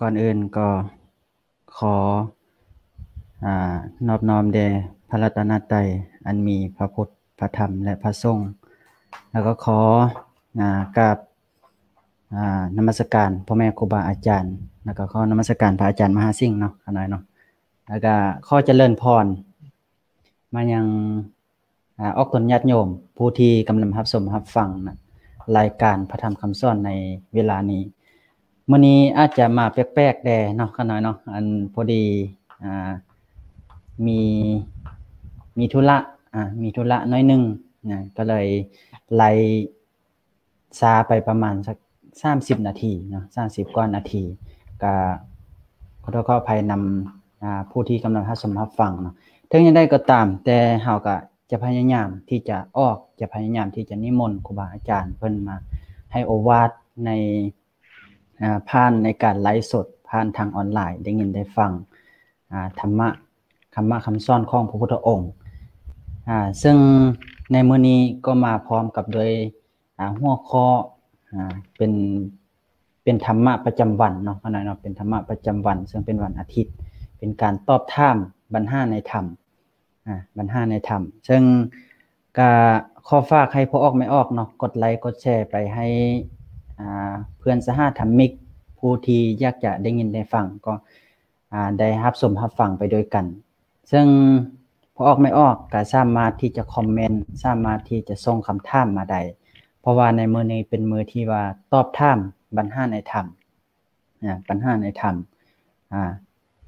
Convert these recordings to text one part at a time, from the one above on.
ກ່ອນອື່ນກໍຂໍ ອາ ນອບນ້ອມແດ່ພະລັດຕະນະໄຕ ອັນມີພະພຸດ ພະທຳ ແລະ ພະສົງ, ແລ້ວກໍຂໍ ອາ ກາບ ອາ ນະມັດສະການພໍ່ແມ່ຄູບາອາຈານ, ແລ້ວກໍຂໍນະມັດສະການພະອາຈານມະຫາສິງເນາະ ຂ້ານ້ອຍເນາະ, ແລ້ວກໍຂໍຈະເລີນພອນມາຍັງ ອາ ອອກຕົນຍາດໂຍມ ຜູ້ທີ່ກຳລັງຮັບຊົມຮັບຟັງນະ ລາຍການພະທຳຄຳສອນໃນເວລານີ້. ມື້ນີ້ອາດຈະມາແປກໆແດ່ເນາະ ຂ້ານ້ອຍເນາະ, ອັນ ພໍດີ ອາ ມີ ມີທຸລະ ອາ ມີທຸລະໜ້ອຍໜຶ່ງນະ, ກໍເລີຍໄລ່ຊ້າໄປປະມານສັກສາມສິບນາທີເນາະ, ສາມສິບກວ່ານາທີ, ກໍຂໍໂທດຂໍອະໄພນຳ ອາ ຜູ້ທີ່ກຳລັງຮັບຊົມຮັບຟັງເນາະ. ເຖິງຢ່າງໃດກໍຕາມ, ແຕ່ເຮົາກໍຈະພະຍາຍາມທີ່ຈະອອກ, ຈະພະຍາຍາມທີ່ຈະນິມົນຄູບາອາຈານເພິ່ນມາໃຫ້ໂອວາດໃນ ອາ ຜ່ານໃນການໄລຟ໌ສົດ ຜ່ານທາງອອນລາຍ ໄດ້ຍິນໄດ້ຟັງ ອາ ທຳມະ ຄຳມະຄຳສອນຂອງພະພຸດທະອົງ. ອາ ເຊິ່ງໃນມື້ນີ້ກໍມາພ້ອມກັບດ້ວຍ ອາ ຫົວຂໍ້ ອາ ເປັນ ເປັນທຳມະປະຈຳວັນເນາະ ຂ້ານ້ອຍເນາະ, ເປັນທຳມະປະຈຳວັນ ເຊິ່ງເປັນວັນອາທິດ, ເປັນການຕອບຖາມບັນຫາໃນທຳ ອາ ບັນຫາໃນທຳ. ເຊິ່ງກະຂໍຝາກໃຫ້ພໍ່ອອກແມ່ອອກເນາະ ກົດໄລກົດແຊໄປໃຫ້ ອາ ເພື່ອນສະຫະທຳມິກ ຜູ້ທີ່ຢາກຈະໄດ້ຍິນໄດ້ຟັງ ກໍ ອາ ໄດ້ຮັບຊົມຮັບຟັງໄປດ້ວຍກັນ. ເຊິ່ງພໍ່ອອກແມ່ອອກກໍສາມາດທີ່ຈະຄອມເມັນ, ສາມາດທີ່ຈະສົ່ງຄຳຖາມມາໄດ້, ເພາະວ່າໃນມື້ນີ້ເປັນມື້ທີ່ວ່າຕອບຖາມບັນຫາໃນທຳ ອາ ບັນຫາໃນທຳ ອາ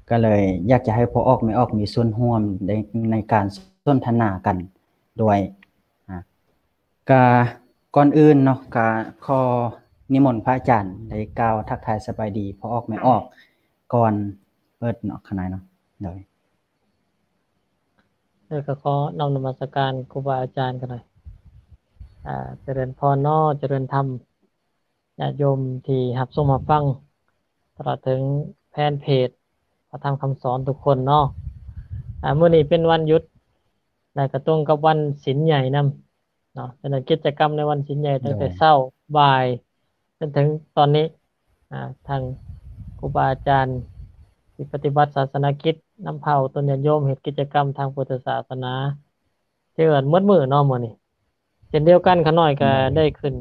ກໍເລີຍຢາກຈະໃຫ້ພໍ່ອອກແມ່ອອກມີສ່ວນຮ່ວມໃນ ໃນການສົນທະນາກັນດ້ວຍ. ອາ ກະກ່ອນອື່ນເນາະ ກະຂໍນິມົນພະອາຈານໄດ້ກ່າວທັກທາຍສະບາຍດີພໍ່ອອກແມ່ອອກກ່ອນເປີດເນາະ ຂ້ານ້ອຍເນາະ. ໂດຍ ແລ້ວກໍຂໍນ້ອມນະມັດສະການຄູບາອາຈານກັນໜ່ອຍ. ອາ ຈະເລີນພອນເນາະ, ຈະເລີນທຳ ຍາດໂຍມທີ່ຮັບຊົມຮັບຟັງ ຕະຫຼອດເຖິງແຟນເພຈພະທຳຄຳສອນທຸກຄົນເນາະ. ອາ ມື້ນີ້ເປັນວັນຢຸດ ແລະ ກະຕົງກັບວັນສິນໃຫຍ່ນຳ ເນາະ. ສະນັ້ນກິດຈະກຳໃນວັນສິນໃຫຍ່ຕັ້ງແຕ່ ໂດຍ ເຊົ້າ ບ່າຍ ຈົນເຖິງຕອນນີ້ ອາ ທາງຄູບາອາຈານທີ່ປະຕິບັດສາສະນະກິດນຳພາອອກຕົນຍາດໂຍມເຮັດກິດຈະກຳທາງພຸດທະສາສະໜາ ຖືວ່າໝົດມື້ເນາະມື້ນີ້. ເຊັ່ນດຽວກັນ ຂ້ານ້ອຍກໍ ໂດຍ ໄດ້ຂຶ້ນ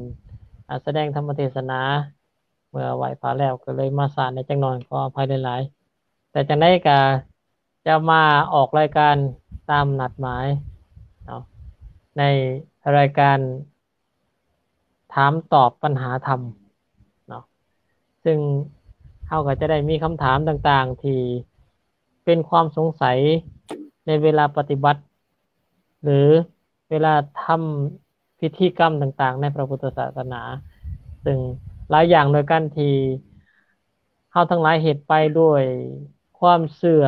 ອາ ສະແດງທຳມະເທດສະໜາ ເມື່ອໄຫວ້ພະແລ້ວ ກໍເລີຍມາຊ້າແດ່ຈັກໜ່ອຍ ຂໍອະໄພຫຼາຍໆ. ແຕ່ຈັ່ງໃດກໍ ຈະມາອອກລາຍການຕາມນັດໝາຍເນາະ ໃນລາຍການຖາມຕອບບັນຫາທຳເນາະ, ເຊິ່ງເຮົາກໍຈະໄດ້ມີຄຳຖາມຕ່າງໆທີ່ເປັນຄວາມສົງໄສໃນເວລາປະຕິບັດ ຫຼື ເວລາທຳພິທີກຳຕ່າງໆໃນພະພຸດທະສາສະໜາ, ເຊິ່ງຫຼາຍຢ່າງດ້ວຍກັນທີ່ເຮົາທັງຫຼາຍເຮັດໄປດ້ວຍຄວາມເຊື່ອ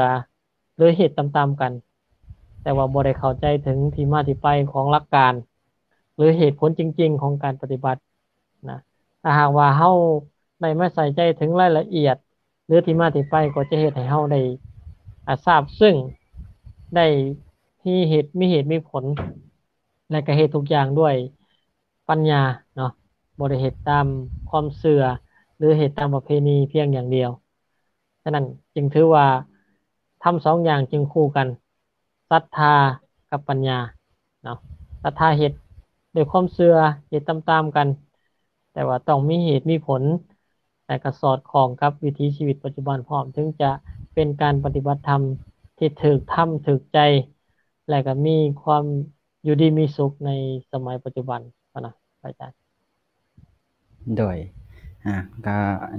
ຫຼື ເຮັດຕາມໆກັນ, ແຕ່ວ່າບໍ່ໄດ້ເຂົ້າໃຈເຖິງທີ່ມາທີ່ໄປຂອງຫຼັກການ ຫຼື ເຫດຜົນຈິງໆຂອງການປະຕິບັດນະ. ຖ້າຫາກວ່າເຮົາໄດ້ມາໃສ່ໃຈເຖິງລາຍລະອຽດ ຫຼື ທີ່ມາທີ່ໄປ ກໍຈະເຮັດໃຫ້ເຮົາໄດ້ ອາ ຊາບຊຶ້ງ ໄດ້ມີເຫດ ມີເຫດມີຜົນ ແລະ ກະເຮັດທຸກຢ່າງດ້ວຍປັນຍາເນາະ, ບໍ່ໄດ້ເຮັດຕາມຄວາມເຊື່ອ ຫຼື ເຮັດຕາມປະເພນີພຽງຢ່າງດຽວ. ສະນັ້ນຈຶ່ງຖືວ່າທຳສອງຢ່າງຈຶ່ງຄູ່ກັນ, ສັດທາກັບປັນຍາເນາະ. ສັດທາເຮັດດ້ວຍຄວາມເຊື່ອ, ເຮັດຕາມໆກັນ, ແຕ່ວ່າຕ້ອງມີເຫດມີຜົນ ແລະ ກະສອດຄ່ອງກັບວິຖີຊີວິດປັດຈຸບັນພ້ອມ, ເຖິງຈະເປັນການປະຕິບັດທຳທີ່ຖືກທຳຖືກໃຈ ແລະ ກະມີຄວາມຢູ່ດີມີສຸກໃນສະໄໝປັດຈຸບັນຫັ້ນນະ ພະອາຈານ. ໂດຍ ອາ ກະ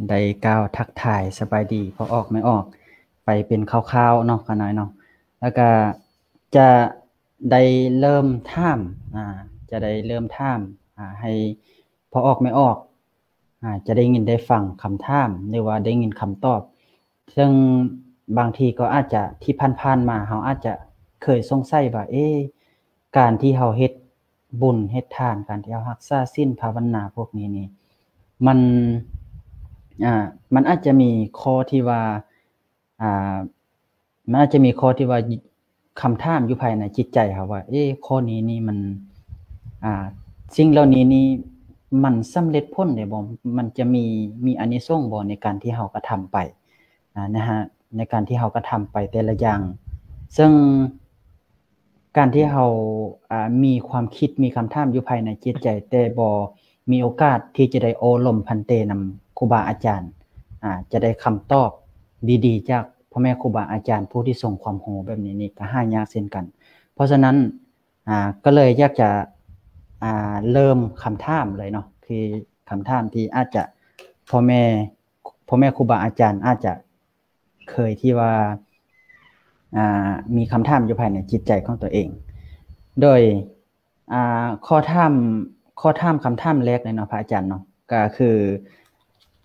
ໄດ້ກ່າວທັກທາຍສະບາຍດີພໍ່ອອກແມ່ອອກໄປເປັນຄ່າວໆເນາະ ຂ້ານ້ອຍເນາະ, ແລ້ວກະຈະໄດ້ເລີ່ມຖາມ ອາ ຈະໄດ້ເລີ່ມຖາມ ອາ ໃຫ້ພໍ່ອອກແມ່ອອກ ອາ ຈະໄດ້ຍິນໄດ້ຟັງຄຳຖາມ ຫຼືວ່າໄດ້ຍິນຄຳຕອບ. ເຊິ່ງບາງທີກໍອາດຈະ ທີ່ຜ່ານໆມາ ເຮົາອາດຈະເຄີຍສົງໄສວ່າ ເອ ການທີ່ເຮົາເຮັດບຸນເຮັດທານ, ການທີ່ເຮົາຮັກສາສິນພາວະນາພວກນີ້ນີ້ ມັນ ອາ ມັນອາດຈະມີຂໍ້ທີ່ວ່າ ອາ ມັນອາດຈະມີຂໍ້ທີ່ວ່າ ຄຳຖາມຢູ່ພາຍໃນຈິດໃຈເຮົາວ່າ ເອ ຂໍ້ນີ້ນີ້ມັນ ອາ ສິ່ງເຫຼົ່ານີ້ນີ້ມັນສຳເລັດຜົນໄດ້ບໍ່? ມັນຈະມີ ມີອານິສົງບໍ່ໃນການທີ່ເຮົາກະທຳໄປ? ອາ ໃນ ໃນການທີ່ເຮົາກະທຳໄປແຕ່ລະຢ່າງ. ເຊິ່ງການທີ່ເຮົາ ອາ ມີຄວາມຄິດ ມີຄຳຖາມຢູ່ພາຍໃນຈິດໃຈ ແຕ່ບໍ່ມີໂອກາດທີ່ຈະໄດ້ໂອ້ລົມພັນເຕນຳຄູບາອາຈານ ອາ ຈະໄດ້ຄຳຕອບດີໆ ຈາກພໍ່ແມ່ຄູບາອາຈານຜູ້ທີ່ຊົງຄວາມຮູ້ແບບນີ້ນີ້ ກະຫາຍາກເຊັ່ນກັນ. ເພາະສະນັ້ນ ອາ ກໍເລີຍຢາກຈະ ອາ ເລີ່ມຄຳຖາມເລີຍເນາະ ຄືຄຳຖາມທີ່ອາດຈະ ພໍ່ແມ່ ພໍ່ແມ່ຄູບາອາຈານອາດຈະເຄີຍທີ່ວ່າ ອາ ມີຄຳຖາມຢູ່ພາຍໃນຈິດໃຈຂອງຕົວເອງ. ໂດຍ ອາ ຂໍຖາມ ຂໍຖາມຄຳຖາມແລກເລີຍເນາະ ພະອາຈານເນາະ ກະຄື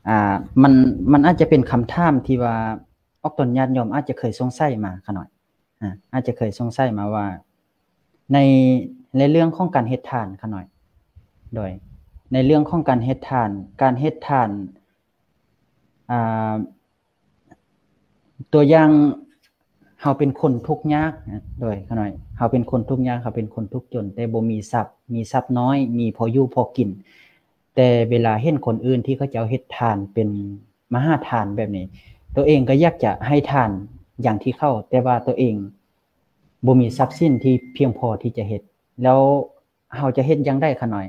ອາ ມັນ ມັນອາດຈະເປັນຄຳຖາມທີ່ວ່າ ອອກຕົນຍາດໂຍມອາດຈະເຄີຍສົງໄສມາຂະນ້ອຍ ອາ ອາດຈະເຄີຍສົງໄສມາວ່າ ໃນ ໃນເລື່ອງຂອງການເຮັດທານຂະນ້ອຍ ໂດຍ ໃນເລື່ອງຂອງການເຮັດທານ ການເຮັດທານ ອາ ຕົວຢ່າງ ເຮົາເປັນຄົນທຸກຍາກ ໂດຍ ຂະນ້ອຍ ເຮົາເປັນຄົນທຸກຍາກ ເຮົາເປັນຄົນທຸກຈົນ ແຕ່ບໍ່ມີຊັບ ມີຊັບນ້ອຍ ມີພໍຢູ່ພໍກິນ ແຕ່ເວລາເຫັນຄົນອື່ນທີ່ເຂົາເຈົ້າເຮັດທານເປັນມະຫາທານແບບນີ້ ຕົວເອງກໍຢາກຈະໃຫ້ທານຢ່າງທີ່ເຂົາ ແຕ່ວ່າຕົວເອງບໍ່ມີຊັບສິນທີ່ພຽງພໍທີ່ຈະເຮັດ ແລ້ວເຮົາຈະເຮັດຢ່າງໃດຂະນ້ອຍ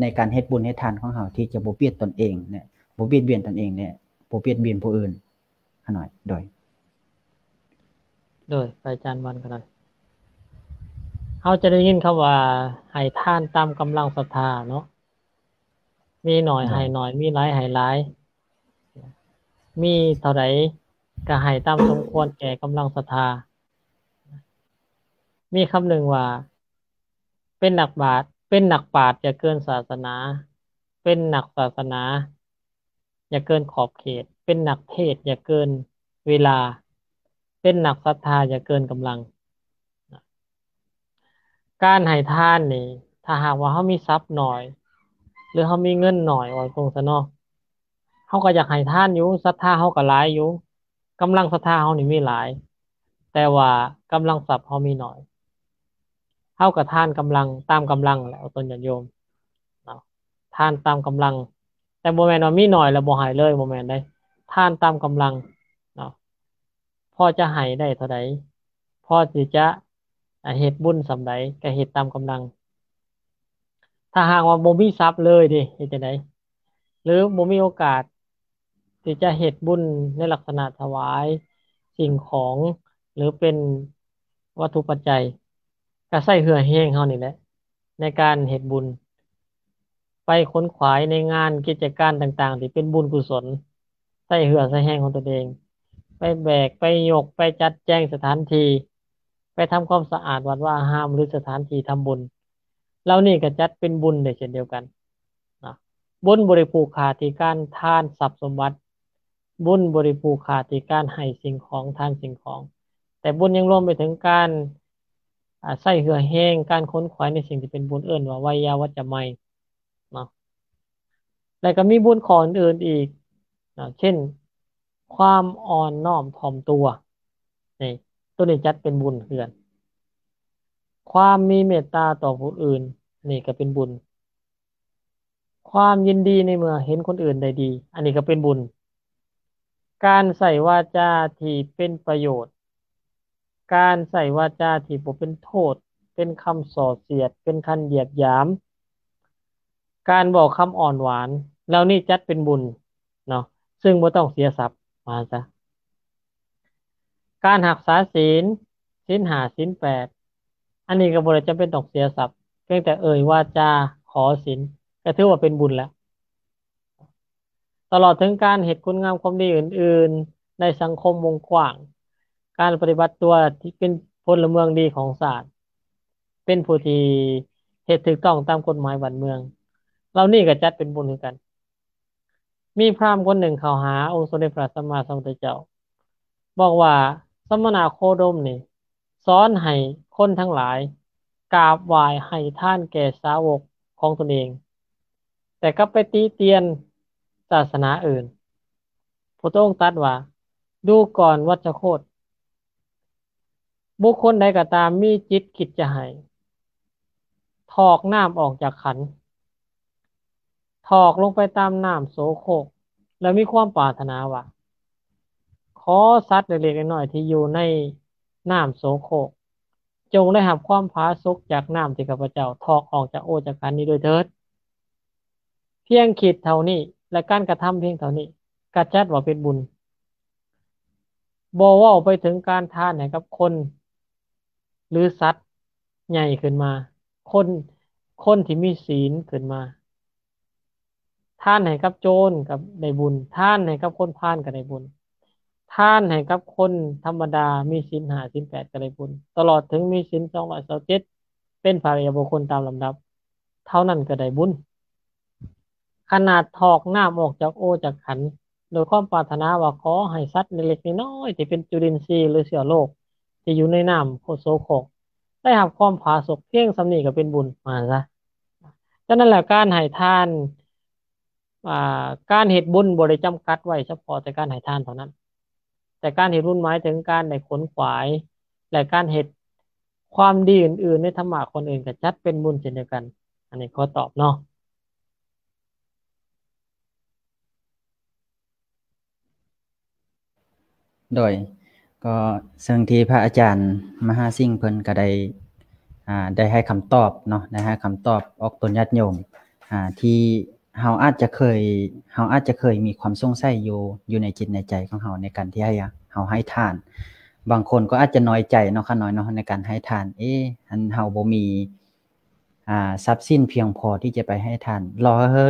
ໃນການເຮັດບຸນເຮັດທານຂອງເຮົາທີ່ຈະບໍ່ບຽດຕົນເອງ ແລະ ບໍ່ບຽດບຽນຕົນເອງ ແລະ ບໍ່ບຽດບຽນຜູ້ອື່ນຂະນ້ອຍ? ໂດຍ ໂດຍ ພະອາຈານວັນຂະນ້ອຍ ເຮົາຈະໄດ້ຍິນຄຳວ່າ ໃຫ້ທານຕາມກຳລັງສັດທາເນາະ ມີໜ້ອຍໃຫ້ໜ້ອຍ ມີຫຼາຍໃຫ້ຫຼາຍ ມີເທົ່າໃດກໍໃຫ້ຕາມສົມຄວນແກ່ກຳລັງສັດທາ. ມີຄຳໜຶ່ງວ່າ ເປັນນັກບາດ ເປັນນັກປາດຢ່າເກີນສາສະໜາ ເປັນນັກສາສະໜາຢ່າເກີນຂອບເຂດ ເປັນນັກເທດຢ່າເກີນເວລາ ເປັນນັກສັດທາຢ່າເກີນກຳລັງ. ການໃຫ້ທານນີ້ ຖ້າຫາກວ່າເຮົາມີຊັບໜ້ອຍ ຫຼື ເຮົາມີເງິນໜ້ອຍ ເວົ້າຕົງຊະເນາະ ເຮົາກໍຢາກໃຫ້ທານຢູ່ ສັດທາເຮົາກໍຫຼາຍຢູ່ ກຳລັງສັດທາເຮົານີ້ມີຫຼາຍ ແຕ່ວ່າກຳລັງຊັບເຮົາມີໜ້ອຍ ເຮົາກໍທານກຳລັງ ຕາມກຳລັງແຫຼະ ເອົາຕົນຍາດໂຍມເນາະ ທານຕາມກຳລັງ ແຕ່ບໍ່ແມ່ນວ່າມີໜ້ອຍແລ້ວບໍ່ໃຫ້ເລີຍ ບໍ່ແມ່ນເດ້ ທານຕາມກຳລັງເນາະ ພໍຈະໃຫ້ໄດ້ເທົ່າໃດ ພໍທີ່ຈະ ອາ ເຮັດບຸນສ່ຳໃດກໍເຮັດຕາມກຳລັງ. ຖ້າຫາກວ່າບໍ່ມີຊັບເລີຍເດ ເຮັດຈັ່ງໃດ? ຫຼື ບໍ່ມີໂອກາດທີ່ຈະເຮັດບຸນໃນລັກສະນະຖວາຍສິ່ງຂອງ ຫຼື ເປັນວັດຖຸປັດໄຈ ກໍໃຊ້ເຫື່ອແຮງເຮົານີ້ແຫຼະ ໃນການເຮັດບຸນ ໄປຂົນຂວາຍໃນງານກິດຈະການຕ່າງໆ ທີ່ເປັນບຸນກຸສົນ ໃຊ້ເຫື່ອໃຊ້ແຮງຂອງຕົນເອງ ໄປແບກ ໄປຍົກ ໄປຈັດແຈງສະຖານທີ່ ໄປທຳຄວາມສະອາດວັດວາອາຮາມ ຫຼື ສະຖານທີ່ທຳບຸນ ເຫຼົ່ານີ້ກໍຈັດເປັນບຸນໄດ້ເຊັ່ນດຽວກັນເນາະ. ບຸນບໍ່ໄດ້ຜູກຂາດທີ່ການທານຊັບສົມບັດ ບຸນບໍ່ໄດ້ຜູກຂາດທີ່ການໃຫ້ສິ່ງຂອງ ທານສິ່ງຂອງ ແຕ່ບຸນຍັງລວມໄປເຖິງການ ອາ ໃຊ້ເຫື່ອແຮງ ການຂົນຂວາຍໃນສິ່ງທີ່ເປັນບຸນ ເອີ້ນວ່າໄວຍາວັດຈະໄມເນາະ. ແລະກໍມີບຸນຂໍ້ອື່ນໆອີກເນາະ ເຊັ່ນ ຄວາມອ່ອນນ້ອມຖ່ອມຕົວ ນີ້ ໂຕນີ້ຈັດເປັນບຸນຄືກັນ. ຄວາມມີເມດຕາຕໍ່ຜູ້ອື່ນ ນີ້ກໍເປັນບຸນ. ຄວາມຍິນດີໃນເມື່ອເຫັນຄົນອື່ນໄດ້ດີ ອັນນີ້ກໍເປັນບຸນ. ການໃຊ້ວາຈາທີ່ເປັນປະໂຫຍດ ການໃຊ້ວາຈາທີ່ບໍ່ເປັນໂທດ ເປັນຄຳສໍ້ສຽດ ເປັນຄຳຢຽດຫຍາມ ການເວົ້າຄຳອ່ອນຫວານ ເຫຼົ່ານີ້ຈັດເປັນບຸນເນາະ ຊຶ່ງບໍ່ຕ້ອງເສຍຊັບ ວ່າຊັ້ນຊະ. ການຮັກສາສິນ ສິນຫ້າ ສິນແປດ ອັນນີ້ກໍບໍ່ໄດ້ຈຳເປັນຕ້ອງເສຍຊັບ ພຽງແຕ່ເອີ່ຍວາຈາຂໍສິນ ກໍຖືວ່າເປັນບຸນແລ້ວ. ຕະຫຼອດເຖິງການເຮັດຄຸນງາມຄວາມດີອື່ນໆໃນສັງຄົມວົງກວ້າງ, ການປະຕິບັດຕົວທີ່ເປັນພົນລະເມືອງດີຂອງຊາດ, ເປັນຜູ້ທີ່ເຮັດຖືກຕ້ອງຕາມກົດໝາຍບ້ານເມືອງ, ເຫຼົ່ານີ້ກໍຈັດເປັນບຸນຄືກັນ. ມີພຣາມຄົນໜຶ່ງເຂົ້າຫາອົງສົມເດັດພະສຳມາສຳພຸດທະເຈົ້າ, ບອກວ່າ ສະມະນະໂຄດົມນີ້ ສອນໃຫ້ຄົນທັງຫຼາຍກາບໄຫວ້ໃຫ້ທານແກ່ສາວົກຂອງຕົນເອງ, ແຕ່ກັບໄປຕິຕຽນສາສະໜາອື່ນ. ພຸດທະອົງຕັດວ່າ ດູກ່ອນວັດຊະໂຄດ, ບຸກຄົນໃດກໍຕາມມີຈິດຄິດຈະໃຫ້, ຖອກນ້ຳອອກຈາກຂັນ, ຖອກລົງໄປຕາມນ້ຳໂສໂຄກ ແລ້ວມີຄວາມປາດຖະໜາວ່າ, ຂໍ ຂໍສັດເລັກໆນ້ອຍໆທີ່ຢູ່ໃນນ້ຳໂສໂຄກ ຈົ່ງໄດ້ຮັບຄວາມຜາສຸກຈາກນ້ຳທີ່ຂ້າພະເຈົ້າຖອກອອກຈາກໂອຈາກຂັນນີ້ດ້ວຍເທີດ. ພຽງຄິດເທົ່ານີ້ ແລະ ການກະທຳພຽງເທົ່ານີ້ ກະຈັດວ່າເປັນບຸນ. ບໍ່ເວົ້າໄປເຖິງການທານໃຫ້ກັບຄົນ ຫຼື ສັດໃຫຍ່ຂຶ້ນມາ, ຄົນ ຄົນທີ່ມີສີນຂຶ້ນມາ. ທານໃຫ້ກັບໂຈນກໍໄດ້ບຸນ, ທານໃຫ້ກັບຄົນພານກໍໄດ້ບຸນ, ທານໃຫ້ກັບຄົນທຳມະດາມີສິນຫ້າສິນແປດກໍໄດ້ບຸນ, ຕະຫຼອດເຖິງມີສິນສອງຮ້ອຍຊາວເຈັດ ເປັນພະລິຍະບຸກຄົນຕາມລຳດັບ ເທົ່ານັ້ນກໍໄດ້ບຸນ. ຂະໜາດຖອກນ້ຳອອກຈາກໂອຈາກຂັນ ໂດຍຄວາມປາດຖະໜາວ່າຂໍໃຫ້ສັດເລັກໆນ້ອຍໆທີ່ເປັນຈຸລິນຊີ ຫຼື ເຊື້ອໂລກທີ່ຢູ່ໃນນ້ຳໂສໂຄກ ໄດ້ຮັບຄວາມຜາສຸກພຽງສ່ຳນີ້ກໍເປັນບຸນ ວ່າຊັ້ນຊະ. ສະນັ້ນແຫຼະ ການໃຫ້ທານ ອ່າ ການເຮັດບຸນບໍ່ໄດ້ຈຳກັດໄວ້ສະເພາະແຕ່ການໃຫ້ທານເທົ່ານັ້ນ, ແຕ່ການເຮັດບຸນໝາຍເຖິງການໄດ້ຂົນຂວາຍ ແລະ ການເຮັດຄວາມດີອື່ນໆໃນທຳມະຄົນອື່ນກໍຈັດເປັນບຸນເຊັ່ນດຽວກັນ. ອັນນີ້ຂໍຕອບເນາະ. ໂດຍ ກໍເຊິ່ງທີ່ພະອາຈານມະຫາສິງເພິ່ນກໍໄດ້ ອ່າ ໄດ້ໃຫ້ຄຳຕອບເນາະ, ໄດ້ໃຫ້ຄຳຕອບອອກຕົນຍາດໂຍມ ອ່າ ທີ່ເຮົາອາດຈະເຄີຍ ເຮົາອາດຈະເຄີຍມີຄວາມສົງໄສຢູ່ ຢູ່ໃນຈິດໃນໃຈຂອງເຮົາ ໃນການທີ່ໃຫ້ ເຮົາໃຫ້ທານ. ບາງຄົນກໍອາດຈະນ້ອຍໃຈເນາະ ຂະນ້ອຍເນາະ ໃນການໃຫ້ທານ, ເອ ອັນເຮົາບໍ່ມີ ອ່າ ຊັບສິນພຽງພໍທີ່ຈະໄປໃຫ້ທານ, ລໍໃຫ້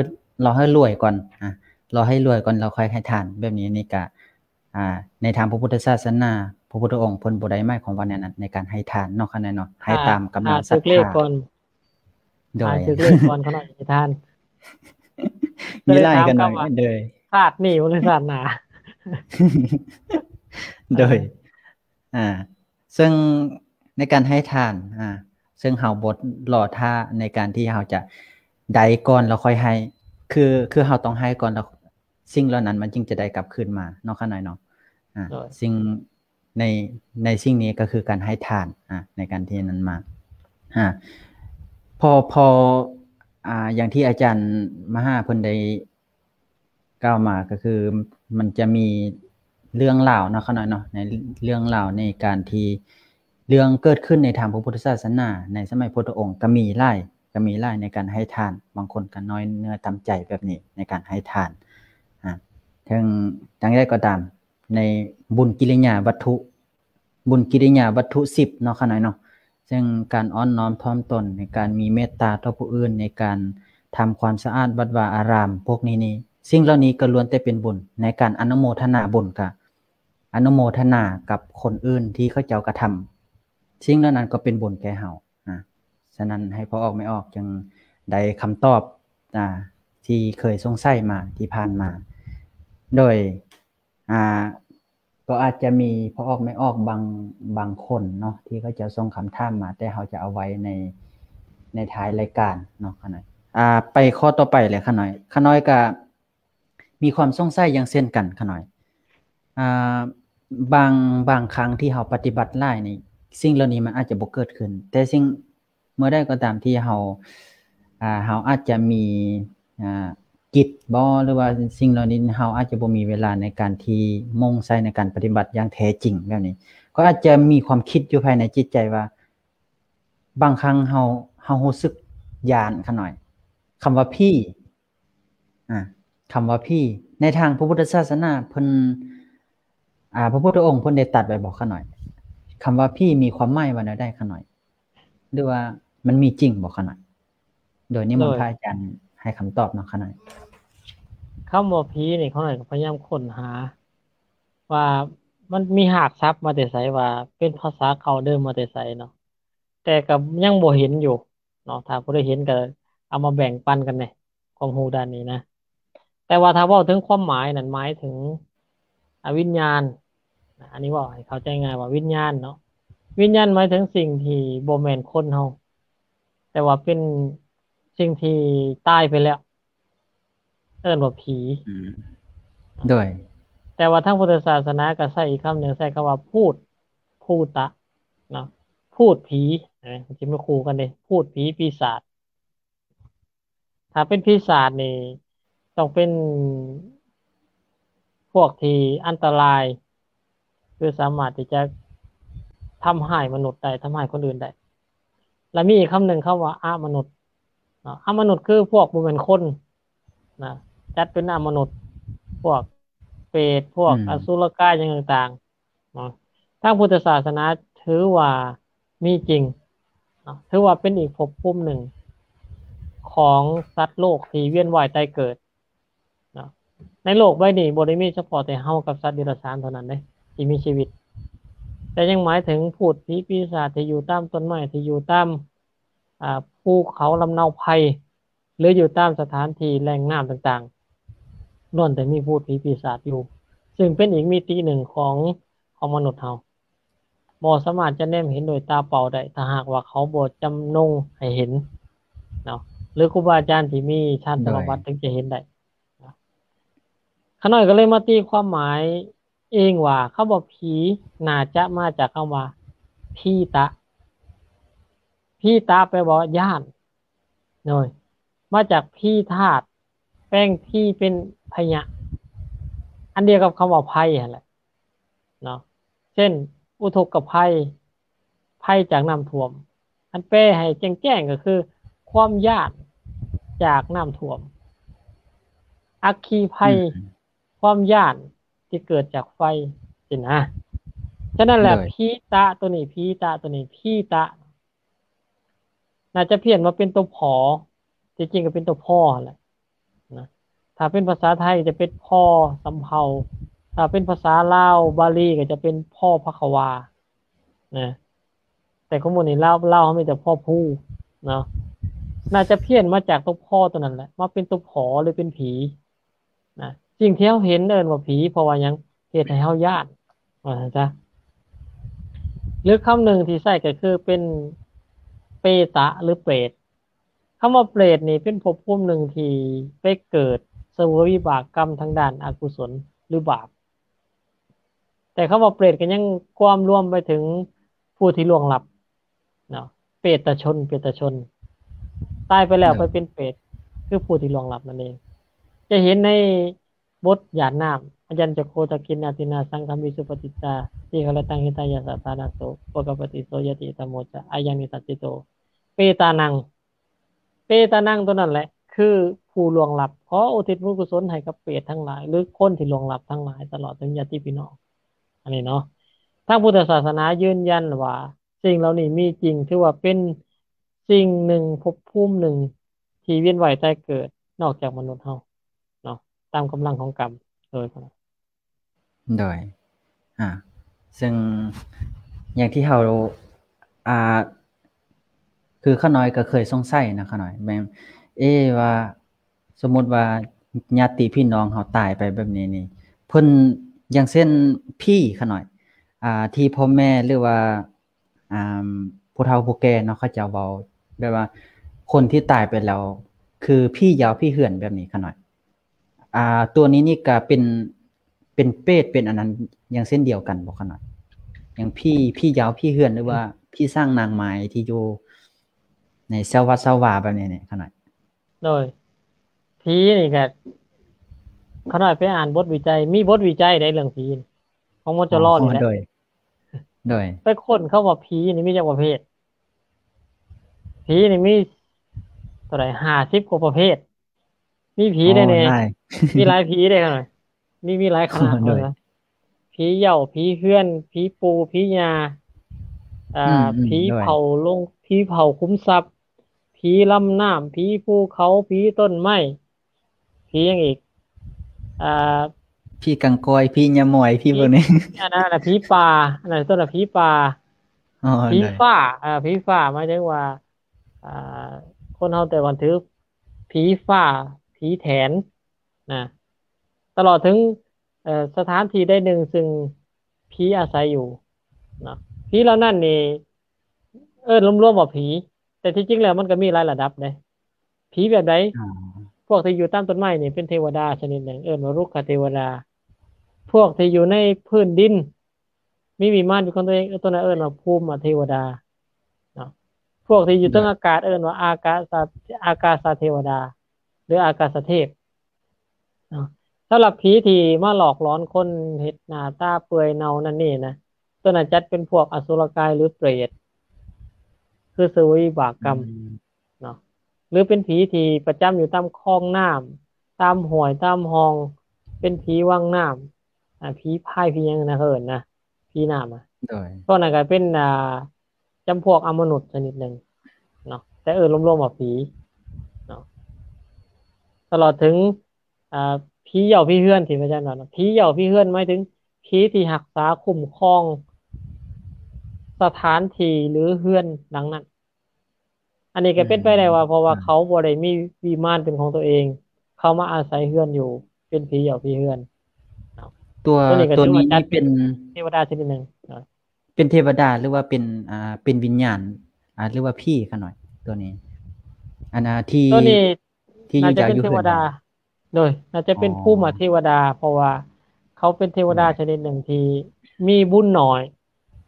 ລໍໃຫ້ລວຍກ່ອນ ອ່າ ລໍໃຫ້ລວຍກ່ອນ ແລ້ວຄ່ອຍໃຫ້ທານ. ແບບນີ້ນີ້ກະ ອ່າ ໃນທາງພະພຸດທະສາສະໜາ ພະພຸດທະອົງເພິ່ນບໍ່ໄດ້ໝາຍຄວາມວ່າແນວນັ້ນ ໃນການໃຫ້ທານເນາະ ຂະນ້ອຍເນາະ, ໃຫ້ຕາມກຳລັງສັດທາ. ໂດຍ ຖືກເລກກ່ອນ ຂະນ້ອຍໃຫ້ທານ. ມີຫຼາຍ ຂະນ້ອຍ ໂດຍ ຊາດນີ້ບໍ່ແມ່ນຊາດໜ້າ. ໂດຍ ອ່າ ເຊິ່ງໃນການໃຫ້ທານ ອ່າ ເຊິ່ງເຮົາບໍ່ລໍຖ້າໃນການທີ່ເຮົາຈະໄດ້ກ່ອນແລ້ວຄ່ອຍໃຫ້ ຄື ຄືເຮົາຕ້ອງໃຫ້ກ່ອນ ແລ້ວສິ່ງເຫຼົ່ານັ້ນມັນຈຶ່ງຈະໄດ້ກັບຄືນມາເນາະ ຂະນ້ອຍເນາະ. ອ່າ ໂດຍ ສິ່ງໃນ ໃນສິ່ງນີ້ກໍຄືການໃຫ້ທານ ອ່າ ໃນການທີ່ນັ້ນມາ ອ່າ ພໍ ພໍ ອ່າ ຢ່າງທີ່ອາຈານມະຫາເພິ່ນໄດ້ ກ່າວມາກໍຄືມັນຈະມີເລື່ອງລາວເນາະ ຂະນ້ອຍເນາະ ໃນເລື່ອງລາວໃນການທີ່ເລື່ອງເກີດຂຶ້ນໃນທາງພະພຸດທະສາສະໜາໃນສະໄໝພຸດທະອົງກໍມີຫຼາຍ ກໍມີຫຼາຍໃນການໃຫ້ທານ, ບາງຄົນກໍນ້ອຍເນື້ອຕ່ຳໃຈແບບນີ້ໃນການໃຫ້ທານ. ອາ ເຖິງຈັ່ງໃດກໍຕາມ ໃນບຸນກິລິຍາວັດຖຸ ບຸນກິລິຍາວັດຖຸສິບເນາະ ຂະນ້ອຍເນາະ ເຊິ່ງການອ່ອນນ້ອມຖ່ອມຕົນ ໃນການມີເມດຕາຕໍ່ຜູ້ອື່ນ ໃນການທຳຄວາມສະອາດວັດວາອາຣາມ ພວກນີ້ນີ້ ສິ່ງເຫຼົ່ານີ້ກໍລ້ວນແຕ່ເປັນບຸນ. ໃນການອະນຸໂມທະນາບຸນ ກະອະນຸໂມທະນາກັບຄົນອື່ນທີ່ເຂົາເຈົ້າກະທຳ ສິ່ງເຫຼົ່ານັ້ນກໍເປັນບຸນແກ່ເຮົາ. ອາ ສະນັ້ນໃຫ້ພໍ່ອອກແມ່ອອກຈຶ່ງໄດ້ຄຳຕອບ ອາ ທີ່ເຄີຍສົງໄສມາທີ່ຜ່ານມາ ໂດຍ ອ່າ ກໍອາດຈະມີພໍ່ອອກແມ່ອອກບາງ ບາງຄົນເນາະ ທີ່ເຂົາເຈົ້າສົ່ງຄຳຖາມມາ ແຕ່ເຮົາຈະເອົາໄວ້ໃນ ໃນທ້າຍລາຍການເນາະ ຂະນ້ອຍ. ອ່າ ໄປຂໍ້ຕໍ່ໄປເລີຍ ຂະນ້ອຍ. ຂະນ້ອຍກະມີຄວາມສົງໄສຢ່າງເຊັ່ນກັນ ຂະນ້ອຍ. ອ່າ ບາງ ບາງຄັ້ງທີ່ເຮົາປະຕິບັດຫຼາຍນີ້ ສິ່ງເຫຼົ່ານີ້ມັນອາດຈະບໍ່ເກີດຂຶ້ນ ແຕ່ສິ່ງ ເມື່ອໃດກໍຕາມທີ່ເຮົາ ອ່າ ເຮົາອາດຈະມີ ອ່າ ກິດບໍ ຫຼືວ່າສິ່ງເຫຼົ່ານີ້ ເຮົາອາດຈະບໍ່ມີເວລາໃນການທີ່ມຸ່ງໃສ່ໃນການປະຕິບັດຢ່າງແທ້ຈິງແບບນີ້ ກໍອາດຈະມີຄວາມຄິດຢູ່ພາຍໃນຈິດໃຈວ່າ ບາງຄັ້ງເຮົາ ເຮົາຮູ້ສຶກຢ້ານ ຂະນ້ອຍ. ຄຳວ່າຜີ ອາ ຄຳວ່າຜີ ໃນທາງພະພຸດທະສາສະໜາເພິ່ນ ອາ ພະພຸດທະອົງເພິ່ນໄດ້ຕັດໄວ້ບໍ່ ຂະນ້ອຍ? ຄຳວ່າຜີມີຄວາມໝາຍວ່າແນວໃດ ຂະນ້ອຍ? ຫຼືວ່າມັນມີຈິງບໍ່ ຂະນ້ອຍ? ໂດຍນິມົນພະອາຈານໃຫ້ຄຳຕອບເນາະ ຂະນ້ອຍ. ຄຳວ່າຜີນີ້ ຂະນ້ອຍກໍພະຍາຍາມຄົ້ນຫາວ່າມັນມີຮາກສັບມາແຕ່ໃສ ວ່າເປັນພາສາເກົ່າເດີມມາແຕ່ໃສເນາະ ແຕ່ກໍຍັງບໍ່ເຫັນຢູ່ເນາະ. ຖ້າຜູ້ໃດເຫັນກໍເອົາມາແບ່ງປັນກັນແດ່ ຄວາມຮູ້ດ້ານນີ້ນະ. ແຕ່ວ່າຖ້າເວົ້າເຖິງຄວາມໝາຍນັ້ນ ໝາຍເຖິງ ອາ ວິນຍານ ອັນນີ້ເວົ້າໃຫ້ເຂົ້າໃຈງ່າຍວ່າວິນຍານເນາະ. ວິນຍານໝາຍເຖິງສິ່ງທີ່ບໍ່ແມ່ນຄົນເຮົາ ແຕ່ວ່າເປັນສິ່ງທີ່ຕາຍໄປແລ້ວ ເອີ້ນວ່າຜີ. ອືມ ໂດຍ ແຕ່ວ່າທາງພຸດທະສາສະໜາກໍໃຊ້ອີກຄຳໜຶ່ງ ໃຊ້ຄຳວ່າພູດ ພູຕະເນາະ ພູດຜີ ເອີ ມັນຊິມາຄູ່ກັນເດ້ ພູດຜີປີສາດ. ຖ້າເປັນປີສາດນີ້ ຕ້ອງເປັນພວກທີ່ອັນຕະລາຍ ຄືສາມາດທີ່ຈະທຳຮ້າຍມະນຸດໄດ້ ທຳຮ້າຍຄົນອື່ນໄດ້. ແລະມີອີກຄຳໜຶ່ງ ຄຳວ່າອະມະນຸດເນາະ ອະມະນຸດຄືພວກບໍ່ແມ່ນຄົນນະ ຈັດເປັນອະມະນຸດ ພວກເປດ ພວກ ອືມ ອະສຸລະກາຍຫຍັງຕ່າງໆເນາະ. ທາງພຸດທະສາສະໜາຖືວ່າມີຈິງເນາະ ຖືວ່າເປັນອີກພົບພູມໜຶ່ງຂອງສັດໂລກທີ່ວຽນວ່າຍຕາຍເກີດ ເນາະ ໃນໂລກໃບນີ້ບໍ່ໄດ້ມີສະເພາະແຕ່ເຮົາກັບສັດເດຍລະສານເທົ່ານັ້ນເດ້ ທີ່ມີຊີວິດ, ແຕ່ຍັງໝາຍເຖິງພູດຜີປີສາດທີ່ຢູ່ຕາມຕົ້ນໄມ້ ທີ່ຢູ່ຕາມ ອາ ພູເຂົາລຳເນົາໄຜ່ ຫຼື ຢູ່ຕາມສະຖານທີ່ແຫຼ່ງນ້ຳຕ່າງໆ ລ້ວນແຕ່ມີພູດຜີປີສາດຢູ່, ຊຶ່ງເປັນອີກມິຕິໜຶ່ງຂອງ ຂອງມະນຸດເຮົາ. ບໍ່ສາມາດຈະແນມເຫັນດ້ວຍຕາເປົ່າໄດ້ ຖ້າຫາກວ່າເຂົາບໍ່ຈຳນົງໃຫ້ເຫັນເນາະ ຫຼື ຄູບາອາຈານທີ່ມີຊານສະມາບັດ ໂດຍ ຈຶ່ງຈະເຫັນໄດ້. ຂ້ານ້ອຍກໍເລີຍມາຕີຄວາມໝາຍເອງວ່າ ຄຳວ່າຜີໜ້າຈະມາຈາກຄຳວ່າ ພີຕະ. ພີຕະ ແປວ່າຢ້ານ ໂດຍ ມາຈາກພີທາດ ແປງພີເປັນພະຍະ ອັນດຽວກັບຄຳວ່າໄພຫັ້ນແຫຼະເນາະ. ເຊັ່ນ ອຸທົກກະໄພ ໄພຈາກນ້ຳຖ້ວມ ອັນແປໃຫ້ແຈ້ງໆກໍຄືຄວາມຢ້ານຈາກນ້ຳຖ້ວມ, ອັກຄີໄພ ອືມ ຄວາມຢ້ານທີ່ເກີດຈາກໄຟຊີ້ນະ. ສະນັ້ນແຫຼະ ໂດຍ ພີຕະໂຕນີ້ ພີຕະໂຕນີ້ ພີຕະ ໜ້າຈະພຽນມາເປັນຕົວ ພໍ ທີ່ຈິງກໍເປັນຕົວ ພໍ ຫັ້ນແຫຼະນະ. ຖ້າເປັນພາສາໄທຈະເປັນ ພໍ ສຳເພົາ, ຖ້າເປັນພາສາລາວບາລີກໍຈະເປັນ ພໍ ພະຄະວາ ນະ. ແຕ່ຂອງໝູ່ນີ້ລາວ ລາວເຮົາມີແຕ່ ພໍ ພູ ເນາະ. ໜ້າຈະພຽນມາຈາກຕົວ ພໍ ຕົວນັ້ນແຫຼະ ມາເປັນຕົວ ພໍ ຫຼື ເປັນຜີ ນະ. ສິ່ງທີ່ເຮົາເຫັນເອີ້ນວ່າຜີ ເພາະວ່າຫຍັງ? ເຮັດໃຫ້ເຮົາຢ້ານ ວ່າຊັ້ນຊະ. ຫຼືຄຳໜຶ່ງທີ່ໃຊ້ກໍຄືເປັນເປຕະ ຫຼື ເປດ. ຄຳວ່າເປດນີ້ເປັນພົບພູມໜຶ່ງທີ່ໄປເກີດສະເຫວີຍວິບາກກຳທາງດ້ານອະກຸສົນ ຫຼື ບາບ. ແຕ່ຄຳວ່າເປດກໍຍັງກວມລວມໄປເຖິງຜູ້ທີ່ລ່ວງລັບເນາະ, ເປຕະຊົນ ເປຕະຊົນ ຕາຍໄປແລ້ວ ໂດຍ ໄປເປັນເປດ ຄືຜູ້ທີ່ລ່ວງລັບນັ້ນເອງ. ຈະເຫັນໃນບົດຢາດນ້ຳ ອາຍັນຈະໂຄ ທາກິນນາ ທິນນາ ສັງຄາມິ ສຸປະຕິດຕາ ທີຄະລະຕັງ ຫິຕາຍະ ສະຖານະໂສ ໂພຄະປະຕິໂສ ຍາຕິ ທຳໂມ ຈະ ອາຍັງ ນິສັດທິໂຕ ເປຕານັງ. ເປຕານັງ ຕົວນັ້ນແຫຼະ ຄືຜູ້ລ່ວງລັບ. ຂໍອຸທິດບຸນກຸສົນໃຫ້ກັບເປດທັງຫຼາຍ ຫຼື ຄົນທີ່ລ່ວງລັບທັງຫຼາຍ ຕະຫຼອດເຖິງຍາດຕິພີ່ນ້ອງ. ອັນນີ້ເນາະ ທາງພຸດທະສາສະໜາຢືນຢັນວ່າສິ່ງເຫຼົ່ານີ້ມີຈິງ, ຖືວ່າເປັນສິ່ງໜຶ່ງ, ພົບພູມໜຶ່ງທີ່ວຽນວ່າຍຕາຍເກີດ ນອກຈາກມະນຸດເຮົາເນາະ, ຕາມກຳລັງຂອງກຳ. ໂດຍ ໂດຍ ອາ ເຊິ່ງຢ່າງທີ່ເຮົາ ອ່າ ຄືຂ້ານ້ອຍກໍເຄີຍສົງໄສນະ ຂ້ານ້ອຍ ແມ່ນ ເອ ວ່າສົມມຸດວ່າຍາດຕິພີ່ນ້ອງເຮົາຕາຍໄປແບບນີ້ນີ້ ເພິ່ນ ຢ່າງເຊັ່ນ ຜີ ຂ້ານ້ອຍ ອ່າ ທີ່ພໍ່ແມ່ ຫຼືວ່າ ອ່າ ຜູ້ເຖົ້າຜູ້ແກ່ເນາະ ເຂົາເຈົ້າເວົ້າແບບວ່າຄົນທີ່ຕາຍໄປແລ້ວ ຄືຜີຢາວຜີເຮືອນແບບນີ້ ຂ້ານ້ອຍ ອ່າ ຕົວນີ້ນີ້ກະເປັນ ເປັນເປດ ເປັນອັນນັ້ນ ຢ່າງເຊັ່ນດຽວກັນບໍ່ ຂ້ານ້ອຍ? ຢ່າງຜີ ຜີຢາວຜີເຮືອນ ຫຼືວ່າຜີສ້າງນາງໄມ້ທີ່ຢູ່ໃນຊາວວັດຊາວວາແບບນີ້ນີ້ ຂ້ານ້ອຍ. ໂດຍ ຜີນີ້ກະ ຂ້ານ້ອຍໄປອ່ານບົດວິໄຈ ມີບົດວິໄຈໃດເລື່ອງຜີ ຂອງ ມຈລ ນີ້ແຫຼະ. ໂດຍ ໂດຍ ໄປຄົ້ນເຂົາວ່າຜີນີ້ມີຈັກປະເພດ. ຜີນີ້ມີເທົ່າໃດ ຫ້າສິບກວ່າປະເພດ. ມີຜີໄດ້ແດ່ ມີຫຼາຍຜີໄດ້ຂະໜາດ ມີ ມີຫຼາຍຂະໜາດ. ໂດຍ ເພິ່ນວ່າຜີເຍົາ ຜີເຮືອນ ຜີປູ່ ຜີຍ່າ ອືມ ອືມ ຜີເຜົາ ໂດຍ ໂລງ ຜີເຜົາຂຸມຊັບ ຜີລຳນ້ຳ ຜີພູເຂົາ ຜີຕົ້ນໄມ້ ຜີຫຍັງອີກ ອ່າ ຜີກາງກອຍ ຜີຍາມອຍ ຜີພວກນີ້ ອັນນັ້ນນະ ຜີປ່າ ອັນນັ້ນຕົ້ນນະ ຜີປ່າ ອໍ ຜີຟ້າ ເອີ ຜີຟ້າ ໝາຍເຖິງວ່າ ອ່າ ຄົນເຮົາແຕ່ກ່ອນຖືຜີຟ້າ ຜີແຖນນະ ຕະຫຼອດເຖິງ ເອີ ສະຖານທີ່ໃດໜຶ່ງ ຊຶ່ງຜີອາໄສຢູ່ເນາະ. ຜີເຫຼົ່ານັ້ນນີ້ເອີ້ນລວມໆວ່າຜີ ແຕ່ທີ່ຈິງແລ້ວມັນກໍມີຫຼາຍລະດັບເດ້. ຜີແບບໃດ? ອໍ ພວກທີ່ຢູ່ຕາມຕົ້ນໄມ້ນີ້ເປັນເທວະດາຊະນິດໜຶ່ງ ເອີ້ນວ່າລຸກຂະເທວະດາ. ພວກທີ່ຢູ່ໃນພື້ນດິນ ມີວິມານເປັນຂອງຕົວເອງ ຕົວນັ້ນເອີ້ນວ່າພູມມະເທວະດາເນາະ. ພວກທີ່ຢູ່ເທິງອາກາດເອີ້ນວ່າອາກາສະ ອາກາສະເທວະດາ ຫຼື ອາກາສະເທບເນາະ. ສຳລັບຜີທີ່ມາຫຼອກຫຼອນຄົນ ເຮັດໜ້າຕາເປື່ອຍເນົ່ານັ້ນນີ້ນະ ໂຕນັ້ນຈັດເປັນພວກອະສຸລະກາຍ ຫຼື ເປຣດ ຄືເສວຍວິບາກກຳ ອືມ ເນາະ ຫຼືເປັນຜີທີ່ປະຈຳຢູ່ຕາມຄອງນ້ຳ ຕາມຫ້ວຍຕາມຮ່ອງ ເປັນຜີວັງນ້ຳ ອາ ຜີພາຍ ຜີຫຍັງນະ ເຂົາເອີ້ນນະ ຜີນ້ຳອະ ໂດຍ ພວກນັ້ນກໍເປັນ ອ່າ ຈຳພວກອະມະນຸດຊະນິດໜຶ່ງເນາະ ແຕ່ເອີ້ນລວມໆວ່າຜີເນາະ ຕະຫຼອດເຖິງ ອ່າ ຜີເຍົ້າຜີເຮືອນທີ່ພະອາຈານວ່າເນາະ ຜີເຍົ້າຜີເຮືອນໝາຍເຖິງຜີທີ່ຮັກສາຄຸ້ມຄອງສະຖານທີ່ ຫຼື ເຮືອນຫຼັງນັ້ນ. ອັນນີ້ກໍເປັນໄປໄດ້ວ່າ ອືມ ເພາະວ່າ ອ່າ ເຂົາບໍ່ໄດ້ມີວິມານເປັນຂອງຕົວເອງ ເຂົາມາອາໄສເຮືອນຢູ່ ເປັນຜີເຍົ້າຜີເຮືອນເນາະ. ຕົວ ຕົວນີ້ກໍຖືວ່າຈັດເປັນເທວະດາຊະນິດໜຶ່ງເນາະ ເປັນເທວະດາ ຫຼືວ່າເປັນ ອ່າ ເປັນວິນຍານ ອ່າ ຫຼືວ່າຜີຂະນ້ອຍ ຕົວນີ້ ອັນ ອ່າ ທີ່ ຕົວນີ້ ທີ່ຢູ່ ໜ້າຈະເປັນເທວະດາ ເຈົ້າຢູ່ເຮືອນ ໂດຍ ໜ້າຈະເປັນ ອໍ ພູມະເທວະດາ ເພາະວ່າເຂົາເປັນເທວະດາ ໂດຍ ຊະນິດໜຶ່ງທີ່ມີບຸນໜ້ອຍ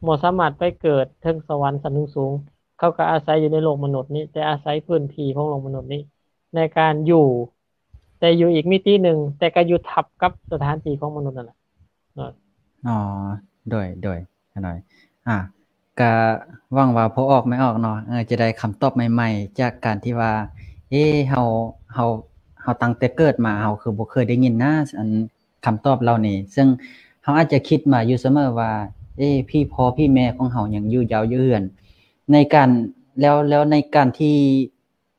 ບໍ່ສາມາດໄປເກີດເທິງສະຫວັນຊັ້ນສູງໆ ເຂົາກໍອາໄສຢູ່ໃນໂລກມະນຸດນີ້ ແຕ່ອາໄສພື້ນທີ່ຂອງໂລກມະນຸດນີ້ໃນການຢູ່ ແຕ່ຢູ່ອີກມິຕິໜຶ່ງ ແຕ່ກໍຢູ່ທັບກັບສະຖານທີ່ຂອງມະນຸດນັ້ນແຫຼະເນາະ. ອໍ ໂດຍ ໂດຍ ຂະນ້ອຍ ອ່າ ກະຫວັງວ່າພໍ່ອອກແມ່ອອກເນາະ ເອີ ຈະໄດ້ຄຳຕອບໃໝ່ໆ ຈາກການທີ່ວ່າ ເອ ເຮົາ ເຮົາ ເຮົາຕັ້ງແຕ່ເກີດມາ ເຮົາຄືບໍ່ເຄີຍໄດ້ຍິນນະ ອັນຄຳຕອບເຫຼົ່ານີ້ ເຊິ່ງເຮົາອາດຈະຄິດມາຢູ່ສະເໝີວ່າ ເອ ຜີພໍ່ຜີແມ່ຂອງເຮົາຍັງຢູ່ເຍົາະຢູ່ເຮືອນ ໃນການ ແລ້ວ ແລ້ວໃນການທີ່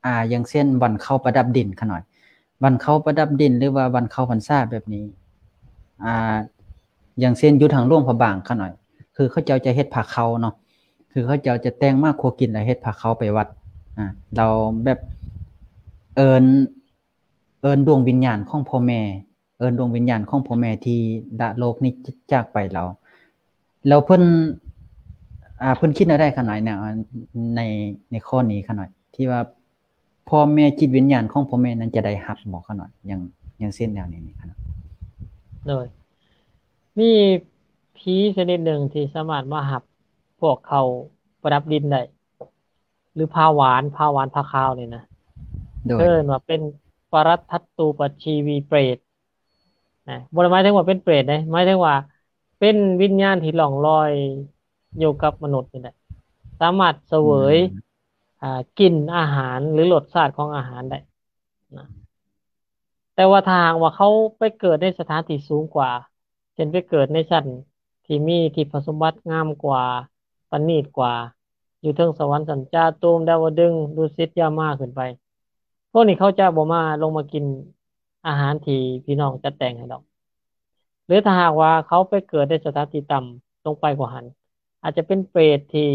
ອ່າ ຢ່າງເຊັ່ນ ວັນເຂົ້າປະດັບດິນຂະນ້ອຍ ວັນເຂົ້າປະດັບດິນ ຫຼືວ່າວັນເຂົ້າພັນສາແບບນີ້ ອ່າ ຢ່າງເຊັ່ນ ຢູ່ທາງຫຼວງພະບາງຂະນ້ອຍ ຄືເຂົາເຈົ້າຈະເຮັດພາເຂົ້າເນາະ ຄືເຂົາເຈົ້າຈະແຕ່ງໝາກຄົວກິນ ແລ້ວເຮັດພາເຂົ້າໄປວັດ ອ່າ ແລ້ວແບບເອີ້ນ ເອີ້ນດວງວິນຍານຂອງພໍ່ແມ່ ເອີ້ນດວງວິນຍານຂອງພໍ່ແມ່ທີ່ລະໂລກນີ້ຈາກໄປແລ້ວ ແລ້ວເພິ່ນ ອ່າ ເພິ່ນຄິດແນວໃດຂະນ້ອຍ ໃນ ໃນ ໃນຂໍ້ນີ້ຂະນ້ອຍ ທີ່ວ່າພໍ່ແມ່ ຈິດວິນຍານຂອງພໍ່ແມ່ນັ້ນຈະໄດ້ຮັບບໍ່ຂະນ້ອຍ ຢ່າງ ຢ່າງເຊັ່ນແນວນີ້ຂະນ້ອຍ? ໂດຍ ມີຜີຊະນິດໜຶ່ງທີ່ສາມາດມາຮັບພວກເຂົ້າປະດັບດິນໄດ້ ຫຼື ພາຫວານ ພາຫວານ ພາຄາວນີ້ນະ ໂດຍ ເອີ້ນວ່າເປັນປະລັດທັດຕູປະຊີວີເປຣດ ນະ ບໍ່ໄດ້ໝາຍເຖິງວ່າເປັນເປຣດເດ້ ໝາຍເຖິງວ່າເປັນວິນຍານທີ່ລ່ອງລອຍຢູ່ກັບມະນຸດນີ້ແຫຼະ ສາມາດສະເຫວີຍ ອືມ ອ່າ ກິ່ນອາຫານ ຫຼື ລົດຊາດຂອງອາຫານໄດ້ນະ ແຕ່ວ່າຖ້າຫາກວ່າເຂົາໄປເກີດໃນສະຖານທີ່ສູງກວ່າ ເຊັ່ນໄປເກີດໃນຊັ້ນທີ່ມີທິບພະສົມບັດງາມກວ່າ ປະນີດກວ່າ ຢູ່ເທິງສະຫວັນຊັ້ນຈາຕຸມ ດາວະດຶງ ດຸສິດ ຢາມາ ຂຶ້ນໄປ ພວກນີ້ເຂົາຈະບໍ່ມາ ລົງມາກິນອາຫານທີ່ພີ່ນ້ອງຈັດແຕ່ງໃຫ້ດອກ ຫຼືຖ້າຫາກວ່າເຂົາໄປເກີດໃນສະຖານທີ່ຕ່ຳລົງໄປກວ່າຫັ້ນ ອາດຈະເປັນເປຣດທີ່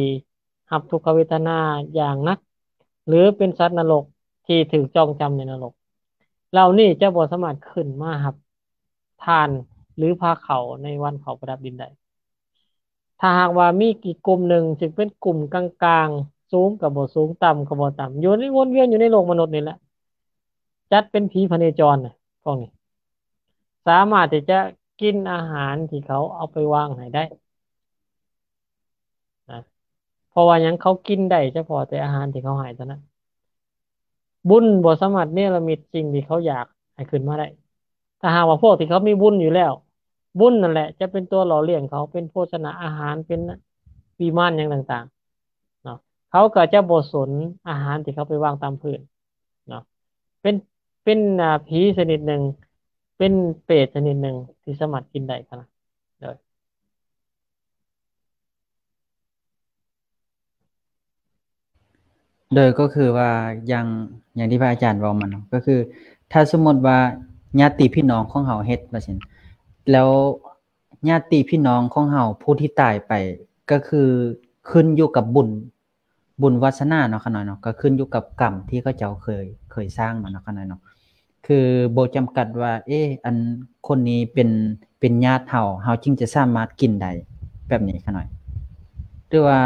ຮັບທຸກຂະເວທະນາຢ່າງໜັກ ຫຼືເປັນສັດນະລົກທີ່ຖືກຈອງຈຳໃນນະລົກ ເຫຼົ່ານີ້ຈະບໍ່ສາມາດຂຶ້ນມາຮັບທານ ຫຼື ພາເຂົ້າໃນວັນເຂົ້າປະດັບດິນໄດ້. ຖ້າຫາກວ່າມີອີກກຸ່ມໜຶ່ງ ຊຶ່ງເປັນກຸ່ມກາງໆ ສູງກໍບໍ່ສູງ ຕ່ຳກໍບໍ່ຕ່ຳ ຢູ່ໃນ ວົນວຽນຢູ່ໃນໂລກມະນຸດນີ້ແຫຼະ ຈັດເປັນຜີພະເນຈອນນະ ພວກນີ້ສາມາດທີ່ຈະກິນອາຫານທີ່ເຂົາເອົາໄປວາງໃຫ້ໄດ້ນະ ເພາະວ່າຫຍັງ ເຂົາກິນໄດ້ສະເພາະແຕ່ອາຫານທີ່ເຂົາໃຫ້ເທົ່ານັ້ນ ບຸນບໍ່ສາມາດເນລະມິດສິ່ງທີ່ເຂົາຢາກໃຫ້ຂຶ້ນມາໄດ້. ຖ້າຫາກວ່າພວກທີ່ເຂົາມີບຸນຢູ່ແລ້ວ ບຸນນັ້ນແຫຼະຈະເປັນຕົວຫຼໍ່ລ້ຽງເຂົາ ເປັນໂພຊະນາອາຫານ ເປັນວິມານຫຍັງຕ່າງໆເນາະ ເຂົາກໍຈະບໍ່ສົນອາຫານທີ່ເຂົາໄປວາງຕາມພື້ນເນາະ ເປັນ ເປັນ ອ່າ ຜີຊະນິດໜຶ່ງ ເປັນເປຣດຊະນິດໜຶ່ງທີ່ສາມາດກິນໄດ້ຫັ້ນນະ ໂດຍ ໂດຍ ກໍຄືວ່າ ຢ່າງ ຢ່າງທີ່ພະອາຈານເວົ້າມາເນາະ ກໍຄືຖ້າສົມມຸດວ່າຍາດຕິພີ່ນ້ອງຂອງເຮົາເຮັດວ່າຊັ້ນ ແລ້ວຍາດຕິພີ່ນ້ອງຂອງເຮົາຜູ້ທີ່ຕາຍໄປ ກໍຄືຂຶ້ນຢູ່ກັບບຸນ ບຸນວາສະໜາເນາະ ຂະນ້ອຍເນາະ ກໍຂຶ້ນຢູ່ກັບກຳທີ່ເຂົາເຈົ້າເຄີຍ ເຄີຍສ້າງມາເນາະ ຂະນ້ອຍເນາະ ຄືບໍ່ຈຳກັດວ່າ ເອ ອັນຄົນນີ້ເປັນ ເປັນຍາດເຮົາ ເຮົາຈຶ່ງຈະສາມາດກິນໄດ້ ແບບນີ້ຂະນ້ອຍ ຫຼືວ່າ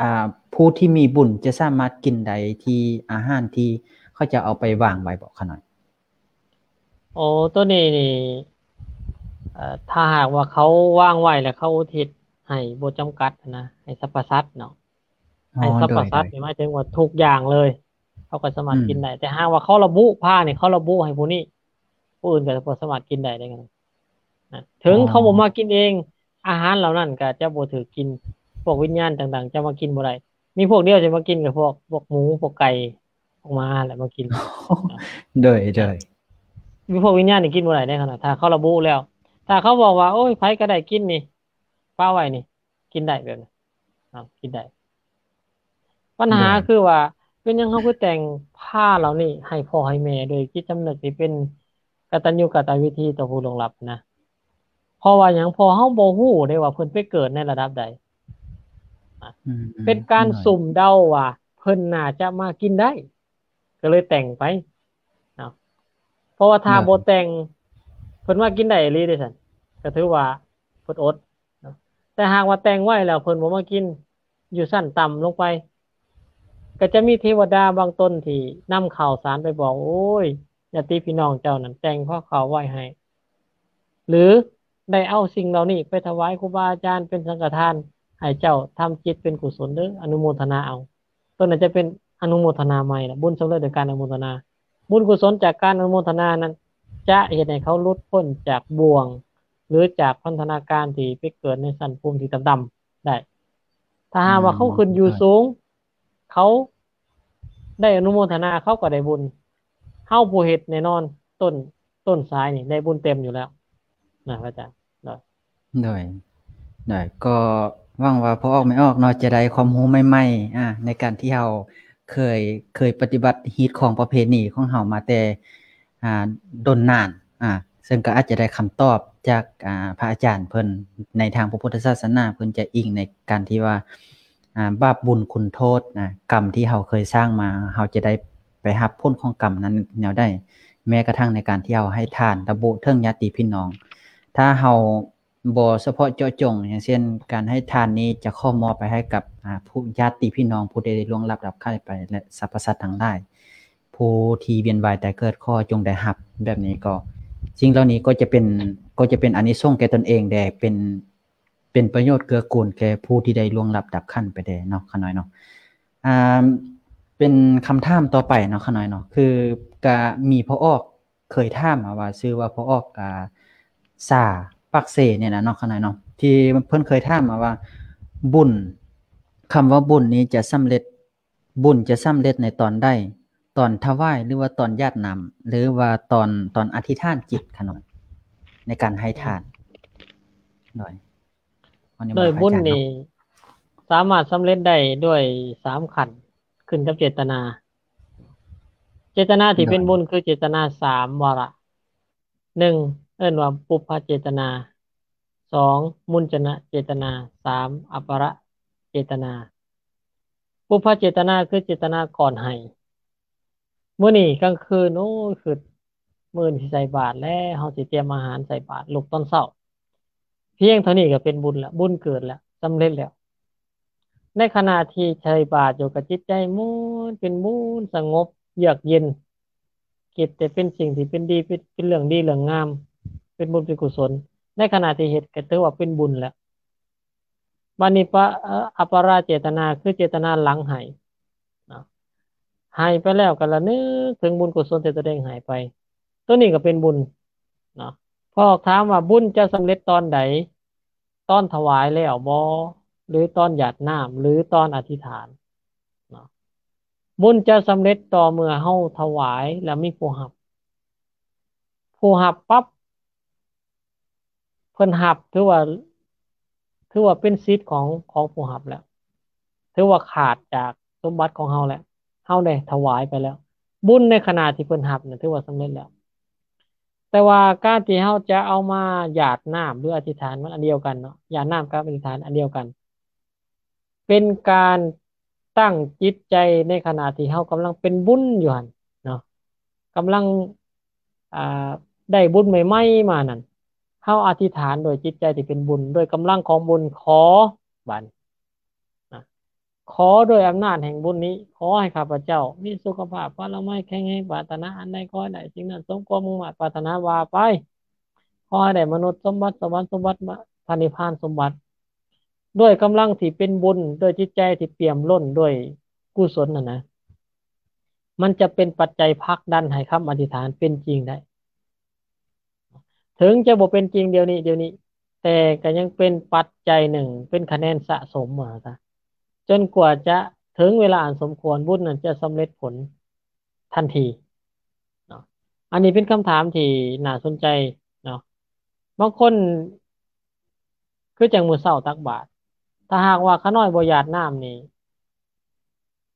ອ່າ ຜູ້ທີ່ມີບຸນຈະສາມາດກິນໄດ້ທີ່ອາຫານທີ່ເຂົາເຈົ້າເອົາໄປວາງໄວ້ບໍ່ຂະນ້ອຍ? ໂອ້ ໂຕນີ້ນີ້ ເອີ ຖ້າຫາກວ່າເຂົາວາງໄວ້ແລ້ວເຂົາອຸທິດໃຫ້ບໍ່ຈຳກັດນະ ໃຫ້ສັບພະສັດເນາະ ອໍ ໃຫ້ສັບພະສັດ ໂດຍ ນີ້ໝາຍເຖິງວ່າທຸກຢ່າງເລີຍ ເຂົາກໍສາມາດ ອືມ ກິນໄດ້ ແຕ່ຫາກວ່າເຂົາລະບຸ ພານີ້ເຂົາລະບຸໃຫ້ຜູ້ນີ້ ຜູ້ອື່ນກໍບໍ່ສາມາດກິນໄດ້ເດ້. ນະ ເຖິງເຂົາບໍ່ມາກິນເອງ ອາຫານເຫຼົ່ານັ້ນກໍຈະບໍ່ຖືກກິນ ພວກວິນຍານຕ່າງໆຈະມາກິນບໍ່ໄດ້. ມີພວກດຽວທີ່ມາກິນກໍພວກ ພວກໝູ ພວກໄກ່ ພວກໝາແຫຼະມາກິນ. ໂດຍ ໂດຍ ມີພວກວິນຍານນີ້ກິນບໍ່ໄດ້ເດ້ ຄັນວ່າຖ້າເຂົາລະບຸແລ້ວ. ຖ້າເຂົາບອກວ່າ ໂອ້ຍ ໃຜກໍໄດ້ກິນນີ້ ປະໄວ້ນີ້ ກິນໄດ້ແບບນີ້ ເນາະ ກິນໄດ້. ບັນຫາຄືວ່າ ເປັນຫຍັງເຮົາຄືແຕ່ງພາເຫຼົ່ານີ້ໃຫ້ພໍ່ໃຫ້ແມ່ ໂດຍຈິດສຳນຶກທີ່ເປັນກະຕັນຍູກະຕະເວທີຕໍ່ຜູ້ລ່ວງລັບນະ? ເພາະວ່າຫຍັງ? ເພາະເຮົາບໍ່ຮູ້ເດ້ວ່າເພິ່ນໄປເກີດໃນລະດັບໃດ. ອືມ ເປັນການ ໂດຍ ສຸ່ມເດົາວ່າເພິ່ນໜ້າຈະມາກິນໄດ້ ກໍເລີຍແຕ່ງໄປເນາະ. ເພາະວ່າຖ້າ ໂດຍ ບໍ່ແຕ່ງ ເພິ່ນມາກິນໄດ້ອີ່ຫຼີເດ້ຊັ້ນ ກໍຖືວ່າເພິ່ນອົດເນາະ. ແຕ່ຫາກວ່າແຕ່ງໄວ້ແລ້ວເພິ່ນບໍ່ມາກິນ ຢູ່ຊັ້ນຕ່ຳລົງໄປ ກໍຈະມີເທວະດາບາງຕົນທີ່ນຳຂ່າວສານໄປບອກ ໂອ້ຍ ຍາດຕິພີ່ນ້ອງເຈົ້ານັ້ນແຕ່ງພາເຂົ້າໄວ້ໃຫ້ ຫຼື ໄດ້ເອົາສິ່ງເຫຼົ່ານີ້ໄປຖວາຍຄູບາອາຈານເປັນສັງຄະທານ ໃຫ້ເຈົ້າທຳຈິດເປັນກຸສົນເດີ້ ອະນຸໂມທະນາເອົາ. ຕົວນັ້ນຈະເປັນອະນຸໂມທະນາໃໝ່ລະ ບຸນສຳເລັດໂດຍການອະນຸໂມທະນາ. ບຸນກຸສົນຈາກການອະນຸໂມທະນານັ້ນ ຈະເຮັດໃຫ້ເຂົາຫຼຸດພົ້ນຈາກບ່ວງ ຫຼື ຈາກພັນທະນາການທີ່ໄປເກີດໃນຊັ້ນພູມທີ່ຕ່ຳໆໄດ້. ຖ້າຫາກວ່າເຂົາຂຶ້ນຢູ່ສູງ ເຂົາໄດ້ອະນຸໂມທະນາ ເຂົາກໍໄດ້ບຸນ. ເຮົາຜູ້ເຮັດແນ່ນອນ ຕົ້ນ ຕົ້ນສາຍນີ້ໄດ້ບຸນເຕັມຢູ່ແລ້ວນະ ພະອາຈານ. ໂດຍ ໂດຍ ໂດຍ ກໍຫວັງວ່າພໍ່ອອກແມ່ອອກເນາະ ຈະໄດ້ຄວາມຮູ້ໃໝ່ໆ ອາ ໃນການທີ່ເຮົາເຄີຍ ເຄີຍປະຕິບັດຮີດຄອງປະເພນີຂອງເຮົາມາແຕ່ ອ່າ ດົນນານ ອ່າ ເຊິ່ງກໍອາດຈະໄດ້ຄຳຕອບຈາກ ອ່າ ພະອາຈານເພິ່ນ ໃນທາງພະພຸດທະສາສະໜາ ເພິ່ນຈະອີງໃນການທີ່ວ່າ ອ່າ ບາບບຸນຄຸນໂທດນະ ກຳທີ່ເຮົາເຄີຍສ້າງມາ ເຮົາຈະໄດ້ໄປຮັບຜົນຂອງກຳນັ້ນແນວໃດ. ແມ້ກະທັ່ງໃນການທີ່ເຮົາໃຫ້ທານ ລະບຸເຖິງຍາດຕິພີ່ນ້ອງ ຖ້າເຮົາບໍ່ສະເພາະເຈາະຈົງ ຢ່າງເຊັ່ນ ການໃຫ້ທານນີ້ຈະຂໍມອບໄປໃຫ້ກັບ ອ່າ ຜູ້ ຍາດຕິພີ່ນ້ອງຜູ້ທີ່ໄດ້ລ່ວງລັບດັບໄຂ້ໄປ ແລະ ສັບພະສັດທັງຫຼາຍ ຜູ້ທີ່ວຽນວ່າຍຕາຍເກີດ ຂໍຈົ່ງໄດ້ຮັບ ແບບນີ້ກໍ ສິ່ງເຫຼົ່ານີ້ກໍຈະເປັນ ກໍຈະເປັນອານິສົງແກ່ຕົນເອງແດ່ ເປັນ ເປັນປະໂຫຍດເກື້ອກູນແກ່ຜູ້ທີ່ໄດ້ລ່ວງລັບດັບຂັນໄປແດ່ເນາະ ຂ້ານ້ອຍເນາະ. ອ່າ ເປັນຄຳຖາມຕໍ່ໄປເນາະ ຂ້ານ້ອຍເນາະ ຄືກະມີພໍ່ອອກເຄີຍຖາມມາວ່າ ຊື່ວ່າພໍ່ອອກ ອ່າ ສາ ປາກເຊນີ້ນະເນາະ ຂ້ານ້ອຍເນາະ ທີ່ເພິ່ນເຄີຍຖາມມາວ່າ ບຸນ ຄຳວ່າບຸນນີ້ຈະສຳເລັດ ບຸນຈະສຳເລັດໃນຕອນໃດ? ຕອນຖວາຍ ຫຼືວ່າຕອນຢາດນ້ຳ ຫຼືວ່າຕອນ ຕອນອະທິຖານຈິດຂະນ້ອຍ ໃນການໃຫ້ທານ? ໂດຍ ໂດຍບຸນນີ້ສາມາດສຳເລັດໄດ້ດ້ວຍສາມຂັ້ນ ຂຶ້ນກັບເຈດຕະນາ. ເຈດຕະນາທີ່ເປັນບຸນຄືເຈດຕະນາສາມວາລະ. ໜຶ່ງ ເອີ້ນວ່າປຸບພະເຈດຕະນາ, ສອງ ມຸນຈະນະເຈດຕະນາ, ສາມ ອາປະລະເຈດຕະນາ. ປຸບພະເຈດຕະນາຄືເຈດຕະນາກ່ອນໃຫ້. ມື້ນີ້ກາງຄືນ ໂອ້ຍ ຄິດ ມື້ອື່ນຊິໃສ່ບາດແລ້ວ, ເຮົາຊິຕຽມອາຫານໃສ່ບາດ ລຸກຕອນເຊົ້າ. ພຽງເທົ່ານີ້ກໍເປັນບຸນລະ, ບຸນເກີດລະ, ສຳເລັດແລ້ວ. ໃນຂະນະທີ່ໃສ່ບາດຢູ່ ກໍຈິດໃຈມ່ວນ, ເປັນບຸນ, ສະຫງົບ, ເຍືອກເຢັນ. ຄິດແຕ່ເປັນສິ່ງທີ່ເປັນດີ ເປັນ ເປັນເລື່ອງດີເລື່ອງງາມ ເປັນບຸນເປັນກຸສົນ ໃນຂະນະທີ່ເຮັດກໍຖືວ່າເປັນບຸນແລ້ວ. ບາດນີ້ປະ ເອີ ອາປະລະເຈດຕະນາ ຄືເຈດຕະນາຫຼັງໃຫ້ເນາະ ໃຫ້ໄປແລ້ວກໍລະນຶກເຖິງບຸນກຸສົນທີ່ຕົນເອງໃຫ້ໄປ ໂຕນີ້ກໍເປັນບຸນເນາະ. ພໍຖາມວ່າບຸນຈະສຳເລັດຕອນໃດ? ຕອນຖວາຍແລ້ວບໍ່ ຫຼື ຕອນຢາດນ້ຳ ຫຼື ຕອນອະທິຖານເນາະ. ບຸນຈະສຳເລັດຕໍ່ເມື່ອເຮົາຖວາຍແລ້ວມີຜູ້ຮັບ. ຜູ້ຮັບປັບ ເພິ່ນຮັບ ຖືວ່າ ຖືວ່າເປັນສິດຂອງ ຂອງຜູ້ຮັບແລ້ວ. ຖືວ່າຂາດຈາກສົມບັດຂອງເຮົາແລ້ວ. ເຮົາໄດ້ຖວາຍໄປແລ້ວ. ບຸນໃນຂະນະທີ່ເພິ່ນຮັບນັ້ນ ຖືວ່າສຳເລັດແລ້ວ. ແຕ່ວ່າການທີ່ເຮົາຈະເອົາມາຢາດນ້ຳ ຫຼື ອະທິຖານ ມັນອັນດຽວກັນເນາະ, ຢາດນ້ຳກັບອະທິຖານອັນດຽວກັນ. ເປັນການຕັ້ງຈິດໃຈໃນຂະນະທີ່ເຮົາກຳລັງເປັນບຸນຢູ່ຫັ້ນເນາະ, ກຳລັງ ອ່າ ໄດ້ບຸນໃໝ່ໆມານັ້ນ, ເຮົາອະທິຖານໂດຍຈິດໃຈທີ່ເປັນບຸນ, ໂດຍກຳລັງຂອງບຸນ, ຂໍ ບາດນີ້ ນະ ຂໍດ້ວຍອຳນາດແຫ່ງບຸນນີ້, ຂໍໃຫ້ຂ້າພະເຈົ້າມີສຸຂະພາບພະລາໄມແຂງແຮງ, ປາດຖະໜາອັນໃດຂໍໃຫ້ໄດ້ສິ່ງນັ້ນ ສົມຄວາມມຸ່ງມາດປາດຖະໜາວ່າໄປ. ຂໍໃຫ້ໄດ້ມະນຸດສົມບັດ, ສະຫວັນສົມບັດ, ພະນິບພານສົມບັດ, ດ້ວຍກຳລັງທີ່ເປັນບຸນ, ດ້ວຍຈິດໃຈທີ່ປ່ຽມລົ້ນດ້ວຍກຸສົນນັ້ນນະ, ມັນຈະເປັນປັດໄຈຜັກດັນໃຫ້ຄຳອະທິຖານເປັນຈິງໄດ້. ເຖິງຈະບໍ່ເປັນຈິງດຽວນີ້ ດຽວນີ້ ແຕ່ກໍຍັງເປັນປັດໄຈໜຶ່ງ ເປັນຄະແນນສະສົມວ່າຊະ ຈົນກວ່າຈະເຖິງເວລາອັນສົມຄວນ ບຸນນັ້ນຈະສຳເລັດຜົນທັນທີເນາະ. ອັນນີ້ເປັນຄຳຖາມທີ່ໜ້າສົນໃຈເນາະ. ບາງຄົນ ຄືຈັ່ງມື້ເຊົ້າຕັກບາດ ຖ້າຫາກວ່າຂະນ້ອຍບໍ່ຢາດນ້ຳນີ້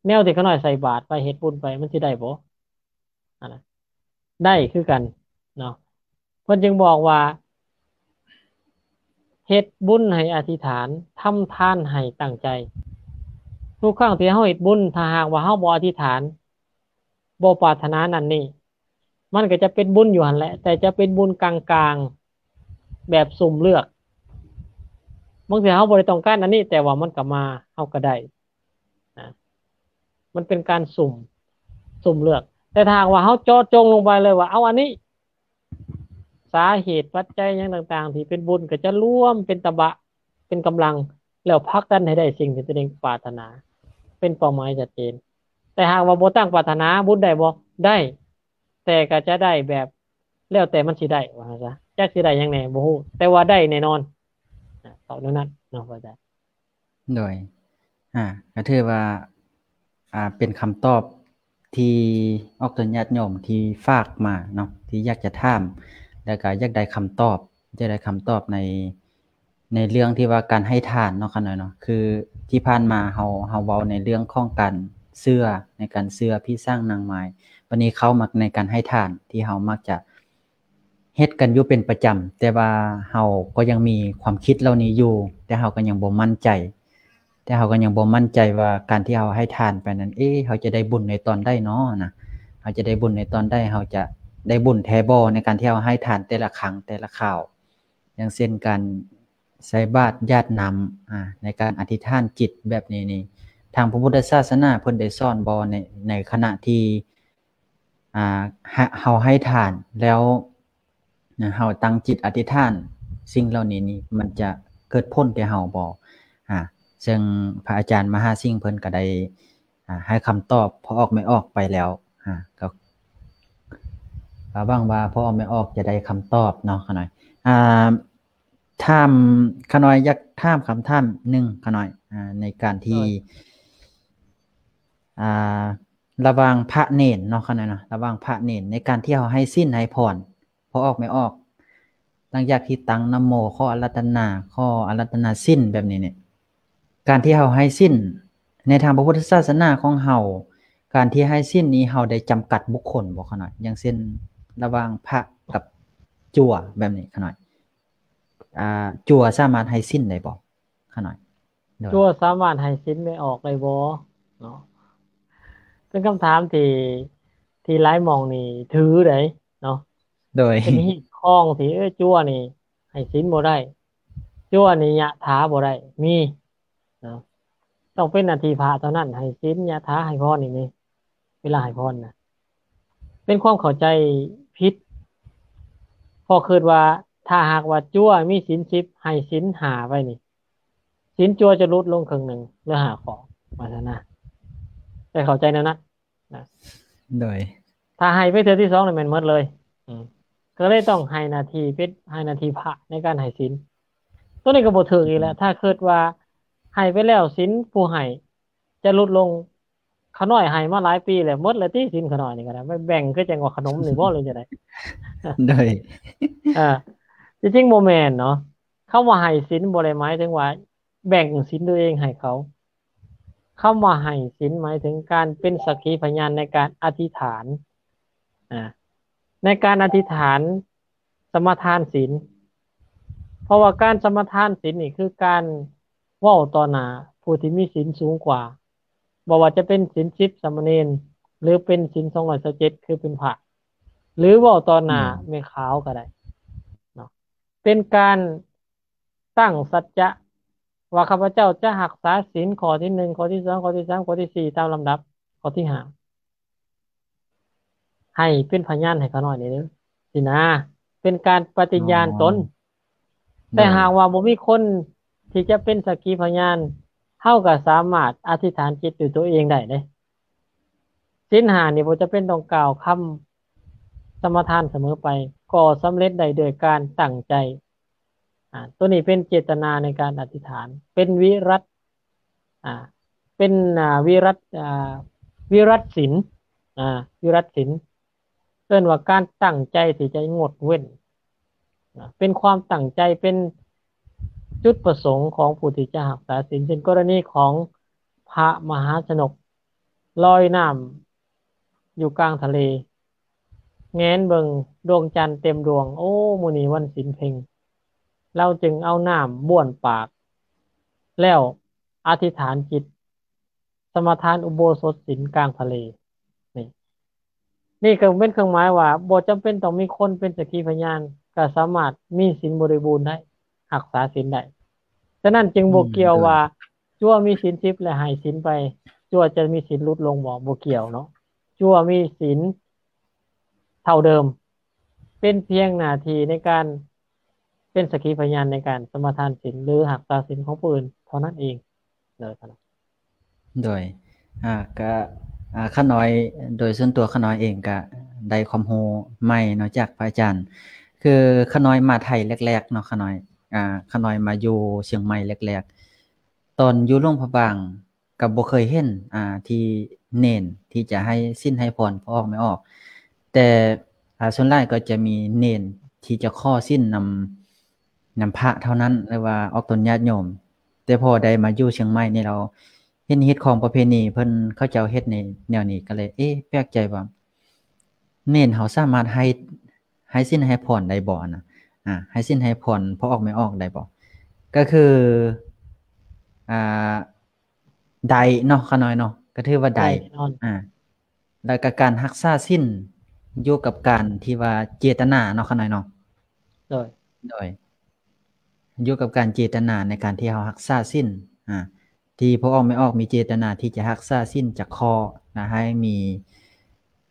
ແນວທີ່ຂະນ້ອຍໃສ່ບາດໄປ ເຮັດບຸນໄປ ມັນຊິໄດ້ບໍ່? ອັນນັ້ນ ໄດ້ຄືກັນເນາະ. ເພິ່ນຈຶ່ງບອກວ່າ ເຮັດບຸນໃຫ້ອະທິຖານ ທຳທານໃຫ້ຕັ້ງໃຈ. ທຸກຄັ້ງທີ່ເຮົາເຮັດບຸນ ຖ້າຫາກວ່າເຮົາບໍ່ອະທິຖານ ບໍ່ປາດຖະໜານັ້ນນີ້ ມັນກໍຈະເປັນບຸນຢູ່ຫັ້ນແຫຼະ ແຕ່ຈະເປັນບຸນກາງໆ ແບບສຸ່ມເລືອກ. ບາງເທື່ອເຮົາບໍ່ໄດ້ຕ້ອງການອັນນີ້ ແຕ່ວ່າມັນກໍມາ ເຮົາກໍໄດ້ນະ. ມັນເປັນການສຸ່ມ ສຸ່ມເລືອກ. ແຕ່ຖ້າຫາກວ່າເຮົາເຈາະຈົງລົງໄປເລີຍວ່າ ເອົາອັນນີ້ ສາເຫດປັດໄຈຫຍັງຕ່າງໆ ທີ່ເປັນບຸນ ກໍຈະລວມເປັນຕະບະ ເປັນກຳລັງ ແລ້ວຜັກດັນໃຫ້ໄດ້ສິ່ງທີ່ຕົວເອງປາດຖະໜາ ເປັນເປົ້າໝາຍຊັດເຈນ. ແຕ່ຫາກວ່າບໍ່ຕັ້ງປາດຖະໜາ ບຸນໄດ້ບໍ່? ໄດ້ ແຕ່ກໍຈະໄດ້ແບບ ແລ້ວແຕ່ມັນຊິໄດ້ ວ່າຊັ້ນຊະ. ຈັກຊິໄດ້ຫຍັງແດ່ ບໍ່ຮູ້ ແຕ່ວ່າໄດ້ແນ່ນອນ. ອາ ຕອບແນວນັ້ນເນາະ ພະອາຈານ. ໂດຍ ອາ ກໍຖືວ່າ ອາ ເປັນຄຳຕອບທີ່ອອກຕົນຍາດໂຍມທີ່ຝາກມາເນາະ ທີ່ຢາກຈະຖາມ ແລ້ວກໍຢາກໄດ້ຄຳຕອບ ຢາກໄດ້ຄຳຕອບໃນ ໃນເລື່ອງທີ່ວ່າການໃຫ້ທານເນາະ ຂະນ້ອຍເນາະ. ຄືທີ່ຜ່ານມາເຮົາ ເຮົາເວົ້າໃນເລື່ອງຂອງການເຊື່ອ ໃນການເຊື່ອຜີສາງນາງມາຍ ບັດນີ້ເຂົ້າມາໃນການໃຫ້ທານ ທີ່ເຮົາມັກຈະ ເຮັດກັນຢູ່ເປັນປະຈຳ ແຕ່ວ່າເຮົາກໍຍັງມີຄວາມຄິດເຫຼົ່ານີ້ຢູ່ ແຕ່ເຮົາກໍຍັງບໍ່ໝັ້ນໃຈ ແຕ່ເຮົາກໍຍັງບໍ່ໝັ້ນໃຈວ່າການທີ່ເຮົາໃຫ້ທານໄປນັ້ນ ເອ ເຮົາຈະໄດ້ບຸນໃນຕອນໃດນໍນະ? ເຮົາຈະໄດ້ບຸນໃນຕອນໃດ? ເຮົາຈະໄດ້ບຸນແທ້ບໍ່ ໃນການທີ່ເຮົາໃຫ້ທານແຕ່ລະຄັ້ງ ແຕ່ລະຄາວ? ຢ່າງເຊັ່ນການໃສ່ບາດ ຢາດນ້ຳ ອາ ໃນການອະທິຖານຈິດແບບນີ້ນີ້ ທາງພະພຸດທະສາສະໜາເພິ່ນໄດ້ສອນບໍ່ ໃນ ໃນຂະນະທີ່ ອາ ເຮົາໃຫ້ທານແລ້ວ ເຮົາຕັ້ງຈິດອະທິຖານ ສິ່ງເຫຼົ່ານີ້ນີ້ ມັນຈະເກີດຜົນແກ່ເຮົາບໍ່? ອາ ເຊິ່ງພະອາຈານມະຫາສິງເພິ່ນກໍໄດ້ ອາ ໃຫ້ຄຳຕອບພໍ່ອອກແມ່ອອກໄປແລ້ວ ອາ ກໍ ກໍຫວັງວ່າພໍ່ອອກແມ່ອອກຈະໄດ້ຄຳຕອບເນາະ ຂະນ້ອຍ. ອາ ຖາມ ຂະນ້ອຍຢາກຖາມຄຳຖາມໜຶ່ງ ຂະນ້ອຍ ອາ ໃນການທີ່ ອາ ລະຫວ່າງພະເນນເນາະ ຂະນ້ອຍເນາະ ລະຫວ່າງພະເນນ ໃນການທີ່ເຮົາໃຫ້ສິນໃຫ້ພອນ ພໍ່ອອກແມ່ອອກ ຫຼັງຈາກທີ່ຕັ້ງນະໂມ ຂໍອາລາທະນາ ຂໍອາລາທະນາສິນແບບນີ້ນີ້ ການທີ່ເຮົາໃຫ້ສິນ ໃນທາງພະພຸດທະສາສະໜາຂອງເຮົາ ການທີ່ໃຫ້ສິນນີ້ ເຮົາໄດ້ຈຳກັດບຸກຄົນບໍ່ ຂະນ້ອຍ? ຢ່າງເຊັ່ນ ລະຫວ່າງພະກັບຈົວແບບນີ້ ຂະນ້ອຍ ອາ ຈົວສາມາດໃຫ້ສິນໄດ້ບໍ່ ຂະນ້ອຍ? ໂດຍ ຈົວສາມາດໃຫ້ສິນແມ່ອອກໄດ້ບໍ່ເນາະ? ເປັນຄຳຖາມທີ່ ທີ່ຫຼາຍໝ່ອງນີ້ຖືໄດ໋ເນາະ. ໂດຍ ເປັນຮີດຄອງທີ່ ເອີ ຈົວນີ້ໃຫ້ສິນບໍ່ໄດ້ ຈົວນີ້ຍະຖາບໍ່ໄດ້ ມີເນາະ ຕ້ອງເປັນໜ້າທີ່ພະເທົ່ານັ້ນ ໃຫ້ສິນ ຍະຖາ ໃຫ້ພອນນີ້ ເວລາໃຫ້ພອນນະ ເປັນຄວາມເຂົ້າໃຈຜິດ ເພາະຄິດວ່າ ຖ້າຫາກວ່າຈົວມີສິນສິບ ໃຫ້ສິນຫ້າໄວ້ນີ້ ສິນຈົວຈະຫຼຸດລົງເຄິ່ງໜຶ່ງ ເຫຼືອຫ້າຂໍ້ ວ່າຊັ້ນນະ ໄດ້ເຂົ້າໃຈແນວນັ້ນນະ. ໂດຍ ຖ້າໃຫ້ໄປເທື່ອທີສອງນີ້ແມ່ນໝົດເລີຍ ອືມ ກໍເລີຍຕ້ອງໃຫ້ໜ້າທີ່ເປັນ ໃຫ້ໜ້າທີ່ພະໃນການໃຫ້ສິນ ໂຕນີ້ກໍບໍ່ຖືກອີກແຫຼະ. ອືມ ຖ້າຄິດວ່າໃຫ້ໄປແລ້ວສິນຜູ້ໃຫ້ຈະຫຼຸດລົງ ຂະນ້ອຍໃຫ້ມາຫຼາຍປີແລ້ວ ໝົດແລ້ວຕິສິນຂະນ້ອຍນີ້ກໍໄດ້ ໄປແບ່ງຄືຈັ່ງວ່າຂະໜົມນີ້ບໍ່ ຫຼືຈັ່ງໃດ? ໂດຍ ເອີ ທີ່ຈິງບໍ່ແມ່ນເນາະ ຄຳວ່າໃຫ້ສິນບໍ່ໄດ້ໝາຍເຖິງວ່າແບ່ງສິນຕົວເອງໃຫ້ເຂົາ. ຄຳວ່າໃຫ້ສິນໝາຍເຖິງການເປັນສັກຂີພະຍານໃນການອະທິຖານ ອາ ໃນການອະທິຖານສະມາທານສິນ ເພາະວ່າການສະມາທານສິນນີ້ຄືການເວົ້າຕໍ່ໜ້າຜູ້ທີ່ມີສິນສູງກວ່າ ບໍ່ວ່າຈະເປັນສິນສິບສາມະເນນ ຫຼືເປັນສິນສອງຮ້ອຍຊາວເຈັດ ຄືເປັນພະ ຫຼືເວົ້າຕໍ່ໜ້າ ອືມ ແມ່ຂາວກໍໄດ້ເນາະ ເປັນການ ຕັ້ງສັດຈະວ່າ ຂ້າພະເຈົ້າຈະຮັກສາສິນຂໍ້ທີໜຶ່ງ ຂໍ້ທີສອງ ຂໍ້ທີສາມ ຂໍ້ທີສີ່ ຕາມລຳດັບ ຂໍ້ທີຫ້າ ໃຫ້ເປັນພະຍານໃຫ້ຂ້ານ້ອຍແດ່ເດີ ຊີ້ນະ ເປັນການປະຕິຍານຕົນ. ອໍ ແຕ່ ໂດຍ ຫາກວ່າບໍ່ມີຄົນທີ່ຈະເປັນສັກຂີພະຍານ ເຮົາກໍສາມາດອະທິຖານຈິດດ້ວຍຕົວເອງໄດ້ເດ້. ສິນຫ້ານີ້ບໍ່ຈຳເປັນຕ້ອງກ່າວຄຳ ສະມາທານສະເໝີໄປ ກໍສຳເລັດໄດ້ໂດຍການຕັ້ງໃຈ. ອາ ຕົວນີ້ເປັນເຈດຕະນາໃນການອະທິຖານ ເປັນວິລັດ ອາ ເປັນ ອາ ວິລັດ ອາ ວິລັດສິນ ອາ ວິລັດສິນ ເອີ້ນວ່າການຕັ້ງໃຈທີ່ຈະງົດເວັ້ນ ອາ ເປັນຄວາມຕັ້ງໃຈ ເປັນຈຸດປະສົງຂອງຜູ້ທີ່ຈະຮັກສາສິນ ເຊັ່ນກໍລະນີຂອງພະມະຫາຊະນົກລອຍນ້ຳຢູ່ກາງທະເລ ແງນເບິ່ງດວງຈັນເຕັມດວງ ໂອ້ ມື້ນີ້ວັນສິນເພັງ ລາວຈຶ່ງເອົານ້ຳບ້ວນປາກ ແລ້ວອະທິຖານຈິດ ສະມາທານອຸໂບສົດສິນກາງທະເລ. ນີ້ ນີ້ກໍເປັນເຄື່ອງໝາຍວ່າ ບໍ່ຈຳເປັນຕ້ອງມີຄົນເປັນສັກຂີພະຍານ ກໍສາມາດມີສິນບໍລິບູນໄດ້ ຮັກສາສິນໄດ້. ສະນັ້ນຈຶ່ງບໍ່ ອືມ ກ່ຽວ ໂດຍ ວ່າ ຈົວມີສິນສິບ ແລະ ໃຫ້ສິນໄປ ຈົວຈະມີສິນຫຼຸດລົງບໍ່? ບໍ່ກ່ຽວເນາະ. ຈົວມີສິນເທົ່າເດີມ ເປັນພຽງໜ້າທີ່ໃນການເປັນສັກຂີພະຍານໃນການສະມາທານສິນ ຫຼື ຮັກສາສິນຂອງຜູ້ອື່ນເທົ່ານັ້ນເອງ. ໂດຍ ໂດຍ ອາ ກະ ອາ ຂ້ານ້ອຍ ໂດຍສ່ວນຕົວຂ້ານ້ອຍເອງກະໄດ້ຄວາມຮູ້ໃໝ່ເນາະ ຈາກພະອາຈານ. ຄືຂ້ານ້ອຍມາໄທແລກໆເນາະ ຂ້ານ້ອຍ ອາ ຂ້ານ້ອຍມາຢູ່ຊຽງໃໝ່ແລກໆ ຕອນຢູ່ຫຼວງພະບາງ ກໍບໍ່ເຄີຍເຫັນ ອາ ທີ່ເນນທີ່ຈະໃຫ້ສິນໃຫ້ພອນພໍ່ອອກແມ່ອອກ ແຕ່ ອາ ສ່ວນຫຼາຍກໍຈະມີເນນທີ່ຈະຂໍສິນນຳ ນຳພະເທົ່ານັ້ນ ຫຼືວ່າອອກຕົນຍາດໂຍມ. ແຕ່ພໍໄດ້ມາຢູ່ຊຽງໃໝ່ນີ້ ລາວເຫັນຮີດຄອງປະເພນີເພິ່ນ ເຂົາເຈົ້າເຮັດໃນແນວນີ້ ກໍເລີຍ ເອະ ແປກໃຈວ່າ ເນນເຮົາສາມາດໃຫ້ ໃຫ້ສິນໃຫ້ພອນໄດ້ບໍ່ນະ? ອາ ໃຫ້ສິນໃຫ້ພອນພໍ່ອອກແມ່ອອກໄດ້ບໍ່? ກໍຄື ອາ ໄດ້ເນາະ ຂ້ານ້ອຍເນາະ ກໍຖືວ່າໄດ້ ໄດ້ແນ່ນອນ ອາ ແລ້ວກໍການຮັກສາສິນຢູ່ກັບການທີ່ວ່າເຈຕນາເນາະ ຂ້ານ້ອຍເນາະ. ໂດຍ ໂດຍ ຢູ່ກັບການເຈຕນາໃນການທີ່ເຮົາຮັກສາສິນ ອາ ທີ່ພໍ່ອອກແມ່ອອກມີເຈຕນາທີ່ຈະຮັກສາສິນຈະຂໍ ແລະ ໃຫ້ມີ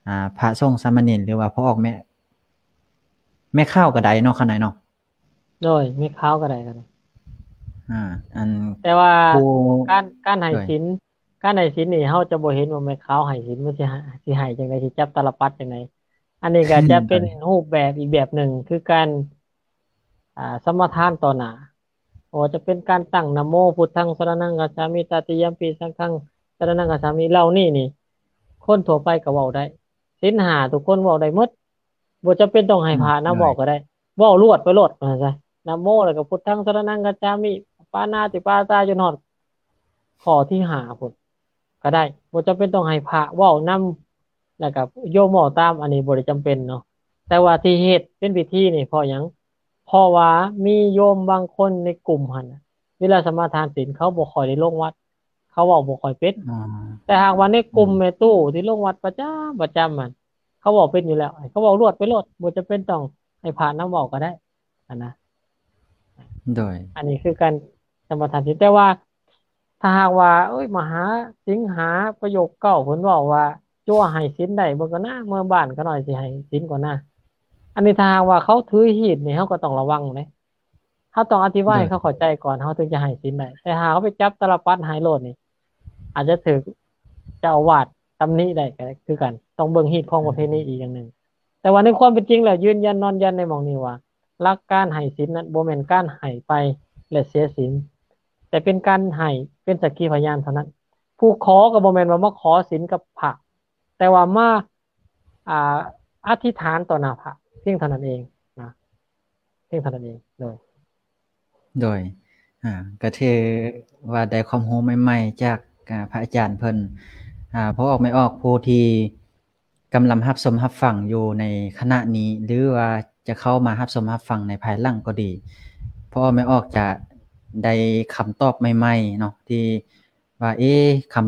ອາ ພະສົງສາມະເນນ ຫຼືວ່າພໍ່ອອກແມ່ ແມ່ຂາວກໍໄດ້ເນາະ ຂ້ານ້ອຍເນາະ. ໂດຍ ແມ່ຂາວກໍໄດ້ ກໍໄດ້ ອາ ອັນ ແຕ່ວ່າ ຜູ້ ການ ການໃຫ້ ໂດຍ ສິນ ການໃຫ້ສິນນີ້ ເຮົາຈະບໍ່ເຫັນວ່າແມ່ຂາວໃຫ້ສິນ ມັນຊິໃຫ້ ຊິໃຫ້ຈັ່ງໃດ ຊິຈັບຕາລະປັດຈັ່ງໃດ. ອັນນີ້ກໍຈະເປັນ ໂດຍ ຮູບແບບອີກແບບໜຶ່ງ ຄືການ ອາ ສະມາທານຕໍ່ໜ້າ ບໍ່ວ່າຈະເປັນການຕັ້ງນະໂມ ພຸດທັງສະລະນັງຄັດສາມິ ຕະຕິຍຳປິ ສັງຄັງສະລະນັງຄັດສາມິ ເຫຼົ່ານີ້ນີ້ ຄົນທົ່ວໄປກໍເວົ້າໄດ້. ສິນຫ້າ ທຸກຄົນເວົ້າໄດ້ໝົດ ບໍ່ຈຳເປັນຕ້ອງໃຫ້ພະນຳເວົ້າກໍໄດ້ ອືມ ເວົ້າລວດໄປໂລດວ່າຊັ້ນຊະ ນະໂມ ແລ້ວກໍພຸດທັງສະລະນັງຄັດສາມິ ປານາຕິປາຕາ ຈົນຮອດຂໍ້ທີຫ້າພຸ້ນກໍໄດ້ ບໍ່ຈຳເປັນຕ້ອງໃຫ້ພະເວົ້ານຳ ແລ້ວກໍໂຍມເວົ້າຕາມ ອັນນີ້ບໍ່ໄດ້ຈຳເປັນເນາະ. ແຕ່ວ່າທີ່ເຮັດເປັນພິທີນີ້ເພາະຫຍັງ? ເພາະວ່າມີໂຍມບາງຄົນໃນກຸ່ມຫັ້ນນະ ເວລາສະມາທານສິນ ເຂົາບໍ່ຄ່ອຍໄດ້ລົງວັດ ເຂົາເວົ້າບໍ່ຄ່ອຍເປັນ ອໍ ແຕ່ຫາກວ່າໃນກຸ່ມ ອືມ ແມ່ຕູ້ທີ່ລົງວັດປະຈຳ ປະຈຳຫັ້ນ ເຂົາເວົ້າເປັນຢູ່ແລ້ວ ໃຫ້ເຂົາເວົ້າລວດໄປໂລດ ບໍ່ຈຳເປັນຕ້ອງໃຫ້ພະນຳເວົ້າກໍໄດ້ຫັ້ນນະ. ໂດຍ ອັນນີ້ຄືການສະມາທານສິນ ແຕ່ວ່າຖ້າຫາກວ່າ ໂອ້ຍ ມະຫາສິງຫາປະໂຫຍກເກົ້າ ເພິ່ນເວົ້າວ່າ ຈົວໃຫ້ສິນໄດ້ເບິ່ງກ່ອນນະ ເມືອບ້ານຂ້ານ້ອຍຊິໃຫ້ສິນກ່ອນນະ. ອັນນີ້ຖ້າຫາກວ່າເຂົາຖືຮີດນີ້ ເຮົາກໍຕ້ອງລະວັງເດ້. ເຮົາຕ້ອງອະທິບາຍໃຫ້ ໂດຍ ເຂົາເຂົ້າໃຈກ່ອນ ເຮົາເຖິງຈະໃຫ້ສິນໄດ້ ແຕ່ຖ້າເຮົາໄປຈັບຕາລະປັດໃຫ້ໂລດນີ້ ອາດຈະຖືກເຈົ້າອາວາດຕຳໜິໄດ້ກໍຄືກັນ ຕ້ອງເບິ່ງຮີດຄອງປະເພນີອີກຢ່າງໜຶ່ງ. ແຕ່ວ່າໃນຄວາມເປັນຈິງແລ້ວ ຢືນຢັນນອນຢັນໃນໝ່ອງນີ້ວ່າ ຫຼັກການໃຫ້ສິນນັ້ນບໍ່ແມ່ນການໃຫ້ໄປແລະເສຍສິນ ແຕ່ເປັນການໃຫ້ເປັນສັກຂີພະຍານເທົ່ານັ້ນ. ຜູ້ຂໍກໍບໍ່ແມ່ນວ່າມາຂໍສິນກັບພະ ແຕ່ວ່າມາ ອ່າ ອະທິຖານຕໍ່ໜ້າພະ ພຽງເທົ່ານັ້ນເອງນະ ພຽງເທົ່ານັ້ນເອງ. ໂດຍ ໂດຍ ອາ ກໍຖືວ່າໄດ້ຄວາມຮູ້ໃໝ່ໆຈາກ ອາ ພະອາຈານເພິ່ນ. ອາ ພໍ່ອອກແມ່ອອກຜູ້ທີ່ກຳລັງຮັບຊົມຮັບຟັງຢູ່ໃນຂະນະນີ້ ຫຼືວ່າຈະເຂົ້າມາຮັບຊົມຮັບຟັງໃນພາຍຫຼັງກໍດີ ພໍ່ອອກແມ່ອອກຈະໄດ້ຄຳຕອບໃໝ່ໆເນາະ ທີ່ ວ່າ ເອ ຄຳ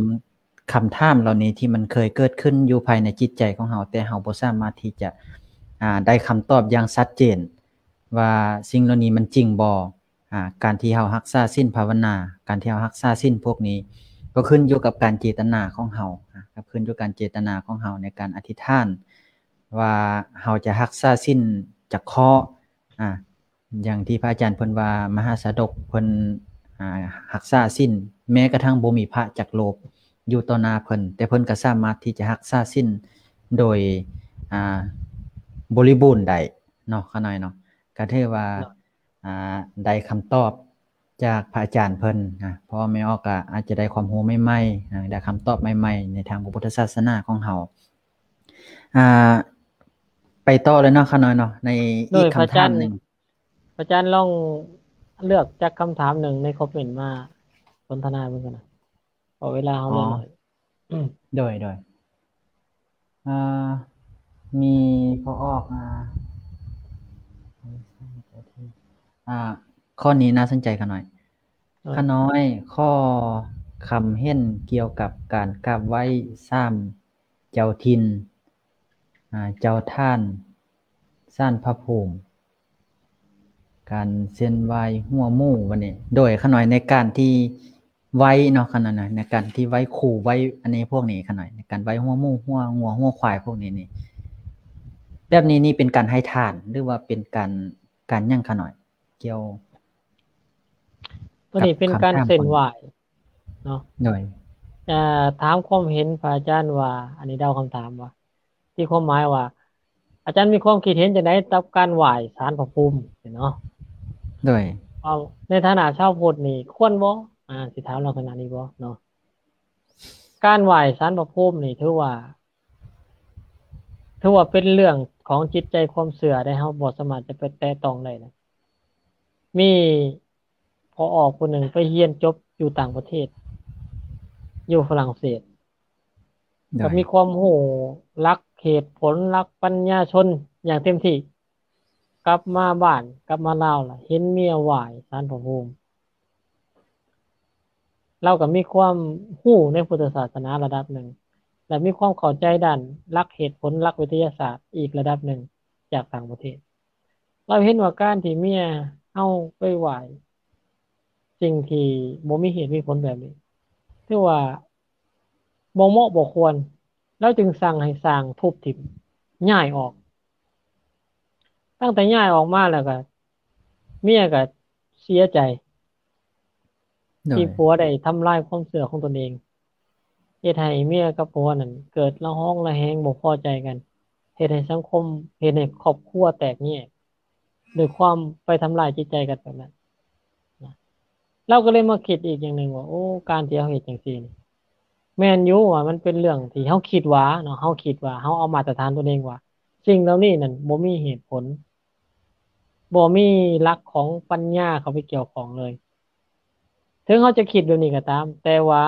ຄຳຖາມເຫຼົ່ານີ້ທີ່ມັນເຄີຍເກີດຂຶ້ນຢູ່ພາຍໃນຈິດໃຈຂອງເຮົາ ແຕ່ເຮົາບໍ່ສາມາດທີ່ຈະ ອາ ໄດ້ຄຳຕອບຢ່າງຊັດເຈນວ່າສິ່ງເຫຼົ່ານີ້ມັນຈິງບໍ່. ອາ ການທີ່ເຮົາຮັກສາສິນພາວະນາ ການທີ່ເຮົາຮັກສາສິນພວກນີ້ ກໍຂຶ້ນຢູ່ກັບການເຈຕນາຂອງເຮົາ ອາ ກໍຂຶ້ນຢູ່ກັບການເຈຕນາຂອງເຮົາໃນການອະທິຖານວ່າເຮົາຈະຮັກສາສິນຈັກຂໍ້ ອາ ຢ່າງທີ່ພະອາຈານເພິ່ນວ່າ ມະຫາຊາດົກເພິ່ນ ອາ ຮັກສາສິນ ແມ້ກະທັ່ງບໍ່ມີພະຈັກຮູບຢູ່ຕໍ່ໜ້າເພິ່ນ ແຕ່ເພິ່ນກໍສາມາດທີ່ຈະຮັກສາສິນໂດຍ ອາ ບໍລິບູນໄດ້ ເນາະ ຂ້ານ້ອຍເນາະ ກໍຖືວ່າ ເນາະ ອ່າ ໄດ້ຄຳຕອບຈາກພະອາຈານເພິ່ນນະ ເພາະວ່າແມ່ອອກກໍອາດຈະໄດ້ຄວາມຮູ້ໃໝ່ໆ ອ່າ ໄດ້ຄຳຕອບໃໝ່ໆ ໃນທາງພະພຸດທະສາສະໜາຂອງເຮົາ. ອ່າ ໄປຕໍ່ເລີຍເນາະ ຂ້ານ້ອຍເນາະ ໃນອີກຄຳຖາມໜຶ່ງ. ພະອາຈານລອງເລືອກຈັກຄຳຖາມໜຶ່ງໃນຄອມເມັນມາສົນທະນາເບິ່ງກັນນະ ເພາະເວລາເຮົາເຫຼືອໜ້ອຍ. ໂດຍ ໂດຍ ອ່າ ມີພໍອອກ ອ່າ ອ່າ ຂໍ້ນີ້ໜ້າສົນໃຈຂ້ານ້ອຍ. ຂ້ານ້ອຍ ຂໍຄຳເຫັນກ່ຽວກັບການກາບໄຫວ້ສາມເຈົ້າຖິ່ນ ອ່າ ເຈົ້າທ່ານ ສານພະພູມ ການເສັ້ນໄຫວ້ຫົວໝູ ບັດນີ້ ໂດຍຂ້ານ້ອຍ ໃນການທີ່ໄຫວ້ເນາະ ຂ້ານ້ອຍ ໃນການທີ່ໄຫວ້ຄູ ໄຫວ້ອັນນີ້ພວກນີ້ ຂ້ານ້ອຍ ໃນການໄຫວ້ຫົວໝູ ຫົວງົວ ຫົວຄວາຍພວກນີ້ນີ້ ແບບນີ້ນີ້ເປັນການໃຫ້ທານ ຫຼືວ່າເປັນການ ການຫຍັງ ຂ້ານ້ອຍ ກ່ຽວ ໂຕນີ້ເປັນການເສັ້ນໄຫວ້ເນາະ. ໂດຍ ເອີ ຖາມຄວາມເຫັນພະອາຈານວ່າ ອັນນີ້ເດົາຄຳຖາມວ່າ ທີ່ຄວາມໝາຍວ່າ ອາຈານມີຄວາມຄິດເຫັນຈັ່ງໃດກັບການໄຫວ້ສານພະພູມເນາະ? ໂດຍ ເອົາ ໃນຖານະຊາວພຸດນີ້ຄວນບໍ່? ອ່າ ຊິຖາມລັກສະນະນີ້ບໍ່ເນາະ? ການໄຫວ້ສານພະພູມນີ້ຖືວ່າ ຖືວ່າເປັນເລື່ອງຂອງຈິດໃຈຄວາມເຊື່ອໄດ໋ ເຮົາບໍ່ສາມາດຈະໄປແຕະຕ້ອງໄດ້ນະ. ມີພໍ່ອອກຜູ້ໜຶ່ງໄປຮຽນຈົບຢູ່ຕ່າງປະເທດ ຢູ່ຝຣັ່ງເສດ ໂດຍ ກໍມີຄວາມຮູ້ຫຼັກເຫດຜົນ ຫຼັກປັນຍາຊົນຢ່າງເຕັມທີ່. ກັບມາບ້ານ ກັບມາລາວລະເຫັນເມຍໄຫວ້ສານພະພູມ. ລາວກໍມີຄວາມຮູ້ໃນພຸດທະສາສະໜາລະດັບໜຶ່ງ ແລະ ມີຄວາມເຂົ້າໃຈດ້ານຫຼັກເຫດຜົນ ຫຼັກວິທະຍາສາດອີກລະດັບໜຶ່ງຈາກຕ່າງປະເທດ. ລາວເຫັນວ່າການທີ່ເມຍເຮົາໄປໄຫວ້ສິ່ງທີ່ບໍ່ມີເຫດມີຜົນແບບນີ້ ຖືວ່າບໍ່ເໝາະບໍ່ຄວນ. ລາວຈຶ່ງສັ່ງໃຫ້ຊ່າງທຸບຖິ້ມ ຍ້າຍອອກ. ຕັ້ງແຕ່ຍ້າຍອອກມາແລ້ວກໍ ເມຍກໍເສຍໃຈ ໂດຍ ທີ່ຜົວໄດ້ທຳລາຍຄວາມເຊື່ອຂອງຕົນເອງ, ເຮັດໃຫ້ເມຍກັບຜົວນັ້ນເກີດລະຫອງລະແຫງ ບໍ່ພໍໃຈກັນ, ເຮັດໃຫ້ສັງຄົມ ເຮັດໃຫ້ຄອບຄົວແຕກແຍກ ດ້ວຍຄວາມໄປທຳລາຍຈິດໃຈກັນແບບນັ້ນນະ. ລາວກໍເລີຍມາຄິດອີກຢ່າງໜຶ່ງວ່າ ໂອ້ ການທີ່ເຮົາເຮັດຈັ່ງຊີ້ນີ້ ແມ່ນຢູ່ວ່າມັນເປັນເລື່ອງທີ່ເຮົາຄິດວ່າເນາະ, ເຮົາຄິດວ່າ ເຮົາເອົາມາດຕະຖານຕົວເອງວ່າ ສິ່ງເຫຼົ່ານີ້ນັ້ນບໍ່ມີເຫດຜົນ, ບໍ່ມີຫຼັກຂອງປັນຍາເຂົ້າໄປກ່ຽວຂ້ອງເລີຍ. ເຖິງເຮົາຈະຄິດແບບນີ້ກໍຕາມ, ແຕ່ວ່າ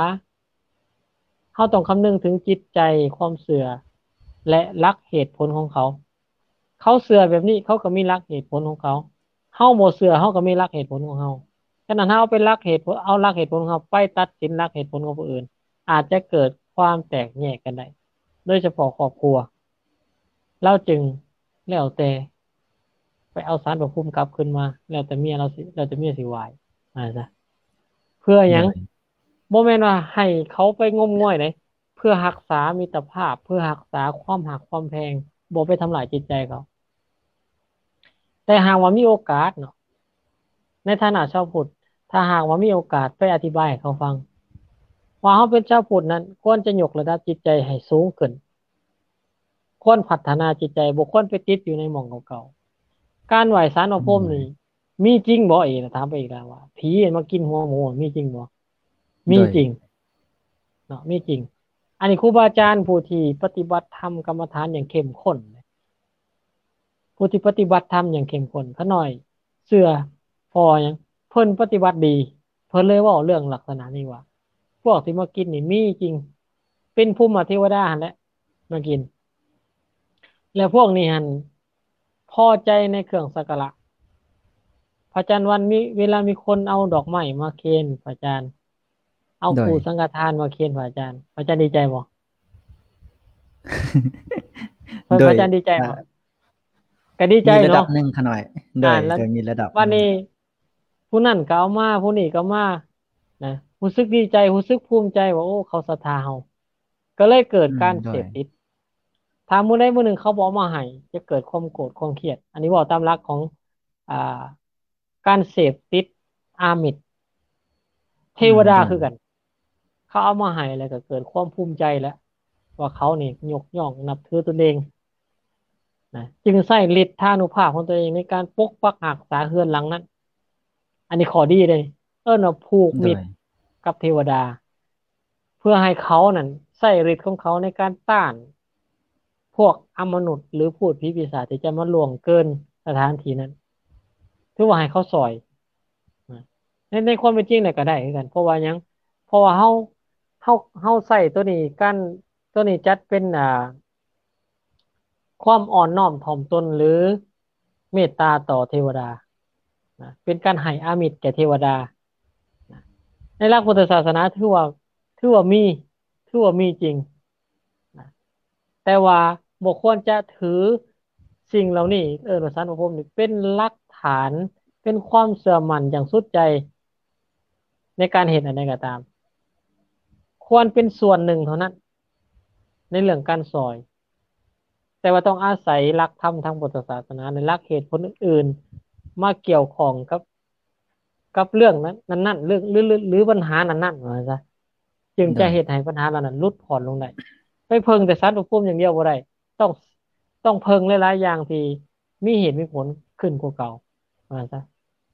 ເຮົາຕ້ອງຄຳນຶງເຖິງຈິດໃຈ, ຄວາມເຊື່ອ ແລະ ຫຼັກເຫດຜົນຂອງເຂົາ. ເຂົາເຊື່ອແບບນີ້ ເຂົາກໍມີຫຼັກເຫດຜົນຂອງເຂົາ, ເຮົາບໍ່ເຊື່ອ ເຮົາກໍມີຫຼັກເຫດຜົນຂອງເຮົາ. ສະນັ້ນ ເຮົາເອົາໄປຫຼັກເຫດຜົນ ເອົາຫຼັກເຫດຜົນຂອງເຮົາໄປຕັດສິນຫຼັກເຫດຜົນຂອງຜູ້ອື່ນ ອາດຈະເກີດຄວາມແຕກແຍກກັນໄດ້ ໂດຍສະເພາະຄອບຄົວ. ລາວຈຶ່ງແລ້ວແຕ່ໄປເອົາສານພະພູມກັບຄືນມາ ແລ້ວແຕ່ເມຍລາວຊິ ແລ້ວແຕ່ເມຍຊິໄຫວ້ ວ່າຊັ້ນຊະ. ເພື່ອຫຍັງ? ໂດຍ ບໍ່ແມ່ນວ່າໃຫ້ເຂົາໄປງົມງວາຍເດ້, ເພື່ອຮັກສາມິດຕະພາບ, ເພື່ອຮັກສາຄວາມຮັກຄວາມແພງ, ບໍ່ໄປທຳລາຍຈິດໃຈເຂົາ. ແຕ່ຫາກວ່າມີໂອກາດເນາະ, ໃນຖານະຊາວພຸດ, ຖ້າຫາກວ່າມີໂອກາດໄປອະທິບາຍໃຫ້ເຂົາຟັງ ວ່າເຮົາເປັນຊາວພຸດນັ້ນ ຄວນຈະຍົກລະດັບຈິດໃຈໃຫ້ສູງຂຶ້ນ, ຄວນພັດທະນາຈິດໃຈ, ບໍ່ຄວນໄປຕິດຢູ່ໃນໝ່ອງເກົ່າໆ. ການໄຫວ້ສານພະພູມນີ້ ອືມ ມີຈິງບໍ່? ອີກ ຖາມໄປອີກແລ້ວວ່າ ຜີມາກິນຫົວໝູມີຈິງບໍ່? ມີຈິງ ໂດຍ ເນາະ, ມີຈິງ. ອັນນີ້ຄູບາອາຈານຜູ້ທີ່ປະຕິບັດທຳກຳມະຖານຢ່າງເຂັ້ມຂົ້ນ, ຜູ້ທີ່ປະຕິບັດທຳຢ່າງເຂັ້ມຂົ້ນ, ຂ້ານ້ອຍເຊື່ອ ເພາະຫຍັງ? ເພິ່ນປະຕິບັດດີ, ເພິ່ນເລີຍເວົ້າເລື່ອງລັກສະນະນີ້ວ່າ ພວກທີ່ມາກິນນີ້ມີຈິງ, ເປັນພູມມະເທວະດາຫັ້ນແຫຼະມາກິນ. ແລະ ພວກນີ້ຫັ້ນພໍໃຈໃນເຄື່ອງສັກກາລະ. ພະອາຈານວັນ ມີ ເວລາມີຄົນເອົາດອກໄມ້ມາເຄນພະອາຈານ, ເອົາ ໂດຍ ຄູ່ສັງຄະທານມາເຄນພະອາຈານ, ພະອາຈານດີໃຈບໍ່? ໂດຍ ພະອາຈານດີໃຈບໍ່? ອ່າ ກໍດີໃຈເນາະ ມີລະດັບໜຶ່ງຂະນ້ອຍ. ໂດຍ ອ່າ ໂດຍ ມີລະດັບ. ບັດນີ້ ຜູ້ນັ້ນກໍເອົາມາ ຜູ້ນີ້ກໍເອົາມານະ, ຮູ້ສຶກດີໃຈ ຮູ້ສຶກພູມໃຈວ່າ ໂອ້ ເຂົາສັດທາເຮົາ. ກໍເລີຍເກີດ ອືມ ການ ໂດຍ ເສບຕິດ. ຖ້າມື້ໃດມື້ໜຶ່ງເຂົາບໍ່ເອົາມາໃຫ້ ຈະເກີດຄວາມໂກດຄວາມຄຽດ. ອັນນີ້ເວົ້າຕາມຫຼັກຂອງ ອ່າ ການເສບຕິດອາມິດ ເທວະດາ ອືມ ຄືກັນ. ເຂົາເອົາມາໃຫ້ແລ້ວກໍເກີດຄວາມພູມໃຈແລ້ວ ວ່າເຂົານີ້ຍົກຍ້ອງນັບຖືຕົນເອງ. ນະ ຈຶ່ງໃຊ້ລິດທານຸພາບຂອງຕົວເອງໃນການປົກປັກຮັກສາເຮືອນຫຼັງນັ້ນ. ອັນນີ້ຂໍ້ດີເດ້ ເອີ້ນວ່າຜູກມິດ ໂດຍ ກັບເທວະດາ ເພື່ອໃຫ້ເຂົານັ້ນໃຊ້ລິດຂອງເຂົາໃນການຕ້ານພວກອຳມະນຸດ ຫຼື ພູດຜີປີສາດທີ່ຈະມາລ່ວງເກີນສະຖານທີ່ນັ້ນ ຖືວ່າໃຫ້ເຂົາຊ່ອຍນະ. ໃນ ໃນຄວາມເປັນຈິງແລ້ວກໍໄດ້ຄືກັນ ເພາະວ່າຫຍັງ? ເພາະວ່າເຮົາ ເຮົາ ເຮົາໃຊ້ຕົວນີ້ ການ ຕົວນີ້ຈັດເປັນ ອ່າ ຄວາມອ່ອນນ້ອມຖ່ອມຕົນ ຫຼື ເມດຕາຕໍ່ເທວະດານະ ເປັນການໃຫ້ອາມິດແກ່ເທວະດານະ. ໃນຫຼັກພຸດທະສາສະໜາຖືວ່າ ຖືວ່າມີ ຖືວ່າມີຈິງນະ ແຕ່ວ່າບໍ່ຄວນຈະຖືສິ່ງເຫຼົ່ານີ້ ເອີ້ນວ່າສານພະພູມນີ້ ເປັນຫຼັກຖານ ເປັນຄວາມເຊື່ອໝັ້ນຢ່າງສຸດໃຈໃນການເຮັດອັນໃດກໍຕາມ ຄວນເປັນສ່ວນໜຶ່ງເທົ່ານັ້ນ ໃນເລື່ອງການຊ່ອຍ ແຕ່ວ່າຕ້ອງອາໄສຫຼັກທຳທາງພຸດທະສາສະໜາ ແລະ ຫຼັກເຫດຜົນອື່ນໆ ມາກ່ຽວຂ້ອງກັບ ກັບເລື່ອງນັ້ນ ນັ້ນໆ ເລື່ອງ ຫຼື ຫຼື ຫຼື ບັນຫານັ້ນໆ ວ່າຊັ້ນຊະ ຈຶ່ງຈະ ໂດຍ ເຮັດໃຫ້ບັນຫາເຫຼົ່ານັ້ນຫຼຸດຜ່ອນລົງໄດ້. ໄປເພິ່ງແຕ່ສານພະພູມຢ່າງດຽວບໍ່ໄດ້ ຕ້ອງ ຕ້ອງເພິ່ງຫຼາຍໆຢ່າງທີ່ມີເຫດມີຜົນຂຶ້ນກວ່າເກົ່າ ວ່າຊັ້ນຊະ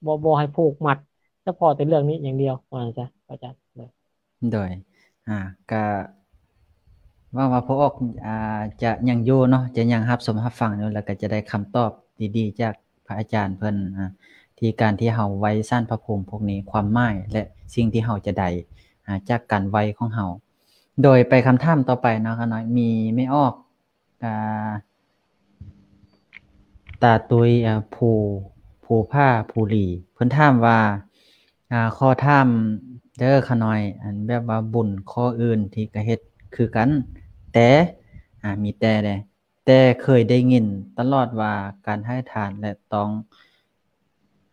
ບໍ່ ບໍ່ໃຫ້ຜູກມັດສະເພາະແຕ່ເລື່ອງນີ້ຢ່າງດຽວ ວ່າຊັ້ນຊະ ອາຈານ. ໂດຍ ໂດຍ ອ່າ ກະຫວັງວ່າພໍ່ອອກ ອ່າ ຈະຍັງຢູ່ເນາະ ຈະຍັງຮັບຊົມຮັບຟັງຢູ່ ແລ້ວກໍຈະໄດ້ຄຳຕອບດີໆຈາກພະອາຈານເພິ່ນ ອ່າ ທີ່ການທີ່ເຮົາໄຫວ້ສານພະພູມພວກນີ້ ຄວາມໝາຍ ແລະ ສິ່ງທີ່ເຮົາຈະໄດ້ ອ່າ ຈາກການໄຫວ້ຂອງເຮົາ. ໂດຍໄປຄຳຖາມຕໍ່ໄປເນາະ ຂ້ານ້ອຍ ມີແມ່ອອກ ອ່າ ຕາຕຸ້ຍ ອ່າ ພູ ພູຜາພູຫຼີ ເພິ່ນຖາມວ່າ ອ່າ ຂໍຖາມເດີຂ້ານ້ອຍ ອັນແບບວ່າບຸນຂໍ້ອື່ນທີ່ກະເຮັດຄືກັນ ແຕ່ ອ່າ ມີແຕ່ເດ້ ແຕ່ເຄີຍໄດ້ຍິນຕະຫຼອດວ່າການໃຫ້ທານ ແລະ ຕ້ອງ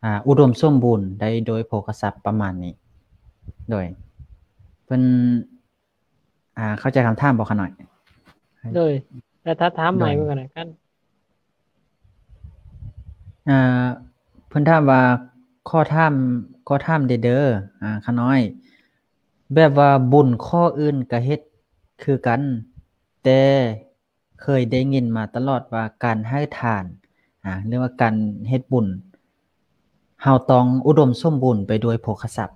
ອ່າ ອຸດົມສົມບູນໄດ້ໂດຍໂພຄະຊັບ ປະມານນີ້. ໂດຍ ເພິ່ນ ອ່າ ເຂົ້າໃຈຄຳຖາມບໍ່ຂ້ານ້ອຍ? ໂດຍ ແຕ່ຖ້າຖາມໃໝ່ເບິ່ງກັນນະ ອ່າ ເພິ່ນຖາມວ່າ ຂໍຖາມ ຂໍຖາມແດ່ເດີ ອ່າ ຂ້ານ້ອຍ ແບບວ່າບຸນຂໍ້ອື່ນກະເຮັດຄືກັນ ແຕ່ເຄີຍໄດ້ຍິນມາຕະຫຼອດວ່າການໃຫ້ທານ ອ່າ ຫຼືວ່າການເຮັດບຸນ ເຮົາຕ້ອງອຸດົມສົມບູນໄປດ້ວຍໂພຄະຊັບ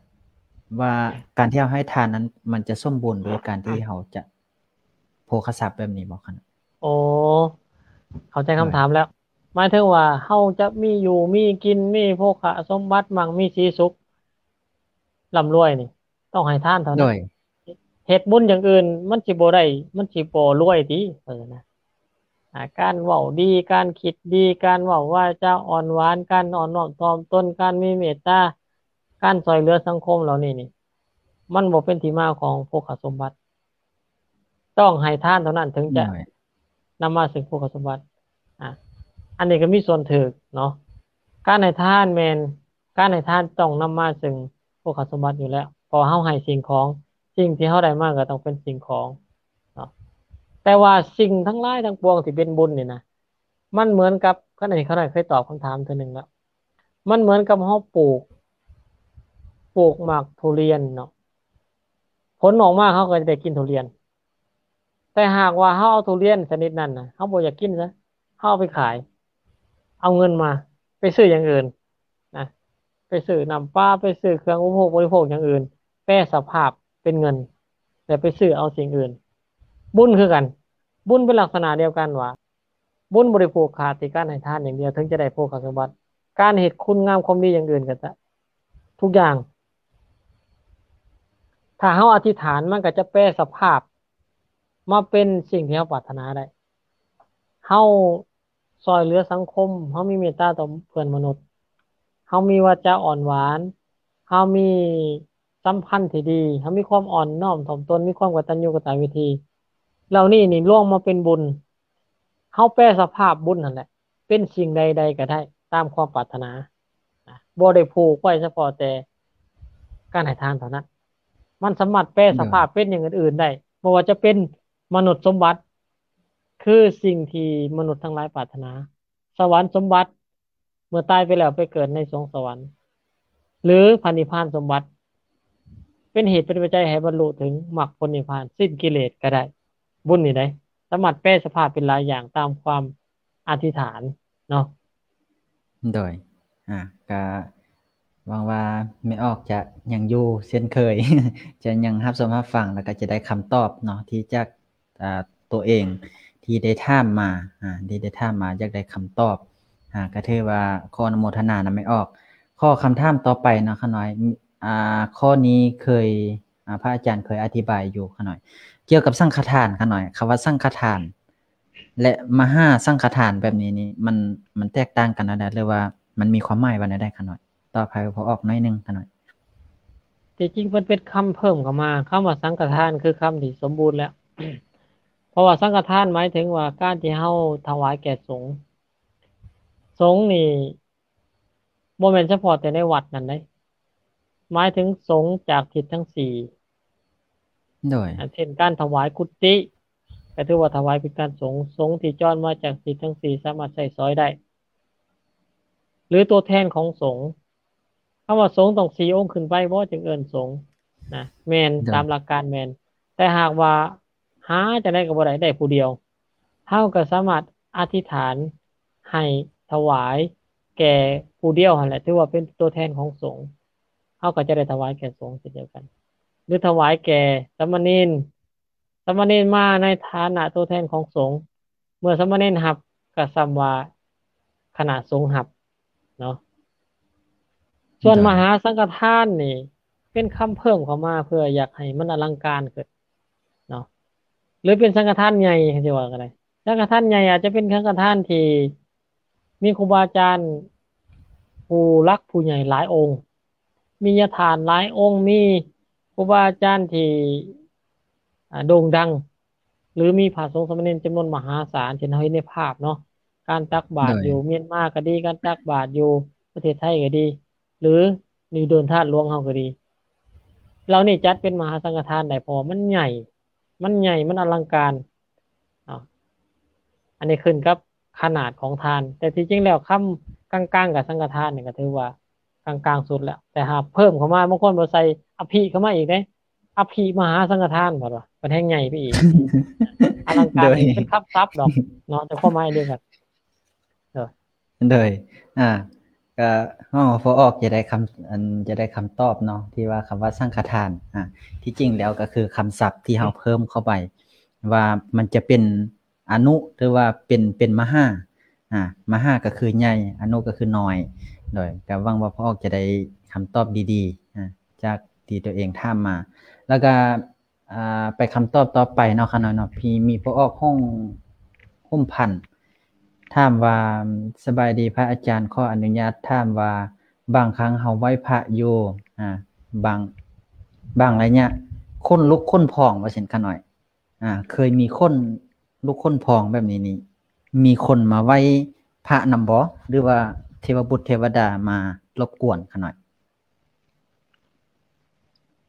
ວ່າການທີ່ເຮົາໃຫ້ທານນັ້ນ ມັນຈະສົມບູນໂດຍການທີ່ເຮົາຈະໂພຄະຊັບແບບນີ້ບໍ່ຄັນ? ໂອ້ ເຂົ້າໃຈຄຳຖາມແລ້ວ ໂດຍ ໝາຍເຖິງວ່າເຮົາຈະມີຢູ່ມີກິນ ມີໂພຄະສົມບັດ ໝັ້ງມີສີສຸກ ລ່ຳລວຍນີ້ ຕ້ອງໃຫ້ທານເທົ່ານັ້ນ ໂດຍ ເຮັດບຸນຢ່າງອື່ນມັນຊິບໍ່ໄດ້ ມັນຊິບໍ່ລວຍຕິ ເອີນະ ອ່າ ການເວົ້າດີ ການຄິດດີ ການເວົ້າວາຈາອ່ອນຫວານ ການອ່ອນນ້ອມຖ່ອມຕົນ ການມີເມດຕາ ການຊ່ອຍເຫຼືອສັງຄົມເຫຼົ່ານີ້ນີ້ ມັນບໍ່ເປັນທີ່ມາຂອງໂພຄະສົມບັດ. ຕ້ອງໃຫ້ທານເທົ່ານັ້ນເຖິງຈະ ໂດຍ ນຳມາເຊິ່ງໂພຄະສົມບັດ. ອ່າ ອັນນີ້ກໍມີສ່ວນຖືກເນາະ ການໃຫ້ທານແມ່ນ ການໃຫ້ທານຕ້ອງນຳມາເຊິ່ງໂພຄະສົມບັດຢູ່ແລ້ວ ເພາະເຮົາໃຫ້ສິ່ງຂອງ ສິ່ງທີ່ເຮົາໄດ້ມາກໍຕ້ອງເປັນສິ່ງຂອງເນາະ. ແຕ່ວ່າສິ່ງທັງຫຼາຍທັງປວງທີ່ເປັນບຸນນີ້ນະ ມັນເໝືອນກັບ ຄັນອັນນີ້ຂ້ານ້ອຍເຄີຍຕອບຄຳຖາມເທື່ອໜຶ່ງແລ້ວ ມັນເໝືອນກັບເຮົາປູກ ປູກໝາກທຸລຽນເນາະ ຜົນອອກມາເຮົາກໍຈະໄດ້ກິນທຸລຽນ ແຕ່ຫາກວ່າເຮົາເອົາທຸລຽນຊະນິດນັ້ນນະ ເຮົາບໍ່ຢາກກິນຊະ ເຮົາເອົາໄປຂາຍ ເອົາເງິນມາໄປຊື້ຢ່າງອື່ນນະ ໄປຊື້ນ້ຳປາ ໄປຊື້ເຄື່ອງອຸປະໂພກບໍລິໂພກຢ່າງອື່ນ ແປສະພາບເປັນເງິນ ແລ້ວໄປຊື້ເອົາສິ່ງອື່ນ. ບຸນຄືກັນ ບຸນເປັນລັກສະນະດຽວກັນວ່າ ບຸນບໍ່ໄດ້ຜູກຂາດທີ່ການໃຫ້ທານຢ່າງດຽວເຖິງຈະໄດ້ໂພຄະສົມບັດ ການເຮັດຄຸນງາມຄວາມດີຢ່າງອື່ນກໍຈະ ທຸກຢ່າງ ຖ້າເຮົາອະທິຖານ ມັນກໍຈະແປສະພາບມາເປັນສິ່ງທີ່ເຮົາປາດຖະໜາໄດ້. ເຮົາຊ່ອຍເຫຼືອສັງຄົມ ເຮົາມີເມດຕາຕໍ່ເພື່ອນມະນຸດ ເຮົາມີວາຈາອ່ອນຫວານ ເຮົາມີສຳພັນທີ່ດີ ເຮົາມີຄວາມອ່ອນນ້ອມຖ່ອມຕົນ ມີຄວາມກະຕັນຍູກະຕະເວທີ ເຫຼົ່ານີ້ນີ້ລວມມາເປັນບຸນ. ເຮົາແປສະພາບບຸນຫັ້ນແຫຼະ ເປັນສິ່ງໃດໆກໍໄດ້ຕາມຄວາມປາດຖະໜາ ນະ ບໍ່ໄດ້ຜູກໄວ້ສະເພາະແຕ່ການໃຫ້ທານເທົ່ານັ້ນ ມັນສາມາດແປສະພາບເປັນຢ່າງອື່ນໆໄດ້ ບໍ່ວ່າຈະເປັນມະນຸດສົມບັດ ຄືສິ່ງທີ່ມະນຸດທັງຫຼາຍປາດຖະໜາ, ສະຫວັນສົມບັດ ເມື່ອຕາຍໄປແລ້ວໄປເກີດໃນສວງສະຫວັນ ຫຼື ພະນິບພານສົມບັດ ເປັນເຫດເປັນປັດໄຈໃຫ້ບັນລຸເຖິງມັກຜົນນິບພານ ສິ້ນກິເລດກໍໄດ້. ບຸນນີ້ໄດ໋ ສາມາດແປສະພາບເປັນຫຼາຍຢ່າງຕາມຄວາມ ອະທິຖານເນາະ. ໂດຍ ອ່າ ກະຫວັງວ່າແມ່ອອກຈະຍັງຢູ່ເຊັ່ນເຄີຍ ຈະຍັງຮັບຊົມຮັບຟັງ ແລ້ວກະຈະໄດ້ຄຳຕອບເນາະ ທີ່ຈາກ ອ່າ ຕົວເອງທີ່ໄດ້ຖາມມາ ອ່າ ທີ່ໄດ້ຖາມມາ ຢາກໄດ້ຄຳຕອບ ອ່າ ກະຖືວ່າຂໍອະນຸໂມທະນານຳແມ່ອອກ. ຂໍຄຳຖາມຕໍ່ໄປເນາະ ຂ້ານ້ອຍ ອ່າ ຂໍ້ນີ້ເຄີຍ ອ່າ ພະອາຈານເຄີຍອະທິບາຍຢູ່ ຂ້ານ້ອຍ ກ່ຽວກັບສັງຄະທານ ຂ້ານ້ອຍ ຄຳວ່າສັງຄະທານ ແລະ ມະຫາສັງຄະທານແບບນີ້ນີ້ ມັນ ມັນແຕກຕ່າງກັນແນວໃດ ຫຼືວ່າມັນມີຄວາມໝາຍວ່າແນວໃດ ຂ້ານ້ອຍ? ຕອບໃຫ້ພໍ່ອອກໜ້ອຍໜຶ່ງ ຂ້ານ້ອຍ. ທີ່ຈິງເພິ່ນເປັນຄຳເພີ່ມເຂົ້າມາ ຄຳວ່າສັງຄະທານຄືຄຳທີ່ສົມບູນແລ້ວ ເພາະວ່າສັງຄະທານໝາຍເຖິງວ່າການທີ່ເຮົາຖວາຍແກ່ສົງ. ສົງນີ້ບໍ່ແມ່ນສະເພາະແຕ່ໃນວັດນັ້ນເດ້ ໝາຍເຖິງສົງຈາກທິດທັງສີ່ ໂດຍ ເຊັ່ນການຖວາຍກຸຕິ ກໍຖືວ່າຖວາຍເປັນການສົງ, ສົງທີ່ຈອນມາຈາກທິດທັງສີ່ສາມາດໃຊ້ສອຍໄດ້ ຫຼືຕົວແທນຂອງສົງ. ຄຳວ່າສົງຕ້ອງສີ່ອົງຂຶ້ນໄປບໍ່ ຈຶ່ງເອີ້ນສົງນະ? ແມ່ນ ໂດຍ ຕາມຫຼັກການແມ່ນ, ແຕ່ຫາກວ່າຫາຈັ່ງໃດກໍບໍ່ໄດ້ ໄດ້ຜູ້ດຽວ, ເຮົາກໍສາມາດອະທິຖານໃຫ້ຖວາຍແກ່ຜູ້ດຽວຫັ້ນແຫຼະ ຖືວ່າເປັນຕົວແທນຂອງສົງ, ເຮົາກໍຈະໄດ້ຖວາຍແກ່ສົງເຊັ່ນດຽວກັນ ຫຼືຖວາຍແກ່ສາມະເນນ, ສາມະເນນມາໃນຖານະຕົວແທນຂອງສົງ, ເມື່ອສາມະເນນຮັບກໍສ່ຳວ່າຄະນະສົງຮັບເນາະ. ໂດຍ ສ່ວນມະຫາສັງຄະທານນີ້ເປັນຄຳເພີ່ມເຂົ້າມາເພື່ອຢາກໃຫ້ມັນອະລັງການຂຶ້ນເນາະ ຫຼືເປັນສັງຄະທານໃຫຍ່ ຊິວ່າກໍໄດ້. ສັງຄະທານໃຫຍ່ອາດຈະເປັນສັງຄະທານທີ່ມີຄູບາອາຈານຜູ້ຫຼັກຜູ້ໃຫຍ່ຫຼາຍອົງ, ມີຍາທ່ານຫຼາຍອົງ, ມີຄູບາອາຈານທີ່ ອ່າ ໂດ່ງດັງ ຫຼືມີພະສົງສາມະເນນຈຳນວນມະຫາສານ ເຊັ່ນເຮົາເຫັນໃນພາບເນາະ, ການຕັກບາດ ໂດຍ ຢູ່ມຽນມາກໍດີ, ການຕັກບາດຢູ່ປະເທດໄທກໍດີ ຫຼືຢູ່ໂດນທາດຫຼວງເຮົາກໍດີ, ເຫຼົ່ານີ້ຈັດເປັນມະຫາສັງຄະທານໄດ້ ເພາະວ່າມັນໃຫຍ່ ມັນໃຫຍ່ ມັນອະລັງການເນາະ. ອັນນີ້ຂຶ້ນກັບຂະໜາດຂອງທານ, ແຕ່ທີ່ຈິງແລ້ວຄຳກາງໆກັບສັງຄະທານນີ້ກໍຖືວ່າກາງໆສຸດແລ້ວ, ແຕ່ຫາກເພີ່ມເຂົ້າມາ ບາງຄົນບໍ່ໃສ່ອະພິເຂົ້າມາອີກເດ້, ອະພິມະຫາສັງຄະທານ ເພິ່ນວ່າ ເພິ່ນແຮ່ງໃຫຍ່ໄປອີກ. ອະລັງການ ໂດຍ ນີ້ເປັນຄຳສັບດອກເນາະ ແຕ່ຄວາມໝາຍດຽວກັນ. ໂດຍ ໂດຍ ອ່າ ກໍເຮົາພໍອອກຈະໄດ້ຄຳ ອັນ ຈະໄດ້ຄຳຕອບເນາະ ທີ່ວ່າຄຳວ່າສັງຄະທານ ອ່າ ທີ່ຈິງແລ້ວກໍຄືຄຳສັບທີ່ເຮົາເພີ່ມເຂົ້າໄປ ວ່າມັນຈະເປັນອະນຸ ຫຼືວ່າເປັນ ເປັນມະຫາ ອ່າ ມະຫາກໍຄືໃຫຍ່ ອະນຸກໍຄືນ້ອຍ. ໂດຍ ກໍຫວັງວ່າພໍ່ອອກຈະໄດ້ຄຳຕອບດີໆ ອ່າ ຈາກທີ່ຕົວເອງຖາມມາ. ແລ້ວກໍ ອ່າ ໄປຄຳຕອບຕໍ່ໄປເນາະ ຂ້ານ້ອຍເນາະ ມີ ມີພໍ່ອອກຫ້ອງ ຮົ່ມພັນ ຖາມວ່າ ສະບາຍດີພະອາຈານ, ຂໍອະນຸຍາດຖາມວ່າ ບາງຄັ້ງເຮົາໄຫວ້ພະຢູ່ ອ່າ ບາງ ບາງໄລຍະ ຂົນລຸກຂົນພອງ ວ່າຊັ້ນ ຂ້ານ້ອຍ ອ່າ ເຄີຍມີຂົນລຸກຂົນພອງແບບນີ້ນີ້ ມີຄົນມາໄຫວ້ພະນຳບໍ່ ຫຼືວ່າເທວະບຸດເທວະດາມາລົບກວນ ຂ້ານ້ອຍ?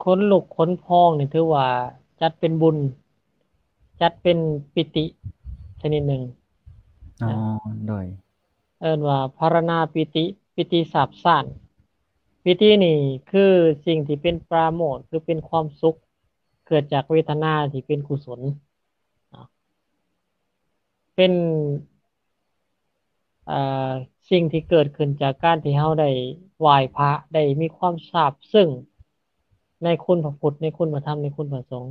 ຂົນລຸກຂົນພອງນີ້ຖືວ່າຈັດເປັນບຸນ ຈັດເປັນປີຕິຊະນິດໜຶ່ງ. ອໍ ໂດຍ ເອີ້ນວ່າພາລະນາປີຕິ ປີຕິຊາບຊານ. ປີຕິນີ້ຄືສິ່ງທີ່ເປັນປາໂມດ ຄືເປັນຄວາມສຸກ ເກີດຈາກເວທະນາທີ່ເປັນກຸສົນເນາະ ເປັນ ເອີ ສິ່ງທີ່ເກີດຂຶ້ນຈາກການທີ່ເຮົາໄດ້ໄຫວ້ພະ ໄດ້ມີຄວາມຊາບຊຶ້ງໃນຄຸນພະພຸດ ໃນຄຸນພະທຳ ໃນຄຸນພະສົງ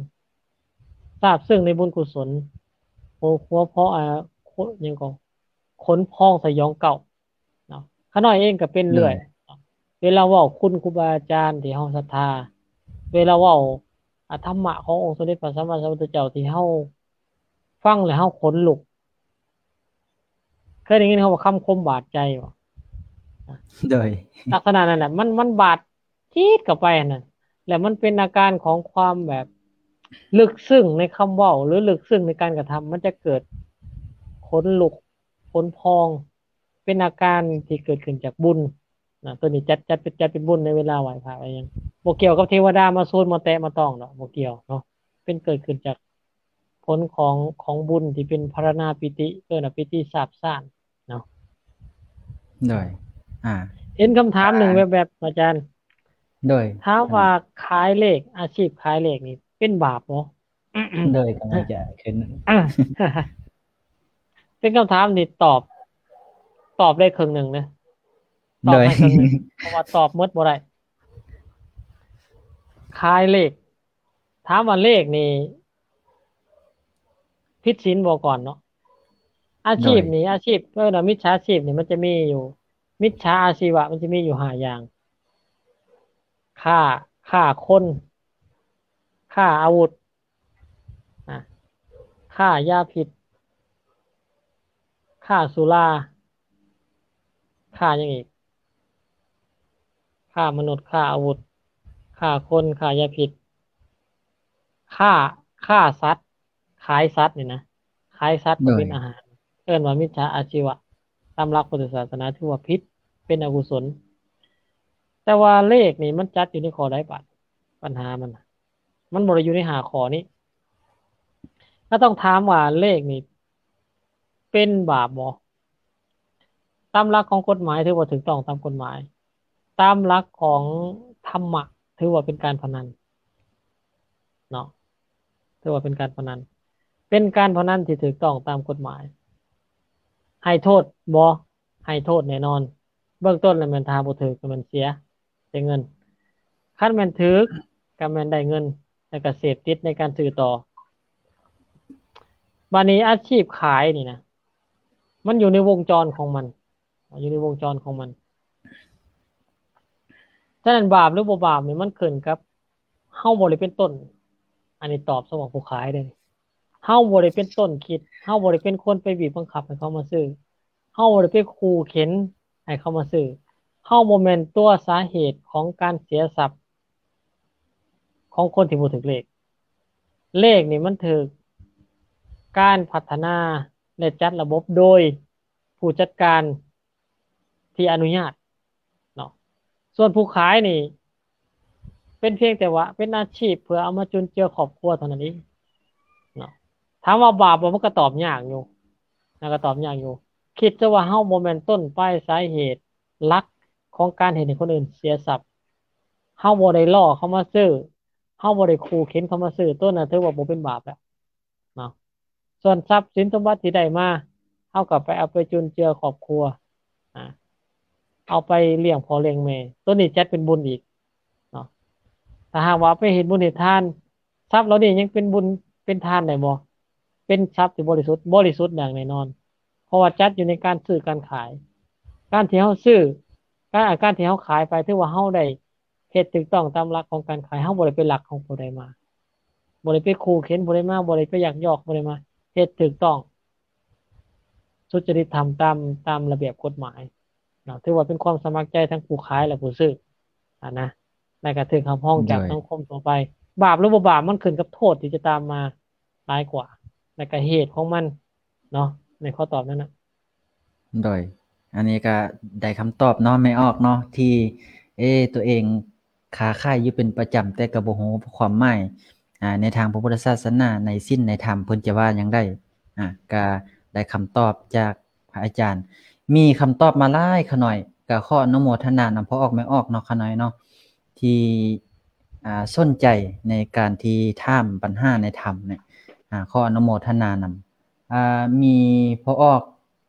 ຊາບຊຶ້ງໃນບຸນກຸສົນ ຫົວ ຫົວເພາະ ເອີ ຫຍັງກໍ ຂົນພອງສະຫຍອງກ້າວເນາະ. ຂ້ານ້ອຍເອງກໍເປັນເລື້ອຍ ໂດຍ ເວລາເວົ້າຄຸນຄູບາອາຈານທີ່ເຮົາສັດທາ ເວລາເວົ້າ ອາ ທຳມະຂອງອົງສົມເດັດພະສຳມາສຳພຸດທະເຈົ້າທີ່ເຮົາຟັງແລ້ວເຮົາຂົນລຸກ. ເຄີຍໄດ້ຍິນຄຳວ່າຄຳຄົມບາດໃຈບໍ່? ໂດຍ ລັກສະນະນັ້ນແຫຼະ ມັນ ມັນບາດຈີດເຂົ້າໄປຫັ້ນນະ ແລ້ວມັນເປັນອາການຂອງຄວາມແບບ ເລິກເຊິ່ງໃນຄຳເວົ້າ ຫຼືເລິກເຊິ່ງໃນການກະທຳ ມັນຈະເກີດຂົນລຸກຂົນພອງ ເປັນອາການທີ່ເກີດຂຶ້ນຈາກບຸນນະ. ໂຕນີ້ຈັດ ຈັດເປັນ ຈັດເປັນບຸນໃນເວລາໄຫວ້ພະໄຫວ້ຫຍັງ ບໍ່ກ່ຽວກັບເທວະດາມາສູນມາແຕະມາຕ້ອງດອກ ບໍ່ກ່ຽວເນາະ. ເປັນເກີດຂຶ້ນຈາກຜົນຂອງ ຂອງບຸນທີ່ເປັນພາລະນາປີຕິ ເອີ້ນວ່າປີຕິຊາບຊານເນາະ. ໂດຍ ອ່າ ເຫັນຄຳຖາມໜຶ່ງແວບໆ ອາຈານ ໂດຍ ຖາມວ່າ ອ່າ ຂາຍເລກ ອາຊີບຂາຍເລກນີ້ເປັນບາບບໍ່? ໂດຍ ກຳລັງຈະຂຶ້ນ ອ່າ ເປັນຄຳຖາມທີ່ຕອບ ຕອບໄດ້ເຄິ່ງໜຶ່ງເດ້ ຕອບໃຫ້ເຄິ່ງໜຶ່ງ ໂດຍ ເພາະວ່າຕອບໝົດບໍ່ໄດ້. ຂາຍເລກ ຖາມວ່າເລກນີ້ຜິດສິນບໍ່ກ່ອນເນາະ? ອາຊີບນີ້ ໂດຍ ອາຊີບ ເອີ້ນວ່າມິດສາຊີບນີ້ ມັນຈະມີຢູ່ ມິດສາອາຊີວະ ມັນຈະມີຢູ່ຫ້າຢ່າງ ຄ້າ ຄ້າຄົນ ຄ້າອາວຸດ ນະ ຄ້າຢາພິດ ຄ້າສຸລາ ຄ້າຫຍັງອີກ? ຄ້າມະນຸດ ຄ້າອາວຸດ ຄ້າຄົນ ຄ້າຢາພິດ ຄ້າ ຄ້າສັດ ຂາຍສັດນີ້ນະ ຂາຍສັດເພື່ອເປັນອາຫານ ເອີ້ນວ່າມິດສາອາຊີວະ. ຕາມຫຼັກພຸດທະສາສະໜາຖືວ່າຜິດ ເປັນອະກຸສົນ. ແຕ່ວ່າເລກນີ້ມັນຈັດຢູ່ໃນຂໍ້ໃດບາດ? ບັນຫາມັນນະ ມັນບໍ່ໄດ້ຢູ່ໃນຫ້າຂໍ້ນີ້. ກໍຕ້ອງຖາມວ່າເລກນີ້ເປັນບາບບໍ່? ຕາມຫຼັກຂອງກົດໝາຍຖືວ່າຖືກຕ້ອງຕາມກົດໝາຍ. ຕາມຫຼັກຂອງທຳມະຖືວ່າເປັນການພະນັນເນາະ ຖືວ່າເປັນການພະນັນ ເປັນການພະນັນທີ່ຖືກຕ້ອງຕາມກົດໝາຍ. ໃຫ້ໂທດບໍ່? ໃຫ້ໂທດແນ່ນອນ. ເບື້ອງຕົ້ນແລ້ວແມ່ນຖ້າບໍ່ຖືກກໍແມ່ນເສຍ ເສຍເງິນ. ຄັນແມ່ນຖືກກໍແມ່ນໄດ້ເງິນ ແລ້ວກໍເສບຕິດໃນການຊື້ຕໍ່. ບາດນີ້ອາຊີບຂາຍນີ້ນະ ມັນຢູ່ໃນວົງຈອນຂອງມັນ ຢູ່ໃນວົງຈອນຂອງມັນ. ສະນັ້ນບາບຫຼືບໍ່ບາບນີ້ມັນຂຶ້ນກັບເຮົາບໍ່ໄດ້ເປັນຕົ້ນ. ອັນນີ້ຕອບສຳລັບຜູ້ຂາຍເດ້. ເຮົາບໍ່ໄດ້ເປັນຕົ້ນຄິດ ເຮົາບໍ່ໄດ້ເປັນຄົນໄປບີບບັງຄັບໃຫ້ເຂົາມາຊື້ ເຮົາບໍ່ໄດ້ໄປຂູ່ເຂັນໃຫ້ເຂົາມາຊື້ ເຮົາບໍ່ແມ່ນຕົວສາເຫດຂອງການເສຍຊັບຂອງຄົນທີ່ບໍ່ຖືກເລກ. ເລກນີ້ມັນຖືກການພັດທະນາ ແລະ ຈັດລະບົບໂດຍຜູ້ຈັດການທີ່ອະນຸຍາດເນາະ. ສ່ວນຜູ້ຂາຍນີ້ ເປັນພຽງແຕ່ວ່າເປັນອາຊີບເພື່ອເອົາມາຈຸນເຈືອຄອບຄົວເທົ່ານັ້ນເອງເນາະ. ຖາມວ່າບາບບໍ່? ມັນກໍຕອບຍາກຢູ່ນະ ກໍຕອບຍາກຢູ່. ຄິດຊະວ່າເຮົາບໍ່ແມ່ນຕົ້ນປາຍສາເຫດຫຼັກຂອງການເຮັດໃຫ້ຄົນອື່ນເສຍຊັບ. ເຮົາບໍ່ໄດ້ລໍ້ເຂົາມາຊື້ ເຮົາບໍ່ໄດ້ຂູ່ເຂັນເຂົາມາຊື້ ໂຕນັ້ນຖືວ່າບໍ່ເປັນບາບແລ້ວເນາະ. ສ່ວນຊັບສິນສົມບັດທີ່ໄດ້ມາ ເຮົາກໍໄປເອົາໄປຈຸນເຈືອຄອບຄົວ ອາ ເອົາໄປລ້ຽງພໍ່ລ້ຽງແມ່ ໂຕນີ້ຈັດເປັນບຸນອີກເນາະ. ຖ້າຫາກວ່າເອົາໄປເຮັດບຸນເຮັດທານ ຊັບເຫຼົ່ານີ້ຍັງເປັນບຸນເປັນທານໄດ້ບໍ່? ເປັນຊັບທີ່ບໍລິສຸດ ບໍລິສຸດຢ່າງແນ່ນອນ ເພາະວ່າຈັດຢູ່ໃນການຊື້ການຂາຍ. ການທີ່ເຮົາຊື້ ການ ການທີ່ເຮົາຂາຍໄປ ຖືວ່າເຮົາໄດ້ເຮັດຖືກຕ້ອງຕາມຫຼັກຂອງການຂາຍ. ເຮົາບໍ່ໄດ້ໄປລັກຂອງຜູ້ໃດມາ ບໍ່ໄດ້ໄປຂູ່ເຂັນຜູ້ໃດມາ ບໍ່ໄດ້ໄປຍັກຍອກຜູ້ໃດມາ ເຮັດຖືກຕ້ອງສຸດຈະລິດທຳຕາມ ຕາມລະບຽບກົດໝາຍເນາະ. ຖືວ່າເປັນຄວາມສະໝັກໃຈທັງຜູ້ຂາຍ ແລະ ຜູ້ຊື້ຫັ້ນນະ ແລະ ກໍຖືກຮັບຮອງຈາກ ໂດຍ ສັງຄົມທົ່ວໄປ. ບາບຫຼືບໍ່ບາບ ມັນຂຶ້ນກັບໂທດທີ່ຈະຕາມມາຫຼາຍກວ່າ ແລະ ກໍເຫດຂອງມັນເນາະ ໃນຂໍ້ຕອບນັ້ນນະ. ໂດຍ ອັນນີ້ກໍໄດ້ຄຳຕອບເນາະ ແມ່ອອກເນາະ ທີ່ ເອ ຕົວເອງຄ້າຂາຍຢູ່ເປັນປະຈຳ ແຕ່ກໍບໍ່ຮູ້ຄວາມໝາຍ ອາ ໃນທາງພະພຸດທະສາສະໜາ ໃນສິນໃນທຳເພິ່ນຈະວ່າຫຍັງໄດ້ ອາ ກໍໄດ້ຄຳຕອບຈາກພະອາຈານ. ມີຄຳຕອບມາຫຼາຍຂະນ້ອຍ ກໍຂໍອະນຸໂມທະນານຳພໍ່ອອກແມ່ອອກເນາະ ຂະນ້ອຍເນາະ ທີ່ ອາ ສົນໃຈໃນການທີ່ຖາມບັນຫາໃນທຳນີ້ ອາ ຂໍອະນຸໂມທະນານຳ. ອາ ມີພໍ່ອອກ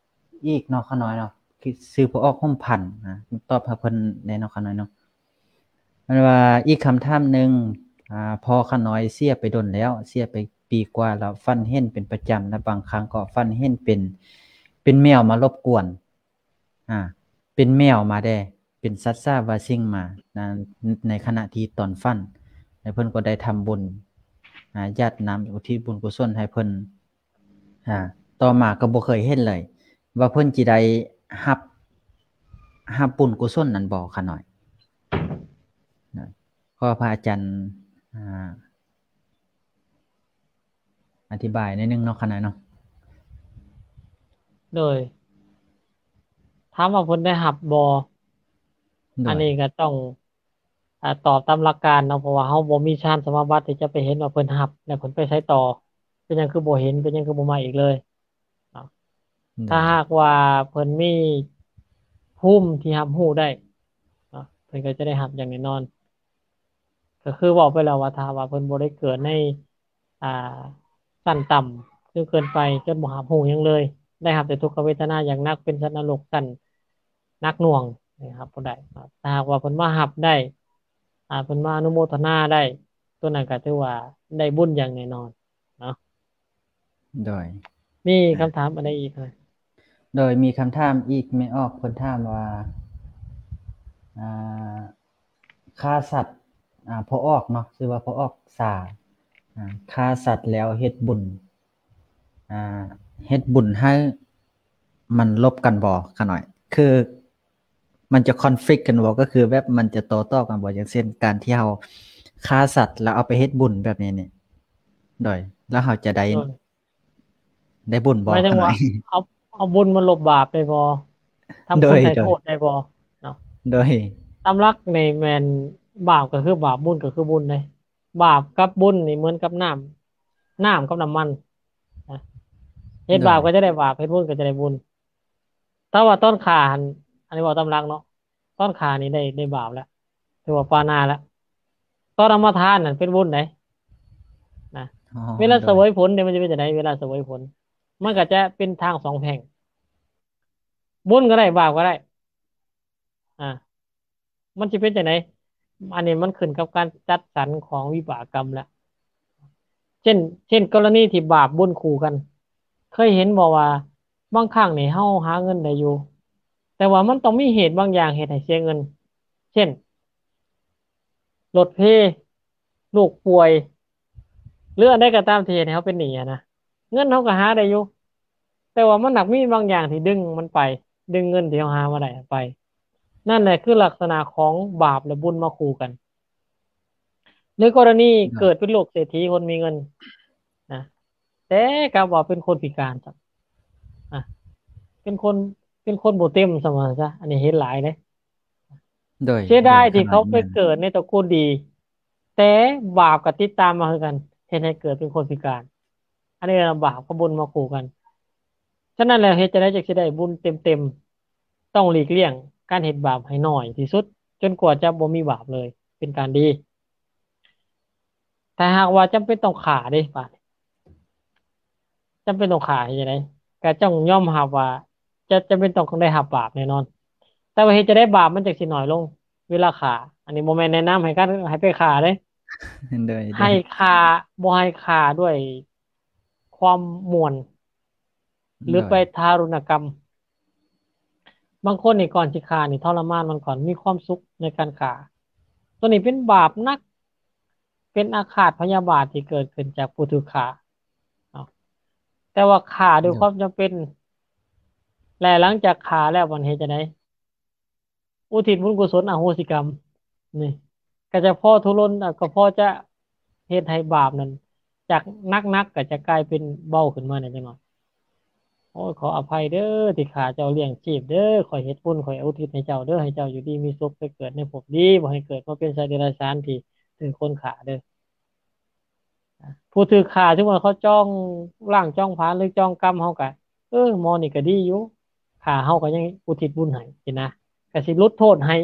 ອີກເນາະ ຂະນ້ອຍເນາະ ຊື່ພໍ່ອອກຫົມພັນ ນະ ຕອບໃຫ້ເພິ່ນແດ່ເນາະ ຂະນ້ອຍເນາະ. ເພິ່ນວ່າ ອີກຄຳຖາມໜຶ່ງ ອາ ພໍ່ຂະນ້ອຍເສຍໄປດົນແລ້ວ ເສຍໄປປີກວ່າແລ້ວ ຝັນເຫັນເປັນປະຈຳ ແລະ ບາງຄັ້ງກໍຝັນເຫັນເປັນ ເປັນແມວມາລົບກວນ ອາ ເປັນແມວມາແດ່ ເປັນສັດສາບາສິ່ງມາ ໃນຂະນະທີ່ຕອນຝັນ ແລະ ເພິ່ນກໍໄດ້ທຳບຸນ ອາ ຢາດນ້ຳ ອຸທິດບຸນກຸສົນໃຫ້ເພິ່ນ. ອາ ຕໍ່ມາກໍບໍ່ເຄີຍເຫັນເລີຍ ວ່າເພິ່ນຊິໄດ້ຮັບ ຮັບບຸນກຸສົນນັ້ນບໍ່ຂະນ້ອຍ? ນະ ຂໍພະອາຈານ ອາ ອະທິບາຍໜ້ອຍໜຶ່ງເນາະ ຂະນ້ອຍເນາະ. ໂດຍ ຖາມວ່າເພິ່ນໄດ້ຮັບບໍ່? ໂດຍ ອັນນີ້ກໍຕ້ອງ ອາ ຕອບຕາມຫຼັກການເນາະ ເພາະວ່າເຮົາບໍ່ມີຊານສະມາບັດທີ່ຈະໄປເຫັນວ່າເພິ່ນຮັບ ແລະ ເພິ່ນໄປໃສຕໍ່. ເປັນຫຍັງຄືບໍ່ເຫັນ? ເປັນຫຍັງຄືບໍ່ມາອີກເລີຍເນາະ? ໂດຍ ຖ້າຫາກວ່າເພິ່ນມີພູມທີ່ຮັບຮູ້ໄດ້ເນາະ ເພິ່ນກໍຈະໄດ້ຮັບຢ່າງແນ່ນອນ. ກໍຄືເວົ້າໄປແລ້ວວ່າ ຖ້າວ່າເພິ່ນບໍ່ໄດ້ເກີດໃນ ອ່າ ຊັ້ນຕ່ຳຈົນເກີນໄປ ຈົນບໍ່ຮັບຮູ້ຫຍັງເລີຍ ໄດ້ຮັບແຕ່ທຸກຂະເວທະນາຢ່າງໜັກ ເປັນສັດນະລົກຊັ້ນໜັກໜ່ວງ ໄດ້ຮັບບໍ່ໄດ້. ຖ້າຫາກວ່າເພິ່ນມາຮັບໄດ້ ອ່າ ເພິ່ນມາອະນຸໂມທະນາໄດ້ ໂຕນັ້ນກໍຖືວ່າໄດ້ບຸນຢ່າງແນ່ນອນເນາະ. ໂດຍ ມີຄຳຖາມອັນໃດອີກ? ໂດຍ ມີຄຳຖາມອີກ ແມ່ອອກເພິ່ນຖາມວ່າ ອ່າ ຂ້າສັດ ອ່າ ພໍ່ອອກເນາະ ຊື່ວ່າພໍ່ອອກສາ ອ່າ ຂ້າສັດແລ້ວເຮັດບຸນ ອ່າ ເຮັດບຸນໃຫ້ມັນລົບກັນບໍ່? ຂ້ານ້ອຍ ຄືມັນຈະຄອນຟລິກກັນບໍ່? ກໍຄືແບບມັນຈະຕໍ່ຕໍ່ກັນບໍ່? ຢ່າງເຊັ່ນ ການທີ່ເຮົາຂ້າສັດແລ້ວເອົາໄປເຮັດບຸນແບບນີ້ນີ້ ໂດຍ ແລ້ວເຮົາຈະໄດ້ ໂດຍ ໄດ້ບຸນບໍ່? ໝາຍເຖິງວ່າ ຂ້ານ້ອຍ ເອົາ ເອົາບຸນມາລົບບາບໄດ້ບໍ່? ທຳ ໂດຍ ຄຸນໃຫ້ ໂດຍ ໂທດໄດ້ບໍ່ເນາະ? ໂດຍ ຕາມຫຼັກນີ້ແມ່ນບາບກໍຄືບາບ ບຸນກໍຄືບຸນເດ້. ບາບກັບບຸນນີ້ເໝືອນກັບນ້ຳ ນ້ຳກັບນ້ຳມັນນະ ເຮັດ ໂດຍ ບາບກໍຈະໄດ້ບາບ ເຮັດບຸນກໍຈະໄດ້ບຸນ. ແຕ່ວ່າຕອນຂ້າຫັ້ນ ອັນນີ້ເວົ້າຕາມຫຼັກເນາະ ຕອນຂ້ານີ້ໄດ້ ໄດ້ບາບແລ້ວ ຖືວ່າປານາແລ້ວ. ຕອນເອົາມາທານນັ້ນເປັນບຸນໄດ໋ນະ. ອໍ ເວລາ ໂດຍ ສະເຫວີຍຜົນເດ ມັນຈະເປັນຈັ່ງໃດ? ເວລາສະເຫວີຍຜົນ ມັນກໍຈະເປັນທາງສອງແພ່ງ ບຸນກໍໄດ້ ບາບກໍໄດ້ ອ່າ ມັນຊິເປັນຈັ່ງໃດ? ອັນນີ້ມັນຂຶ້ນກັບການຈັດສັນຂອງວິບາກກຳແລ້ວ. ເຊັ່ນ ເຊັ່ນ ກໍລະນີທີ່ບາບບຸນຄູ່ກັນ ເຄີຍເຫັນບໍ່ວ່າບາງຄັ້ງນີ້ເຮົາຫາເງິນໄດ້ຢູ່ ແຕ່ວ່າມັນຕ້ອງມີເຫດບາງຢ່າງເຮັດໃຫ້ເສຍເງິນ ເຊັ່ນ ລົດເພ, ລູກປ່ວຍ ຫຼື ອັນໃດກໍຕາມທີ່ເຮັດໃຫ້ເຮົາເປັນໜີ້ຫັ້ນນະ, ເງິນເຮົາກໍຫາໄດ້ຢູ່ ແຕ່ວ່າມັນໜັກມີບາງຢ່າງທີ່ດຶງມັນໄປ, ດຶງເງິນທີ່ເຮົາຫາມາໄດ້ໄປ. ນັ້ນແຫຼະຄືລັກສະນະຂອງບາບ ແລະ ບຸນມາຄູ່ກັນ. ໃນກໍລະນີເກີດເປັນລູກເສດຖີ ຄົນມີເງິນນະ ແຕ່ກັບວ່າເປັນຄົນພິການຊະ ອ່າ ເປັນຄົນ ເປັນຄົນບໍ່ເຕັມຊະວ່າຊະ. ອັນນີ້ເຫັນຫຼາຍເດ້. ໂດຍ ເສຍດາຍທີ່ເຂົາໄປເກີດໃນຕະກູນດີ ແຕ່ບາບກໍຕິດຕາມມາຄືກັນ ເຮັດໃຫ້ເກີດເປັນຄົນພິການ. ອັນນີ້ລະບາບກັບບຸນມາຄູ່ກັນ. ສະນັ້ນແລ້ວ ເຮັດຈັ່ງໃດຈຶ່ງຊິໄດ້ບຸນເຕັມໆ? ຕ້ອງຫຼີກລ່ຽງການເຮັດບາບໃຫ້ໜ້ອຍທີ່ສຸດ ຈົນກວ່າຈະບໍ່ມີບາບເລີຍ ເປັນການດີ. ຖ້າຫາກວ່າຈຳເປັນຕ້ອງຂ້າເດ້ ບາດນີ້ ຈຳເປັນຕ້ອງຂ້າເຮັດຈັ່ງໃດ? ກໍຕ້ອງຍອມຮັບວ່າຈະ ຈຳເປັນຕ້ອງໄດ້ຮັບບາບແນ່ນອນ. ແຕ່ວ່າເຮັດຈັ່ງໃດບາບມັນຈັ່ງຊິໜ້ອຍລົງ? ເວລາຂ້າ ອັນນີ້ບໍ່ແມ່ນແນະນຳໃຫ້ການ ໃຫ້ໄປຂ້າເດ້. ໂດຍ ໃຫ້ຂ້າ ບໍ່ໃຫ້ຂ້າດ້ວຍຄວາມມ່ວນ ຫຼື ໂດຍ ໄປທາລຸນນະກຳ. ບາງຄົນນີ້ກ່ອນຊິຂ້ານີ້ທໍລະມານມັນກ່ອນ ມີຄວາມສຸກໃນການຂ້າ. ໂຕນີ້ເປັນບາບໜັກ ເປັນອາຄາດພະຍາບາດທີ່ເກີດຂຶ້ນຈາກຜູ້ຖືກຂ້າເນາະ. ແຕ່ວ່າຂ້າດ້ວຍ ໂດຍ ຄວາມຈຳເປັນ ແລະ ຫຼັງຈາກຂ້າແລ້ວມັນເຮັດຈັ່ງໃດ? ອຸທິດບຸນກຸສົນອະໂຫສິກຳ ນີ້ ກໍຈະພໍທຸລົນ ກໍພໍຈະເຮັດໃຫ້ບາບນັ້ນ ຈາກໜັກໆ ກໍຈະກາຍເປັນເບົາຂຶ້ນມາແດ່ຈັກໜ້ອຍ. ໂອ້ຍ ຂໍອະໄພເດີທີ່ຂ້າເຈົ້າລ້ຽງຊີບເດີ, ຂ້ອຍເຮັດບຸນ ຂ້ອຍອຸທິດໃຫ້ເຈົ້າເດີ, ໃຫ້ເຈົ້າຢູ່ດີມີສຸກ ໄປເກີດໃນພົບດີ, ບໍ່ໃຫ້ເກີດມາເປັນສັດເດຍລະສານທີ່ຖືກຄົນຂ້າເດີ. ຜູ້ຖືກຂ້າ ສົມມຸດວ່າເຂົາຈອງລ້າງຈອງຜານ ຫຼື ຈອງກຳເຮົາກະ ເອີ ໝໍນີ້ກະດີຢູ່ ຂ້າເຮົາກະຍັງອຸທິດບຸນໃຫ້ຊີ້ນະ ກະຊິຫຼຸດໂທດໃຫ້.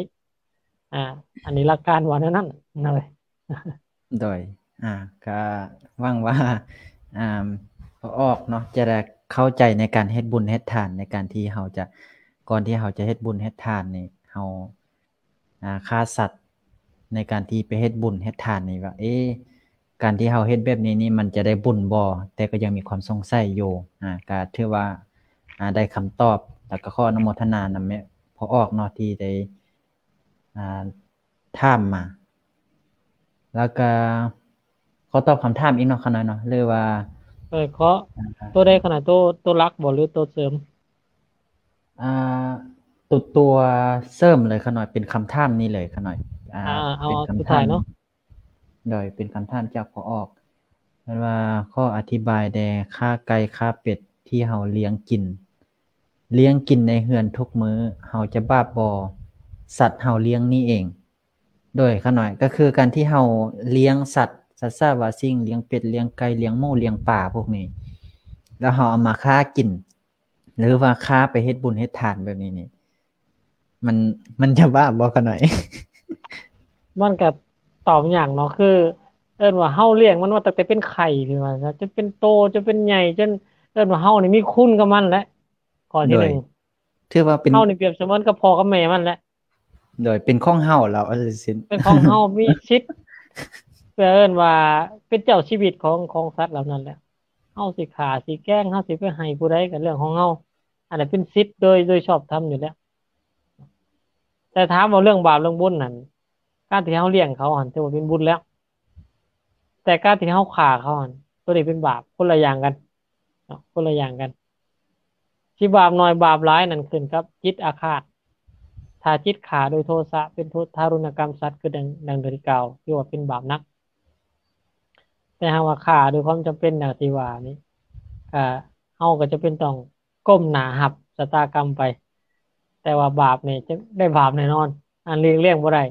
ອ່າ ອັນນີ້ຫຼັກການວ່າແນວນັ້ນເນາະ. ໂດຍ ອ່າ ກະຫວັງວ່າ ອ່າ ພໍ່ອອກເນາະ ຈະໄດ້ເຂົ້າໃຈໃນການເຮັດບຸນເຮັດທານ ໃນການທີ່ເຮົາຈະ ກ່ອນທີ່ເຮົາຈະເຮັດບຸນເຮັດທານນີ້ ເຮົາ ອ່າ ຂ້າສັດໃນການທີ່ໄປເຮັດບຸນເຮັດທານນີ້ວ່າ ເອ ການທີ່ເຮົາເຮັດແບບນີ້ນີ້ ມັນຈະໄດ້ບຸນບໍ່? ແຕ່ກໍຍັງມີຄວາມສົງໄສຢູ່. ອ່າ ກໍຖືວ່າ ອ່າ ໄດ້ຄຳຕອບ ແລ້ວກໍຂໍອະນຸໂມທະນານຳແມ່ພໍ່ອອກເນາະ ທີ່ໄດ້ ອ່າ ຖາມມາ. ແລ້ວກໍຂໍຕອບຄຳຖາມອີກເນາະ ຂະນ້ອຍເນາະ ຫຼືວ່າ ເອີ ຂໍ ອ່າ ຕົວໃດຂະນ້ອຍ? ຕົວ ຕົວຫຼັກບໍ່ ຫຼືຕົວເສີມ? ອ່າ ຕົວ ຕົວເສີມເລີຍຂະນ້ອຍ ເປັນຄຳຖາມນີ້ເລີຍຂະນ້ອຍ. ອ່າ ອ່າ ເອົາ ເປັນຄຳຖາມ ສຸດທ້າຍເນາະ. ໂດຍ ເປັນຄຳຖາມຈາກພໍ່ອອກ ເພິ່ນວ່າ ຂໍອະທິບາຍແດ່ ຂ້າໄກ່ ຂ້າເປັດ ທີ່ເຮົາລ້ຽງກິນ ລ້ຽງກິນໃນເຮືອນທຸກມື້ ເຮົາຈະບາບບໍ່? ສັດເຮົາລ້ຽງນີ້ເອງ. ໂດຍ ຂະນ້ອຍ ກໍຄືການທີ່ເຮົາລ້ຽງສັດ ສັດສາວາສິ່ງ ລ້ຽງເປັດ ລ້ຽງໄກ່ ລ້ຽງໝູ ລ້ຽງປາພວກນີ້ ແລ້ວເຮົາເອົາມາຂ້າກິນ ຫຼືວ່າຂ້າໄປເຮັດບຸນເຮັດທານແບບນີ້ນີ້ ມັນ ມັນຈະບາບບໍ່ຂະນ້ອຍ? ມັນກະຕອບຍາກເນາະ ຄືເອີ້ນວ່າເຮົາລ້ຽງມັນມາຕັ້ງແຕ່ເປັນໄຂ່ ຄືວ່າ ຈົນເປັນໂຕ ຈົນເປັນໃຫຍ່ ຈົນເອີ້ນວ່າເຮົານີ້ມີຄຸນກັບມັນແຫຼະ. ຂໍ້ທີໜຶ່ງ ໂດຍ ຖືວ່າເປັນ ເຮົານີ້ປຽບສະເໝືອນກັບພໍ່ກັບແມ່ມັນແຫຼະ ໂດຍ ເປັນຂອງເຮົາແລ້ວ ເປັນຂອງເຮົາ ມີສິດ ເອີ້ນວ່າເປັນເຈົ້າຊີວິດຂອງ ຂອງສັດເຫຼົ່ານັ້ນແຫຼະ ເຮົາຊິຂ້າ ຊິແກງ ເຮົາຊິໄປໃຫ້ຜູ້ໃດກໍເລື່ອງຂອງເຮົາ ອັນນັ້ນເປັນສິດໂດຍ ໂດຍຊອບທຳຢູ່ແລ້ວ ແຕ່ຖາມວ່າເລື່ອງບາບເລື່ອງບຸນນັ້ນ ການທີ່ເຮົາລ້ຽງເຂົາຫັ້ນ ຖືວ່າເປັນບຸນແລ້ວ ແຕ່ການທີ່ເຮົາຂ້າເຂົາຫັ້ນ ໂຕນີ້ເປັນບາບ ຄົນລະຢ່າງກັນເນາະ ຄົນລະຢ່າງກັນ ຊິບາບໜ້ອຍບາບຫຼາຍນັ້ນຂຶ້ນກັບຈິດອາຄາດ ຖ້າຈິດຂ້າໂດຍໂທສະ ເປັນໂທ ທາຣຸນນະກຳສັດ ຄືດັ່ງ ດັ່ງທີ່ກ່າວ ຖືວ່າເປັນບາບໜັກ ແຕ່ຫາກວ່າຂ້າໂດຍຄວາມຈຳເປັນດັ່ງທີ່ວ່ານີ້ ກະ ເຮົາກໍຈຳເປັນຕ້ອງກົ້ມໜ້າຮັບຊະຕາກຳໄປ ແຕ່ວ່າບາບນີ້ຈະໄດ້ບາບແນ່ນອນ ອັນຫຼີກລ່ຽງບໍ່ໄດ້.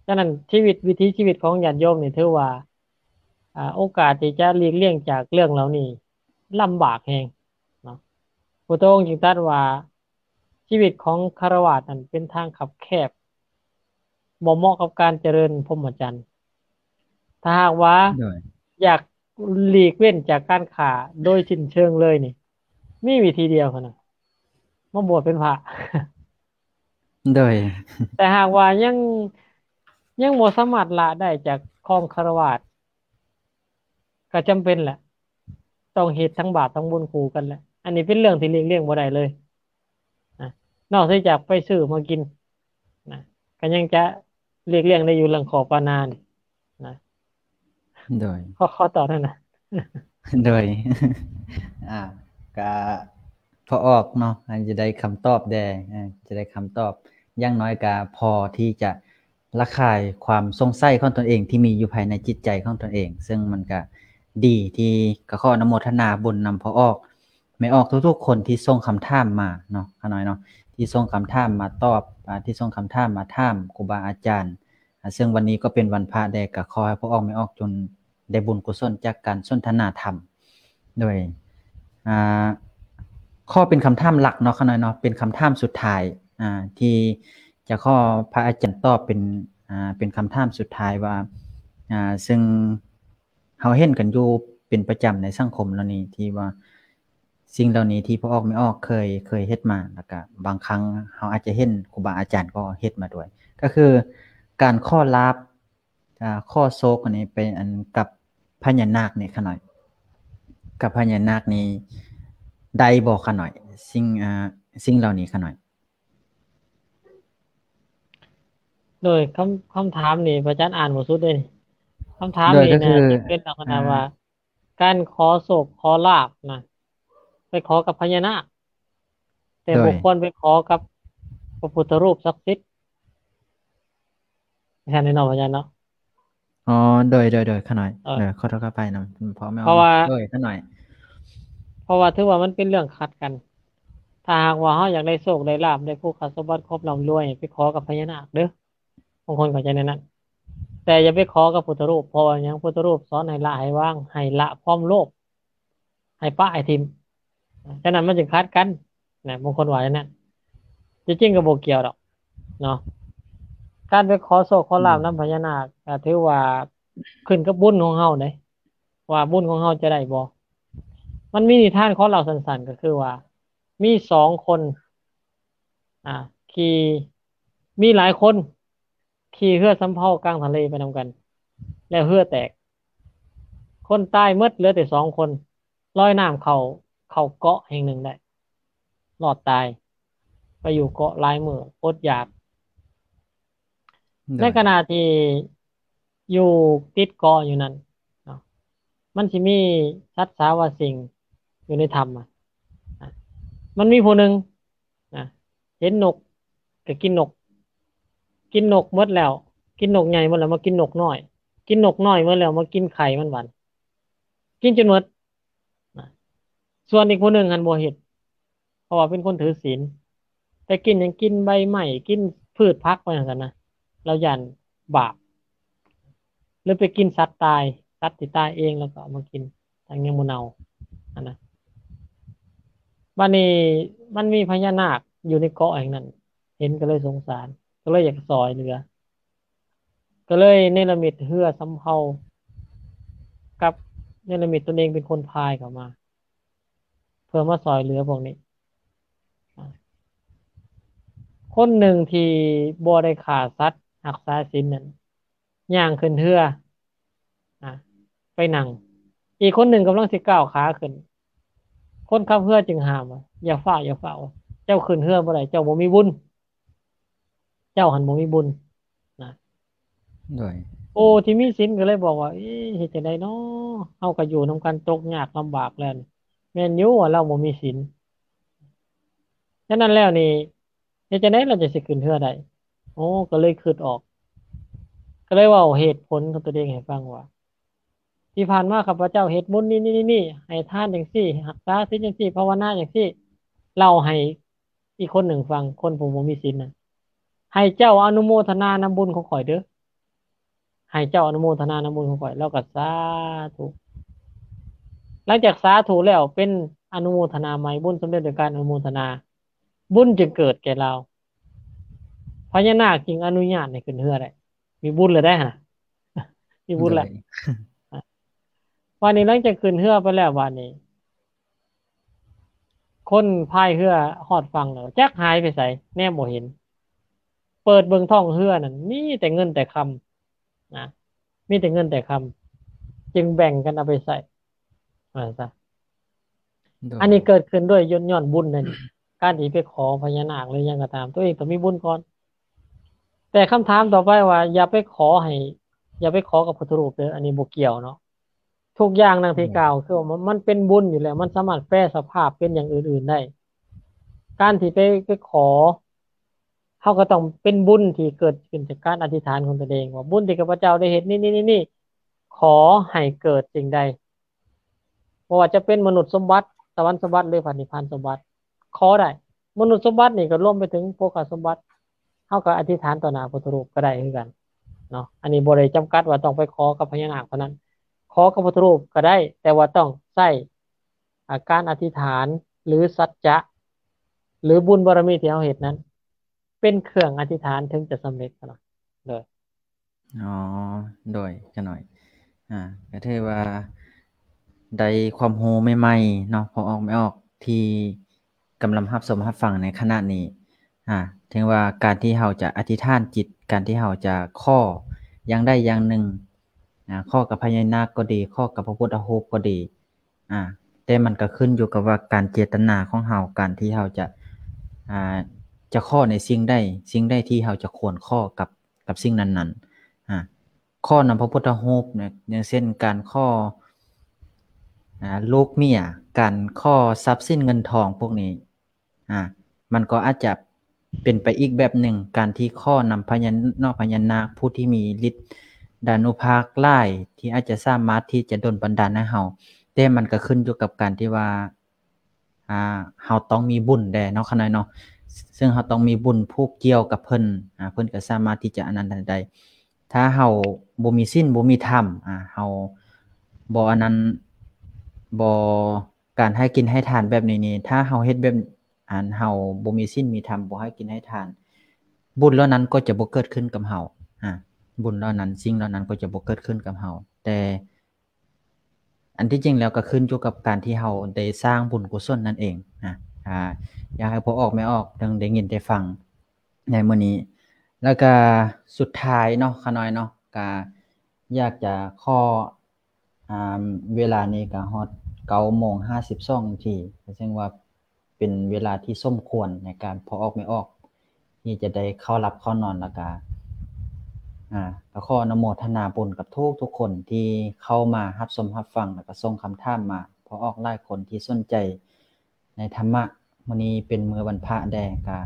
ສະນັ້ນ ຊີວິດ ວິຖີຊີວິດຂອງຍາດໂຍມນີ້ ຖືວ່າ ອາ ໂອກາດທີ່ຈະຫຼີກລ່ຽງຈາກເລື່ອງເຫຼົ່ານີ້ລຳບາກແຮງເນາະ. ພຸດທະອົງຈຶ່ງຕັດວ່າ ຊີວິດຂອງຄາລະວາດນັ້ນເປັນທາງຄັບແຄບ ບໍ່ເໝາະກັບການຈະເລີນພົມມະຈັນ. ຖ້າຫາກວ່າ ໂດຍ ຢາກຫຼີກເວັ້ນຈາກການຂ້າໂດຍສິ້ນເຊີງເລີຍນີ້ ມີວິທີດຽວເທົ່ານັ້ນ ມາບວດເປັນພະ. ໂດຍ ແຕ່ຫາກວ່າຍັງ ຍັງບໍ່ສາມາດລະໄດ້ຈາກຄອງຄາລະວາດ ກໍຈຳເປັນແຫຼະ ຕ້ອງເຮັດທັງບາບທັງບຸນຄູ່ກັນແຫຼະ. ອັນນີ້ເປັນເລື່ອງທີ່ຫຼີກລ່ຽງບໍ່ໄດ້ເລີຍນະ ນອກເສຍຈາກໄປຊື້ມາກິນນະ ກໍຍັງຈະຫຼີກລ່ຽງໄດ້ຢູ່ເລື່ອງຂໍປານານີ້ນະ. ໂດຍ ຂໍ ຂໍຕອບນັ້ນນະ. ໂດຍ ອ່າ ກະພໍອອກເນາະ ອາດຈະໄດ້ຄຳຕອບແດ່ ອາ ຈະໄດ້ຄຳຕອບ ຢ່າງໜ້ອຍກະພໍທີ່ຈະ ລະຄາຍຄວາມສົງໄສຂອງຕົນເອງທີ່ມີຢູ່ພາຍໃນຈິດໃຈຂອງຕົນເອງ ເຊິ່ງມັນກະດີທີ່ ກະຂໍອະນຸໂມທະນາບຸນນຳພໍ່ອອກແມ່ອອກທຸກໆຄົນທີ່ສົ່ງຄຳຖາມມາເນາະ ຂ້ານ້ອຍເນາະ ທີ່ສົ່ງຄຳຖາມມາຕອບ ອາ ທີ່ສົ່ງຄຳຖາມມາຖາມຄູບາອາຈານ ອາ ເຊິ່ງວັນນີ້ກໍເປັນວັນພະແດ່ ກະຂໍໃຫ້ພໍ່ອອກແມ່ອອກຈົ່ງໄດ້ບຸນກຸສົນຈາກການສົນທະນາທຳ. ໂດຍ ອ່າ ຂໍເປັນຄຳຖາມຫຼັກເນາະ ຂ້ານ້ອຍເນາະ ເປັນຄຳຖາມສຸດທ້າຍ ອ່າ ທີ່ຈະຂໍພະອາຈານຕອບເປັນ ອ່າ ເປັນຄຳຖາມສຸດທ້າຍວ່າ ອ່າ ເຊິ່ງເຮົາເຫັນກັນຢູ່ເປັນປະຈຳໃນສັງຄົມເຫຼົ່ານີ້ ທີ່ວ່າສິ່ງເຫຼົ່ານີ້ທີ່ພໍ່ອອກແມ່ອອກເຄີຍ ເຄີຍເຮັດມາ ແລ້ວກະບາງຄັ້ງເຮົາອາດຈະເຫັນຄູບາອາຈານກໍເຮັດມາດ້ວຍ ກໍຄືການຂໍລາບ ອ່າ ຂໍໂຊກອັນນີ້ໄປອັນກັບພະຍານາກນີ້ຂ້ານ້ອຍ ກັບພະຍານາກນີ້ໄດ້ບໍ່ຂ້ານ້ອຍ ສິ່ງ ອ່າ ສິ່ງເຫຼົ່ານີ້ຂ້ານ້ອຍ? ໂດຍ ຄຳ ຄຳຖາມນີ້ພະອາຈານອ່ານບໍ່ສຸດເດ້ນີ້ ຄຳຖາມນີ້ນະ ໂດຍ ກໍຄື ຈະເປັນລັກສະນະ ອ່າ ວ່າ ການຂໍໂຊກຂໍລາບນະ ໄປຂໍກັບພະຍານາກ ແຕ່ ໂດຍ ບໍ່ຄວນໄປຂໍກັບພະພຸດທະຮູບສັກສິດ ແມ່ນເນາະ ພະອາຈານເນາະ. ອໍ ໂດຍ ໂດຍ ໂດຍ ຂ້ານ້ອຍ ເອີ ເອີ ຂໍໂທດຂໍອະໄພນຳພໍ່ແມ່ ເພາະວ່າ ໂດຍ ຂ້ານ້ອຍ ເພາະວ່າຖືວ່າມັນເປັນເລື່ອງຂັດກັນ. ຖ້າຫາກວ່າເຮົາຢາກໄດ້ໂຊກໄດ້ລາບ ໄດ້ໂພຄະສົມບັດຄວາມລ່ຳລວຍ ໄປຂໍກັບພະຍານາກເດີ້ ບາງຄົນເຂົ້າໃຈແນວນັ້ນ ແຕ່ຢ່າໄປຂໍກັບພຸດທະຮູບ ເພາະວ່າຫຍັງ? ພຸດທະຮູບສອນໃຫ້ລະໃຫ້ວາງ ໃຫ້ລະຄວາມໂລບ ໃຫ້ປະໃຫ້ຖິ້ມ ສະນັ້ນມັນຈຶ່ງຂັດກັນນະ ບາງຄົນວ່າຢ່າງນັ້ນ ທີ່ຈິງກໍບໍ່ກ່ຽວດອກເນາະ. ການໄປຂໍໂຊກຂໍລາບນຳພະຍານາກ ກໍຖືວ່າຂຶ້ນກັບບຸນຂອງເຮົາເດ້ ວ່າບຸນຂອງເຮົາຈະໄດ້ບໍ່. ມັນມີນິທານ ຂໍເລົ່າສັ້ນໆ ກໍຄືວ່າ ມີສອງຄົນ ອ່າ ຂີ່ ມີຫຼາຍຄົນຂີ່ເຮືອສຳເພົາກາງທະເລໄປນຳກັນ ແລ້ວເຮືອແຕກ ຄົນຕາຍໝົດ ເຫຼືອແຕ່ສອງຄົນ ລອຍນ້ຳເຂົ້າ ເຂົ້າເກາະແຫ່ງໜຶ່ງໄດ້ ລອດຕາຍ ໄປຢູ່ເກາະຫຼາຍມື້ ອົດຢາກ. ໂດຍ ໃນຂະນະທີ່ຢູ່ຕິດເກາະຢູ່ນັ້ນເນາະ ມັນຊິມີສັດສາວາສິ່ງຢູ່ໃນຖ້ຳ ອະ ມັນມີຜູ້ໜຶ່ງ ນະ ເຫັນນົກກໍກິນນົກ ກິນນົກໝົດແລ້ວ ກິນນົກໃຫຍ່ໝົດແລ້ວ ມາກິນນົກນ້ອຍ ກິນນົກນ້ອຍໝົດແລ້ວ ມາກິນໄຂ່ມັນບັດ ກິນຈົນໝົດ ນະ ສ່ວນອີກຜູ້ໜຶ່ງຫັ້ນບໍ່ເຮັດ ເພາະວ່າເປັນຄົນຖືສິນ ແຕ່ກິນຫຍັງ? ກິນໃບໄມ້ ກິນພືດຜັກໄປຈັ່ງຊັ້ນນະ ລາວຢ້ານບາບ ຫຼືໄປກິນສັດຕາຍ ສັດທີ່ຕາຍເອງ ແລ້ວກໍເອົາມາກິນ ທັງຍັງບໍ່ເນົ່າຫັ້ນນະ. ບາດນີ້ມັນມີພະຍານາກຢູ່ໃນເກາະແຫ່ງນັ້ນ ເຫັນກໍເລີຍສົງສານ ກໍເລີຍຢາກຊ່ອຍເຫຼືອ ກໍເລີຍເນລະມິດເຮືອສຳເພົາ ກັບເນລະມິດຕົນເອງເປັນຄົນພາຍເຂົ້າມາ ເພື່ອມາຊ່ອຍເຫຼືອພວກນີ້. ຄົນໜຶ່ງທີ່ບໍ່ໄດ້ຂ້າສັດ ຮັກສາສິນນັ້ນ ຍ່າງຂຶ້ນເຮືອ ອາ ໄປນັ່ງ. ອີກຄົນໜຶ່ງກຳລັງຊິກ້າວຂາຂຶ້ນ. ຄົນຂັບເຮືອຈຶ່ງຫ້າມວ່າ ຢ່າຟ້າວ ຢ່າຟ້າວ. ເຈົ້າຂຶ້ນເຮືອບໍ່ໄດ້. ເຈົ້າບໍ່ມີບຸນ. ເຈົ້າຫັ້ນບໍ່ມີບຸນນະ. ໂດຍ ໂອ້ ທີ່ມີສິນກໍເລີຍບອກວ່າ ເອີ ເຮັດຈັ່ງໃດເນາະ? ເຮົາກໍຢູ່ນຳກັນຕົກຍາກລຳບາກແລ້ວນີ້. ແມ່ນຢູ່ວ່າລາວບໍ່ມີສິນ. ສະນັ້ນແລ້ວນີ້ ເຮັດຈັ່ງໃດລາວຈັ່ງຊິຂຶ້ນເຮືອໄດ້? ໂອ້ ກໍເລີຍຄິດອອກ. ກໍເລີຍເວົ້າເຫດຜົນຂອງຕົວເອງໃຫ້ຟັງວ່າ ທີ່ຜ່ານມາຂ້າພະເຈົ້າເຮັດບຸນນີ້ໆໆ ໃຫ້ທານຈັ່ງຊີ້ ຮັກສາສິນຈັ່ງຊີ້ ພາວະນາຈັ່ງຊີ້. ເລົ່າໃຫ້ອີກຄົນໜຶ່ງຟັງ ຄົນຜູ້ບໍ່ມີສິນນະ. ໃຫ້ເຈົ້າອະນຸໂມທະນານຳບຸນຂອງຂ້ອຍເດີ້. ໃຫ້ເຈົ້າອະນຸໂມທະນານຳບຸນຂອງຂ້ອຍ. ລາວກໍສາທຸ. ຫຼັງຈາກສາທຸແລ້ວ ເປັນອະນຸໂມທະນາໃໝ່, ບຸນສຳເລັດໂດຍການອະນຸໂມທະນາ. ບຸນຈຶ່ງເກີດແກ່ລາວ. ພະຍານາກຈຶ່ງອະນຸຍາດໃຫ້ຂຶ້ນເຮືອໄດ້. ມີບຸນແລ້ວໄດ໋ຫັ້ນນະ. ມີບຸນແລ້ວ. ໂດຍ ບາດນີ້ຫຼັງຈາກຂຶ້ນເຮືອໄປແລ້ວ ບາດນີ້ ຄົນພາຍເຮືອຮອດຝັ່ງແລ້ວ ຈັກຫາຍໄປໃສ ແນມບໍ່ເຫັນ. ເປີດເບິ່ງທ້ອງເຮືອນັ້ນ ມີແຕ່ເງິນແຕ່ຄຳນະ, ມີແຕ່ເງິນແຕ່ຄຳ, ຈຶ່ງແບ່ງກັນເອົາໄປໃຊ້ ວ່າຊັ້ນຊະ. ໂດຍ ອັນນີ້ເກີດຂຶ້ນດ້ວຍຍ້ອນ ຍ້ອນບຸນນັ້ນ. ການທີ່ໄປຂໍພະຍານາກ ຫຼື ຫຍັງກໍຕາມ ຕົວເອງຕ້ອງມີບຸນກ່ອນ. ແຕ່ຄຳຖາມຕໍ່ໄປວ່າ ຢ່າໄປຂໍໃຫ້ ຢ່າໄປຂໍກັບພຸດທະຮູບເດີ້, ອັນນີ້ບໍ່ກ່ຽວເນາະ. ທຸກຢ່າງດັ່ງທີ່ ແມ່ນ ກ່າວ ຄືວ່າມັນ ມັນເປັນບຸນຢູ່ແລ້ວ, ມັນສາມາດແປສະພາບເປັນຢ່າງອື່ນໆໄດ້. ການທີ່ໄປ ໄປຂໍ ເຮົາກໍຕ້ອງເປັນບຸນທີ່ເກີດຂຶ້ນຈາກການອະທິຖານຂອງຕົນເອງ ວ່າ ບຸນທີ່ຂ້າພະເຈົ້າໄດ້ເຮັດນີ້ໆໆ ຂໍໃຫ້ເກີດສິ່ງໃດ. ບໍ່ວ່າຈະເປັນມະນຸດສົມບັດ, ສະຫວັນສົມບັດ ຫຼື ພະນິບພານສົມບັດ ຂໍໄດ້. ມະນຸດສົມບັດນີ້ກໍລວມໄປເຖິງໂພຄະສົມບັດ, ເຮົາກໍອະທິຖານຕໍ່ໜ້າພຸດທະຮູບກໍໄດ້ຄືກັນເນາະ. ອັນນີ້ບໍ່ໄດ້ຈຳກັດວ່າຕ້ອງໄປຂໍກັບພະຍານາກເທົ່ານັ້ນ, ຂໍກັບພຸດທະຮູບກໍໄດ້, ແຕ່ວ່າຕ້ອງໃຊ້ ອາ ການອະທິຖານ ຫຼື ສັດຈະ ຫຼື ບຸນບາລະມີທີ່ເຮົາເຮັດນັ້ນ ເປັນເຄື່ອງອະທິຖານເຖິງຈະສຳເລັດເນາະ. ໂດຍ ອໍ ໂດຍ ຂະນ້ອຍ ອາ ກໍຖືວ່າໄດ້ຄວາມຮູ້ໃໝ່ໆເນາະ ພໍ່ອອກແມ່ອອກ ທີ່ກຳລັງຮັບຊົມຮັບຟັງໃນຂະນະນີ້. ອາ ເຖິງວ່າການທີ່ເຮົາຈະອະທິຖານຈິດ, ການທີ່ເຮົາຈະຂໍຢ່າງໃດຢ່າງໜຶ່ງ, ອາ ຂໍກັບພະຍານາກກໍດີ, ຂໍກັບພະພຸດທະຮູບກໍດີ, ອາ ແຕ່ມັນກໍຂຶ້ນຢູ່ກັບວ່າການເຈດຕະນາຂອງເຮົາ, ການທີ່ເຮົາຈະ ອາ ຈະຂໍໃນສິ່ງໃດ, ສິ່ງໃດທີ່ເຮົາຈະຄວນຂໍກັບ ກັບສິ່ງນັ້ນໆ. ອາ ຂໍນຳພະພຸດທະຮູບນະ, ຢ່າງເຊັ່ນ ການຂໍ ອາ ລູກເມຍ, ການຂໍຊັບສິນເງິນທອງພວກນີ້ ອາ ມັນກໍອາດຈະເປັນໄປອີກແບບໜຶ່ງ, ການທີ່ຂໍນຳພະຍານອກພະຍານາກ ຜູ້ທີ່ມີລິດດານຸພາກຫຼາຍ ທີ່ອາດຈະສາມາດທີ່ຈະດົນບັນດານໃຫ້ເຮົາ, ແຕ່ມັນກໍຂຶ້ນຢູ່ກັບການທີ່ວ່າ ອາ ເຮົາຕ້ອງມີບຸນແດ່ເນາະ ຂະນ້ອຍເນາະ, ເຊິ່ງເຮົາຕ້ອງມີບຸນຜູກກ່ຽວກັບເພິ່ນ, ອາ ເພິ່ນກໍສາມາດທີ່ຈະອັນນັ້ນໄດ້. ຖ້າເຮົາບໍ່ມີສິນບໍ່ມີທຳ, ອາ ເຮົາບໍ່ອັນນັ້ນ ບໍ່ ການໃຫ້ກິນໃຫ້ທານແບບນີ້ນີ້ ຖ້າເຮົາເຮັດແບບ ອັນ ເຮົາບໍ່ມີສິນມີທຳ ບໍ່ໃຫ້ກິນໃຫ້ທານ ບຸນເຫຼົ່ານັ້ນກໍຈະບໍ່ເກີດຂຶ້ນກັບເຮົາ. ອາ ບຸນເຫຼົ່ານັ້ນ ສິ່ງເຫຼົ່ານັ້ນກໍຈະບໍ່ເກີດຂຶ້ນກັບເຮົາ. ແຕ່ອັນທີ່ຈິງແລ້ວກໍຂຶ້ນຢູ່ກັບການທີ່ເຮົາໄດ້ສ້າງບຸນກຸສົນນັ້ນເອງ. ອາ ອາ ຢາກໃຫ້ພໍ່ອອກແມ່ອອກໄດ້ຍິນໄດ້ຟັງໃນມື້ນີ້. ແລ້ວກະສຸດທ້າຍເນາະ ຂະນ້ອຍເນາະ ກະຢາກຈະຂໍ ອາ ເວລານີ້ກໍຮອດເກົ້າໂມງຫ້າສິບສອງນາທີ ກໍເຊິ່ງວ່າເປັນເວລາທີ່ສົມຄວນໃນການພໍ່ອອກແມ່ອອກທີ່ຈະໄດ້ເຂົ້າຫຼັບເຂົ້ານອນ. ແລ້ວກໍ ອາ ກໍຂໍອະນຸໂມທະນາບຸນກັບທຸກໆຄົນທີ່ເຂົ້າມາຮັບຊົມຮັບຟັງ ແລ້ວກໍສົ່ງຄຳຖາມມາ. ພໍ່ອອກຫຼາຍຄົນທີ່ສົນໃຈ ໃນທຳມະ. ມື້ນີ້ເປັນມື້ວັນພະແດ່ ກະ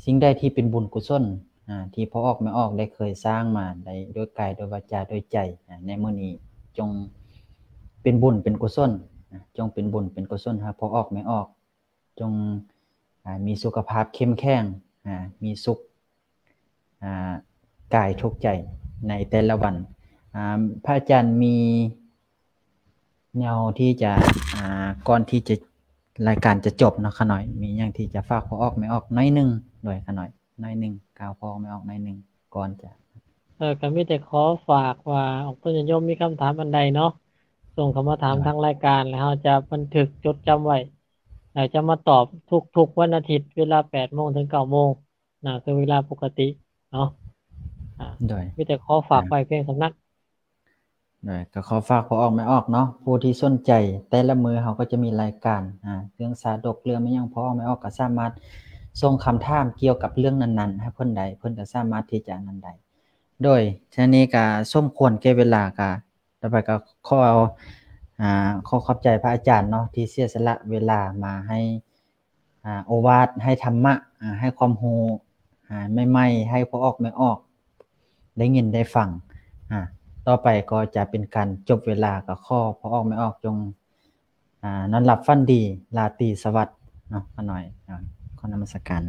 ສິ່ງໃດທີ່ເປັນບຸນກຸສົນ ອາ ທີ່ພໍ່ອອກແມ່ອອກໄດ້ເຄີຍສ້າງມາໄດ້ດ້ວຍກາຍ ດ້ວຍວາຈາ ດ້ວຍໃຈ ອາ ໃນມື້ນີ້ຈົ່ງເປັນບຸນເປັນກຸສົນ ອາ ຈົ່ງເປັນບຸນເປັນກຸສົນໃຫ້ພໍ່ອອກແມ່ອອກ, ຈົ່ງ ອາ ມີສຸຂະພາບເຂັ້ມແຂງ ອາ ມີສຸກ ອາ ກາຍທຸກໃຈໃນແຕ່ລະວັນ. ອາ ພະອາຈານມີແນວທີ່ຈະ ອາ ກ່ອນທີ່ຈະ ລາຍການຈະຈົບເນາະ ຂະນ້ອຍ ມີຫຍັງທີ່ຈະຝາກພໍ່ອອກແມ່ອອກໜ້ອຍໜຶ່ງ ໂດຍ ຂະນ້ອຍ ໜ້ອຍໜຶ່ງ ກ່າວພໍ່ອອກແມ່ອອກໜ້ອຍໜຶ່ງກ່ອນຈະ ເອີ ກໍມີແຕ່ຂໍຝາກວ່າ ອອກຕົນຍາດໂຍມມີຄຳຖາມອັນໃດເນາະ ສົ່ງເຂົ້າມາຖາມ ໂດຍ ທາງລາຍການ ແລ້ວເຮົາຈະບັນທຶກຈົດຈຳໄວ້ ແລ້ວຈະມາຕອບທຸກໆວັນອາທິດ ເວລາແປດໂມງເຖິງເກົ້າໂມງ. ໜ້າຄືເວລາປົກກະຕິເນາະ. ອ່າ ໂດຍ ມີແຕ່ຂໍຝາກໄວ້ພຽງສ່ຳນັ້ນ. ໂດຍ ກໍຂໍຝາກພໍ່ອອກແມ່ອອກເນາະ ຜູ້ທີ່ສົນໃຈ ແຕ່ລະມື້ເຮົາກໍຈະມີລາຍການ ອ່າ ເລື່ອງຊາດົກ ເລື່ອງແມ່ນຫຍັງ ພໍ່ອອກແມ່ອອກກໍສາມາດສົ່ງຄຳຖາມກ່ຽວກັບເລື່ອງນັ້ນໆ ໃຫ້ເພິ່ນໄດ້ ເພິ່ນກໍສາມາດທີ່ຈະນັ້ນໄດ້. ໂດຍ ທາງນີ້ກໍສົມຄວນແກ່ເວລາ ກໍຕໍ່ໄປກໍຂໍ ອ່າ ຂໍຂອບໃຈພະອາຈານເນາະ ທີ່ເສຍສະຫຼະເວລາມາໃຫ້ ອ່າ ໂອວາດ ໃຫ້ທຳມະ ອ່າ ໃຫ້ຄວາມຮູ້ ອ່າ ໃໝ່ໆ ໃຫ້ພໍ່ອອກແມ່ອອກໄດ້ຍິນໄດ້ຟັງ. ອ່າ ຕໍ່ໄປກໍຈະເປັນການຈົບເວລາ ກໍຂໍພໍ່ອອກແມ່ອອກຈົ່ງ ອ່າ ນອນຫຼັບຝັນດີ ລາຕີສະຫວັດເນາະ ຂ້ານ້ອຍ ອ່າ ຂໍນະມັດສະການ.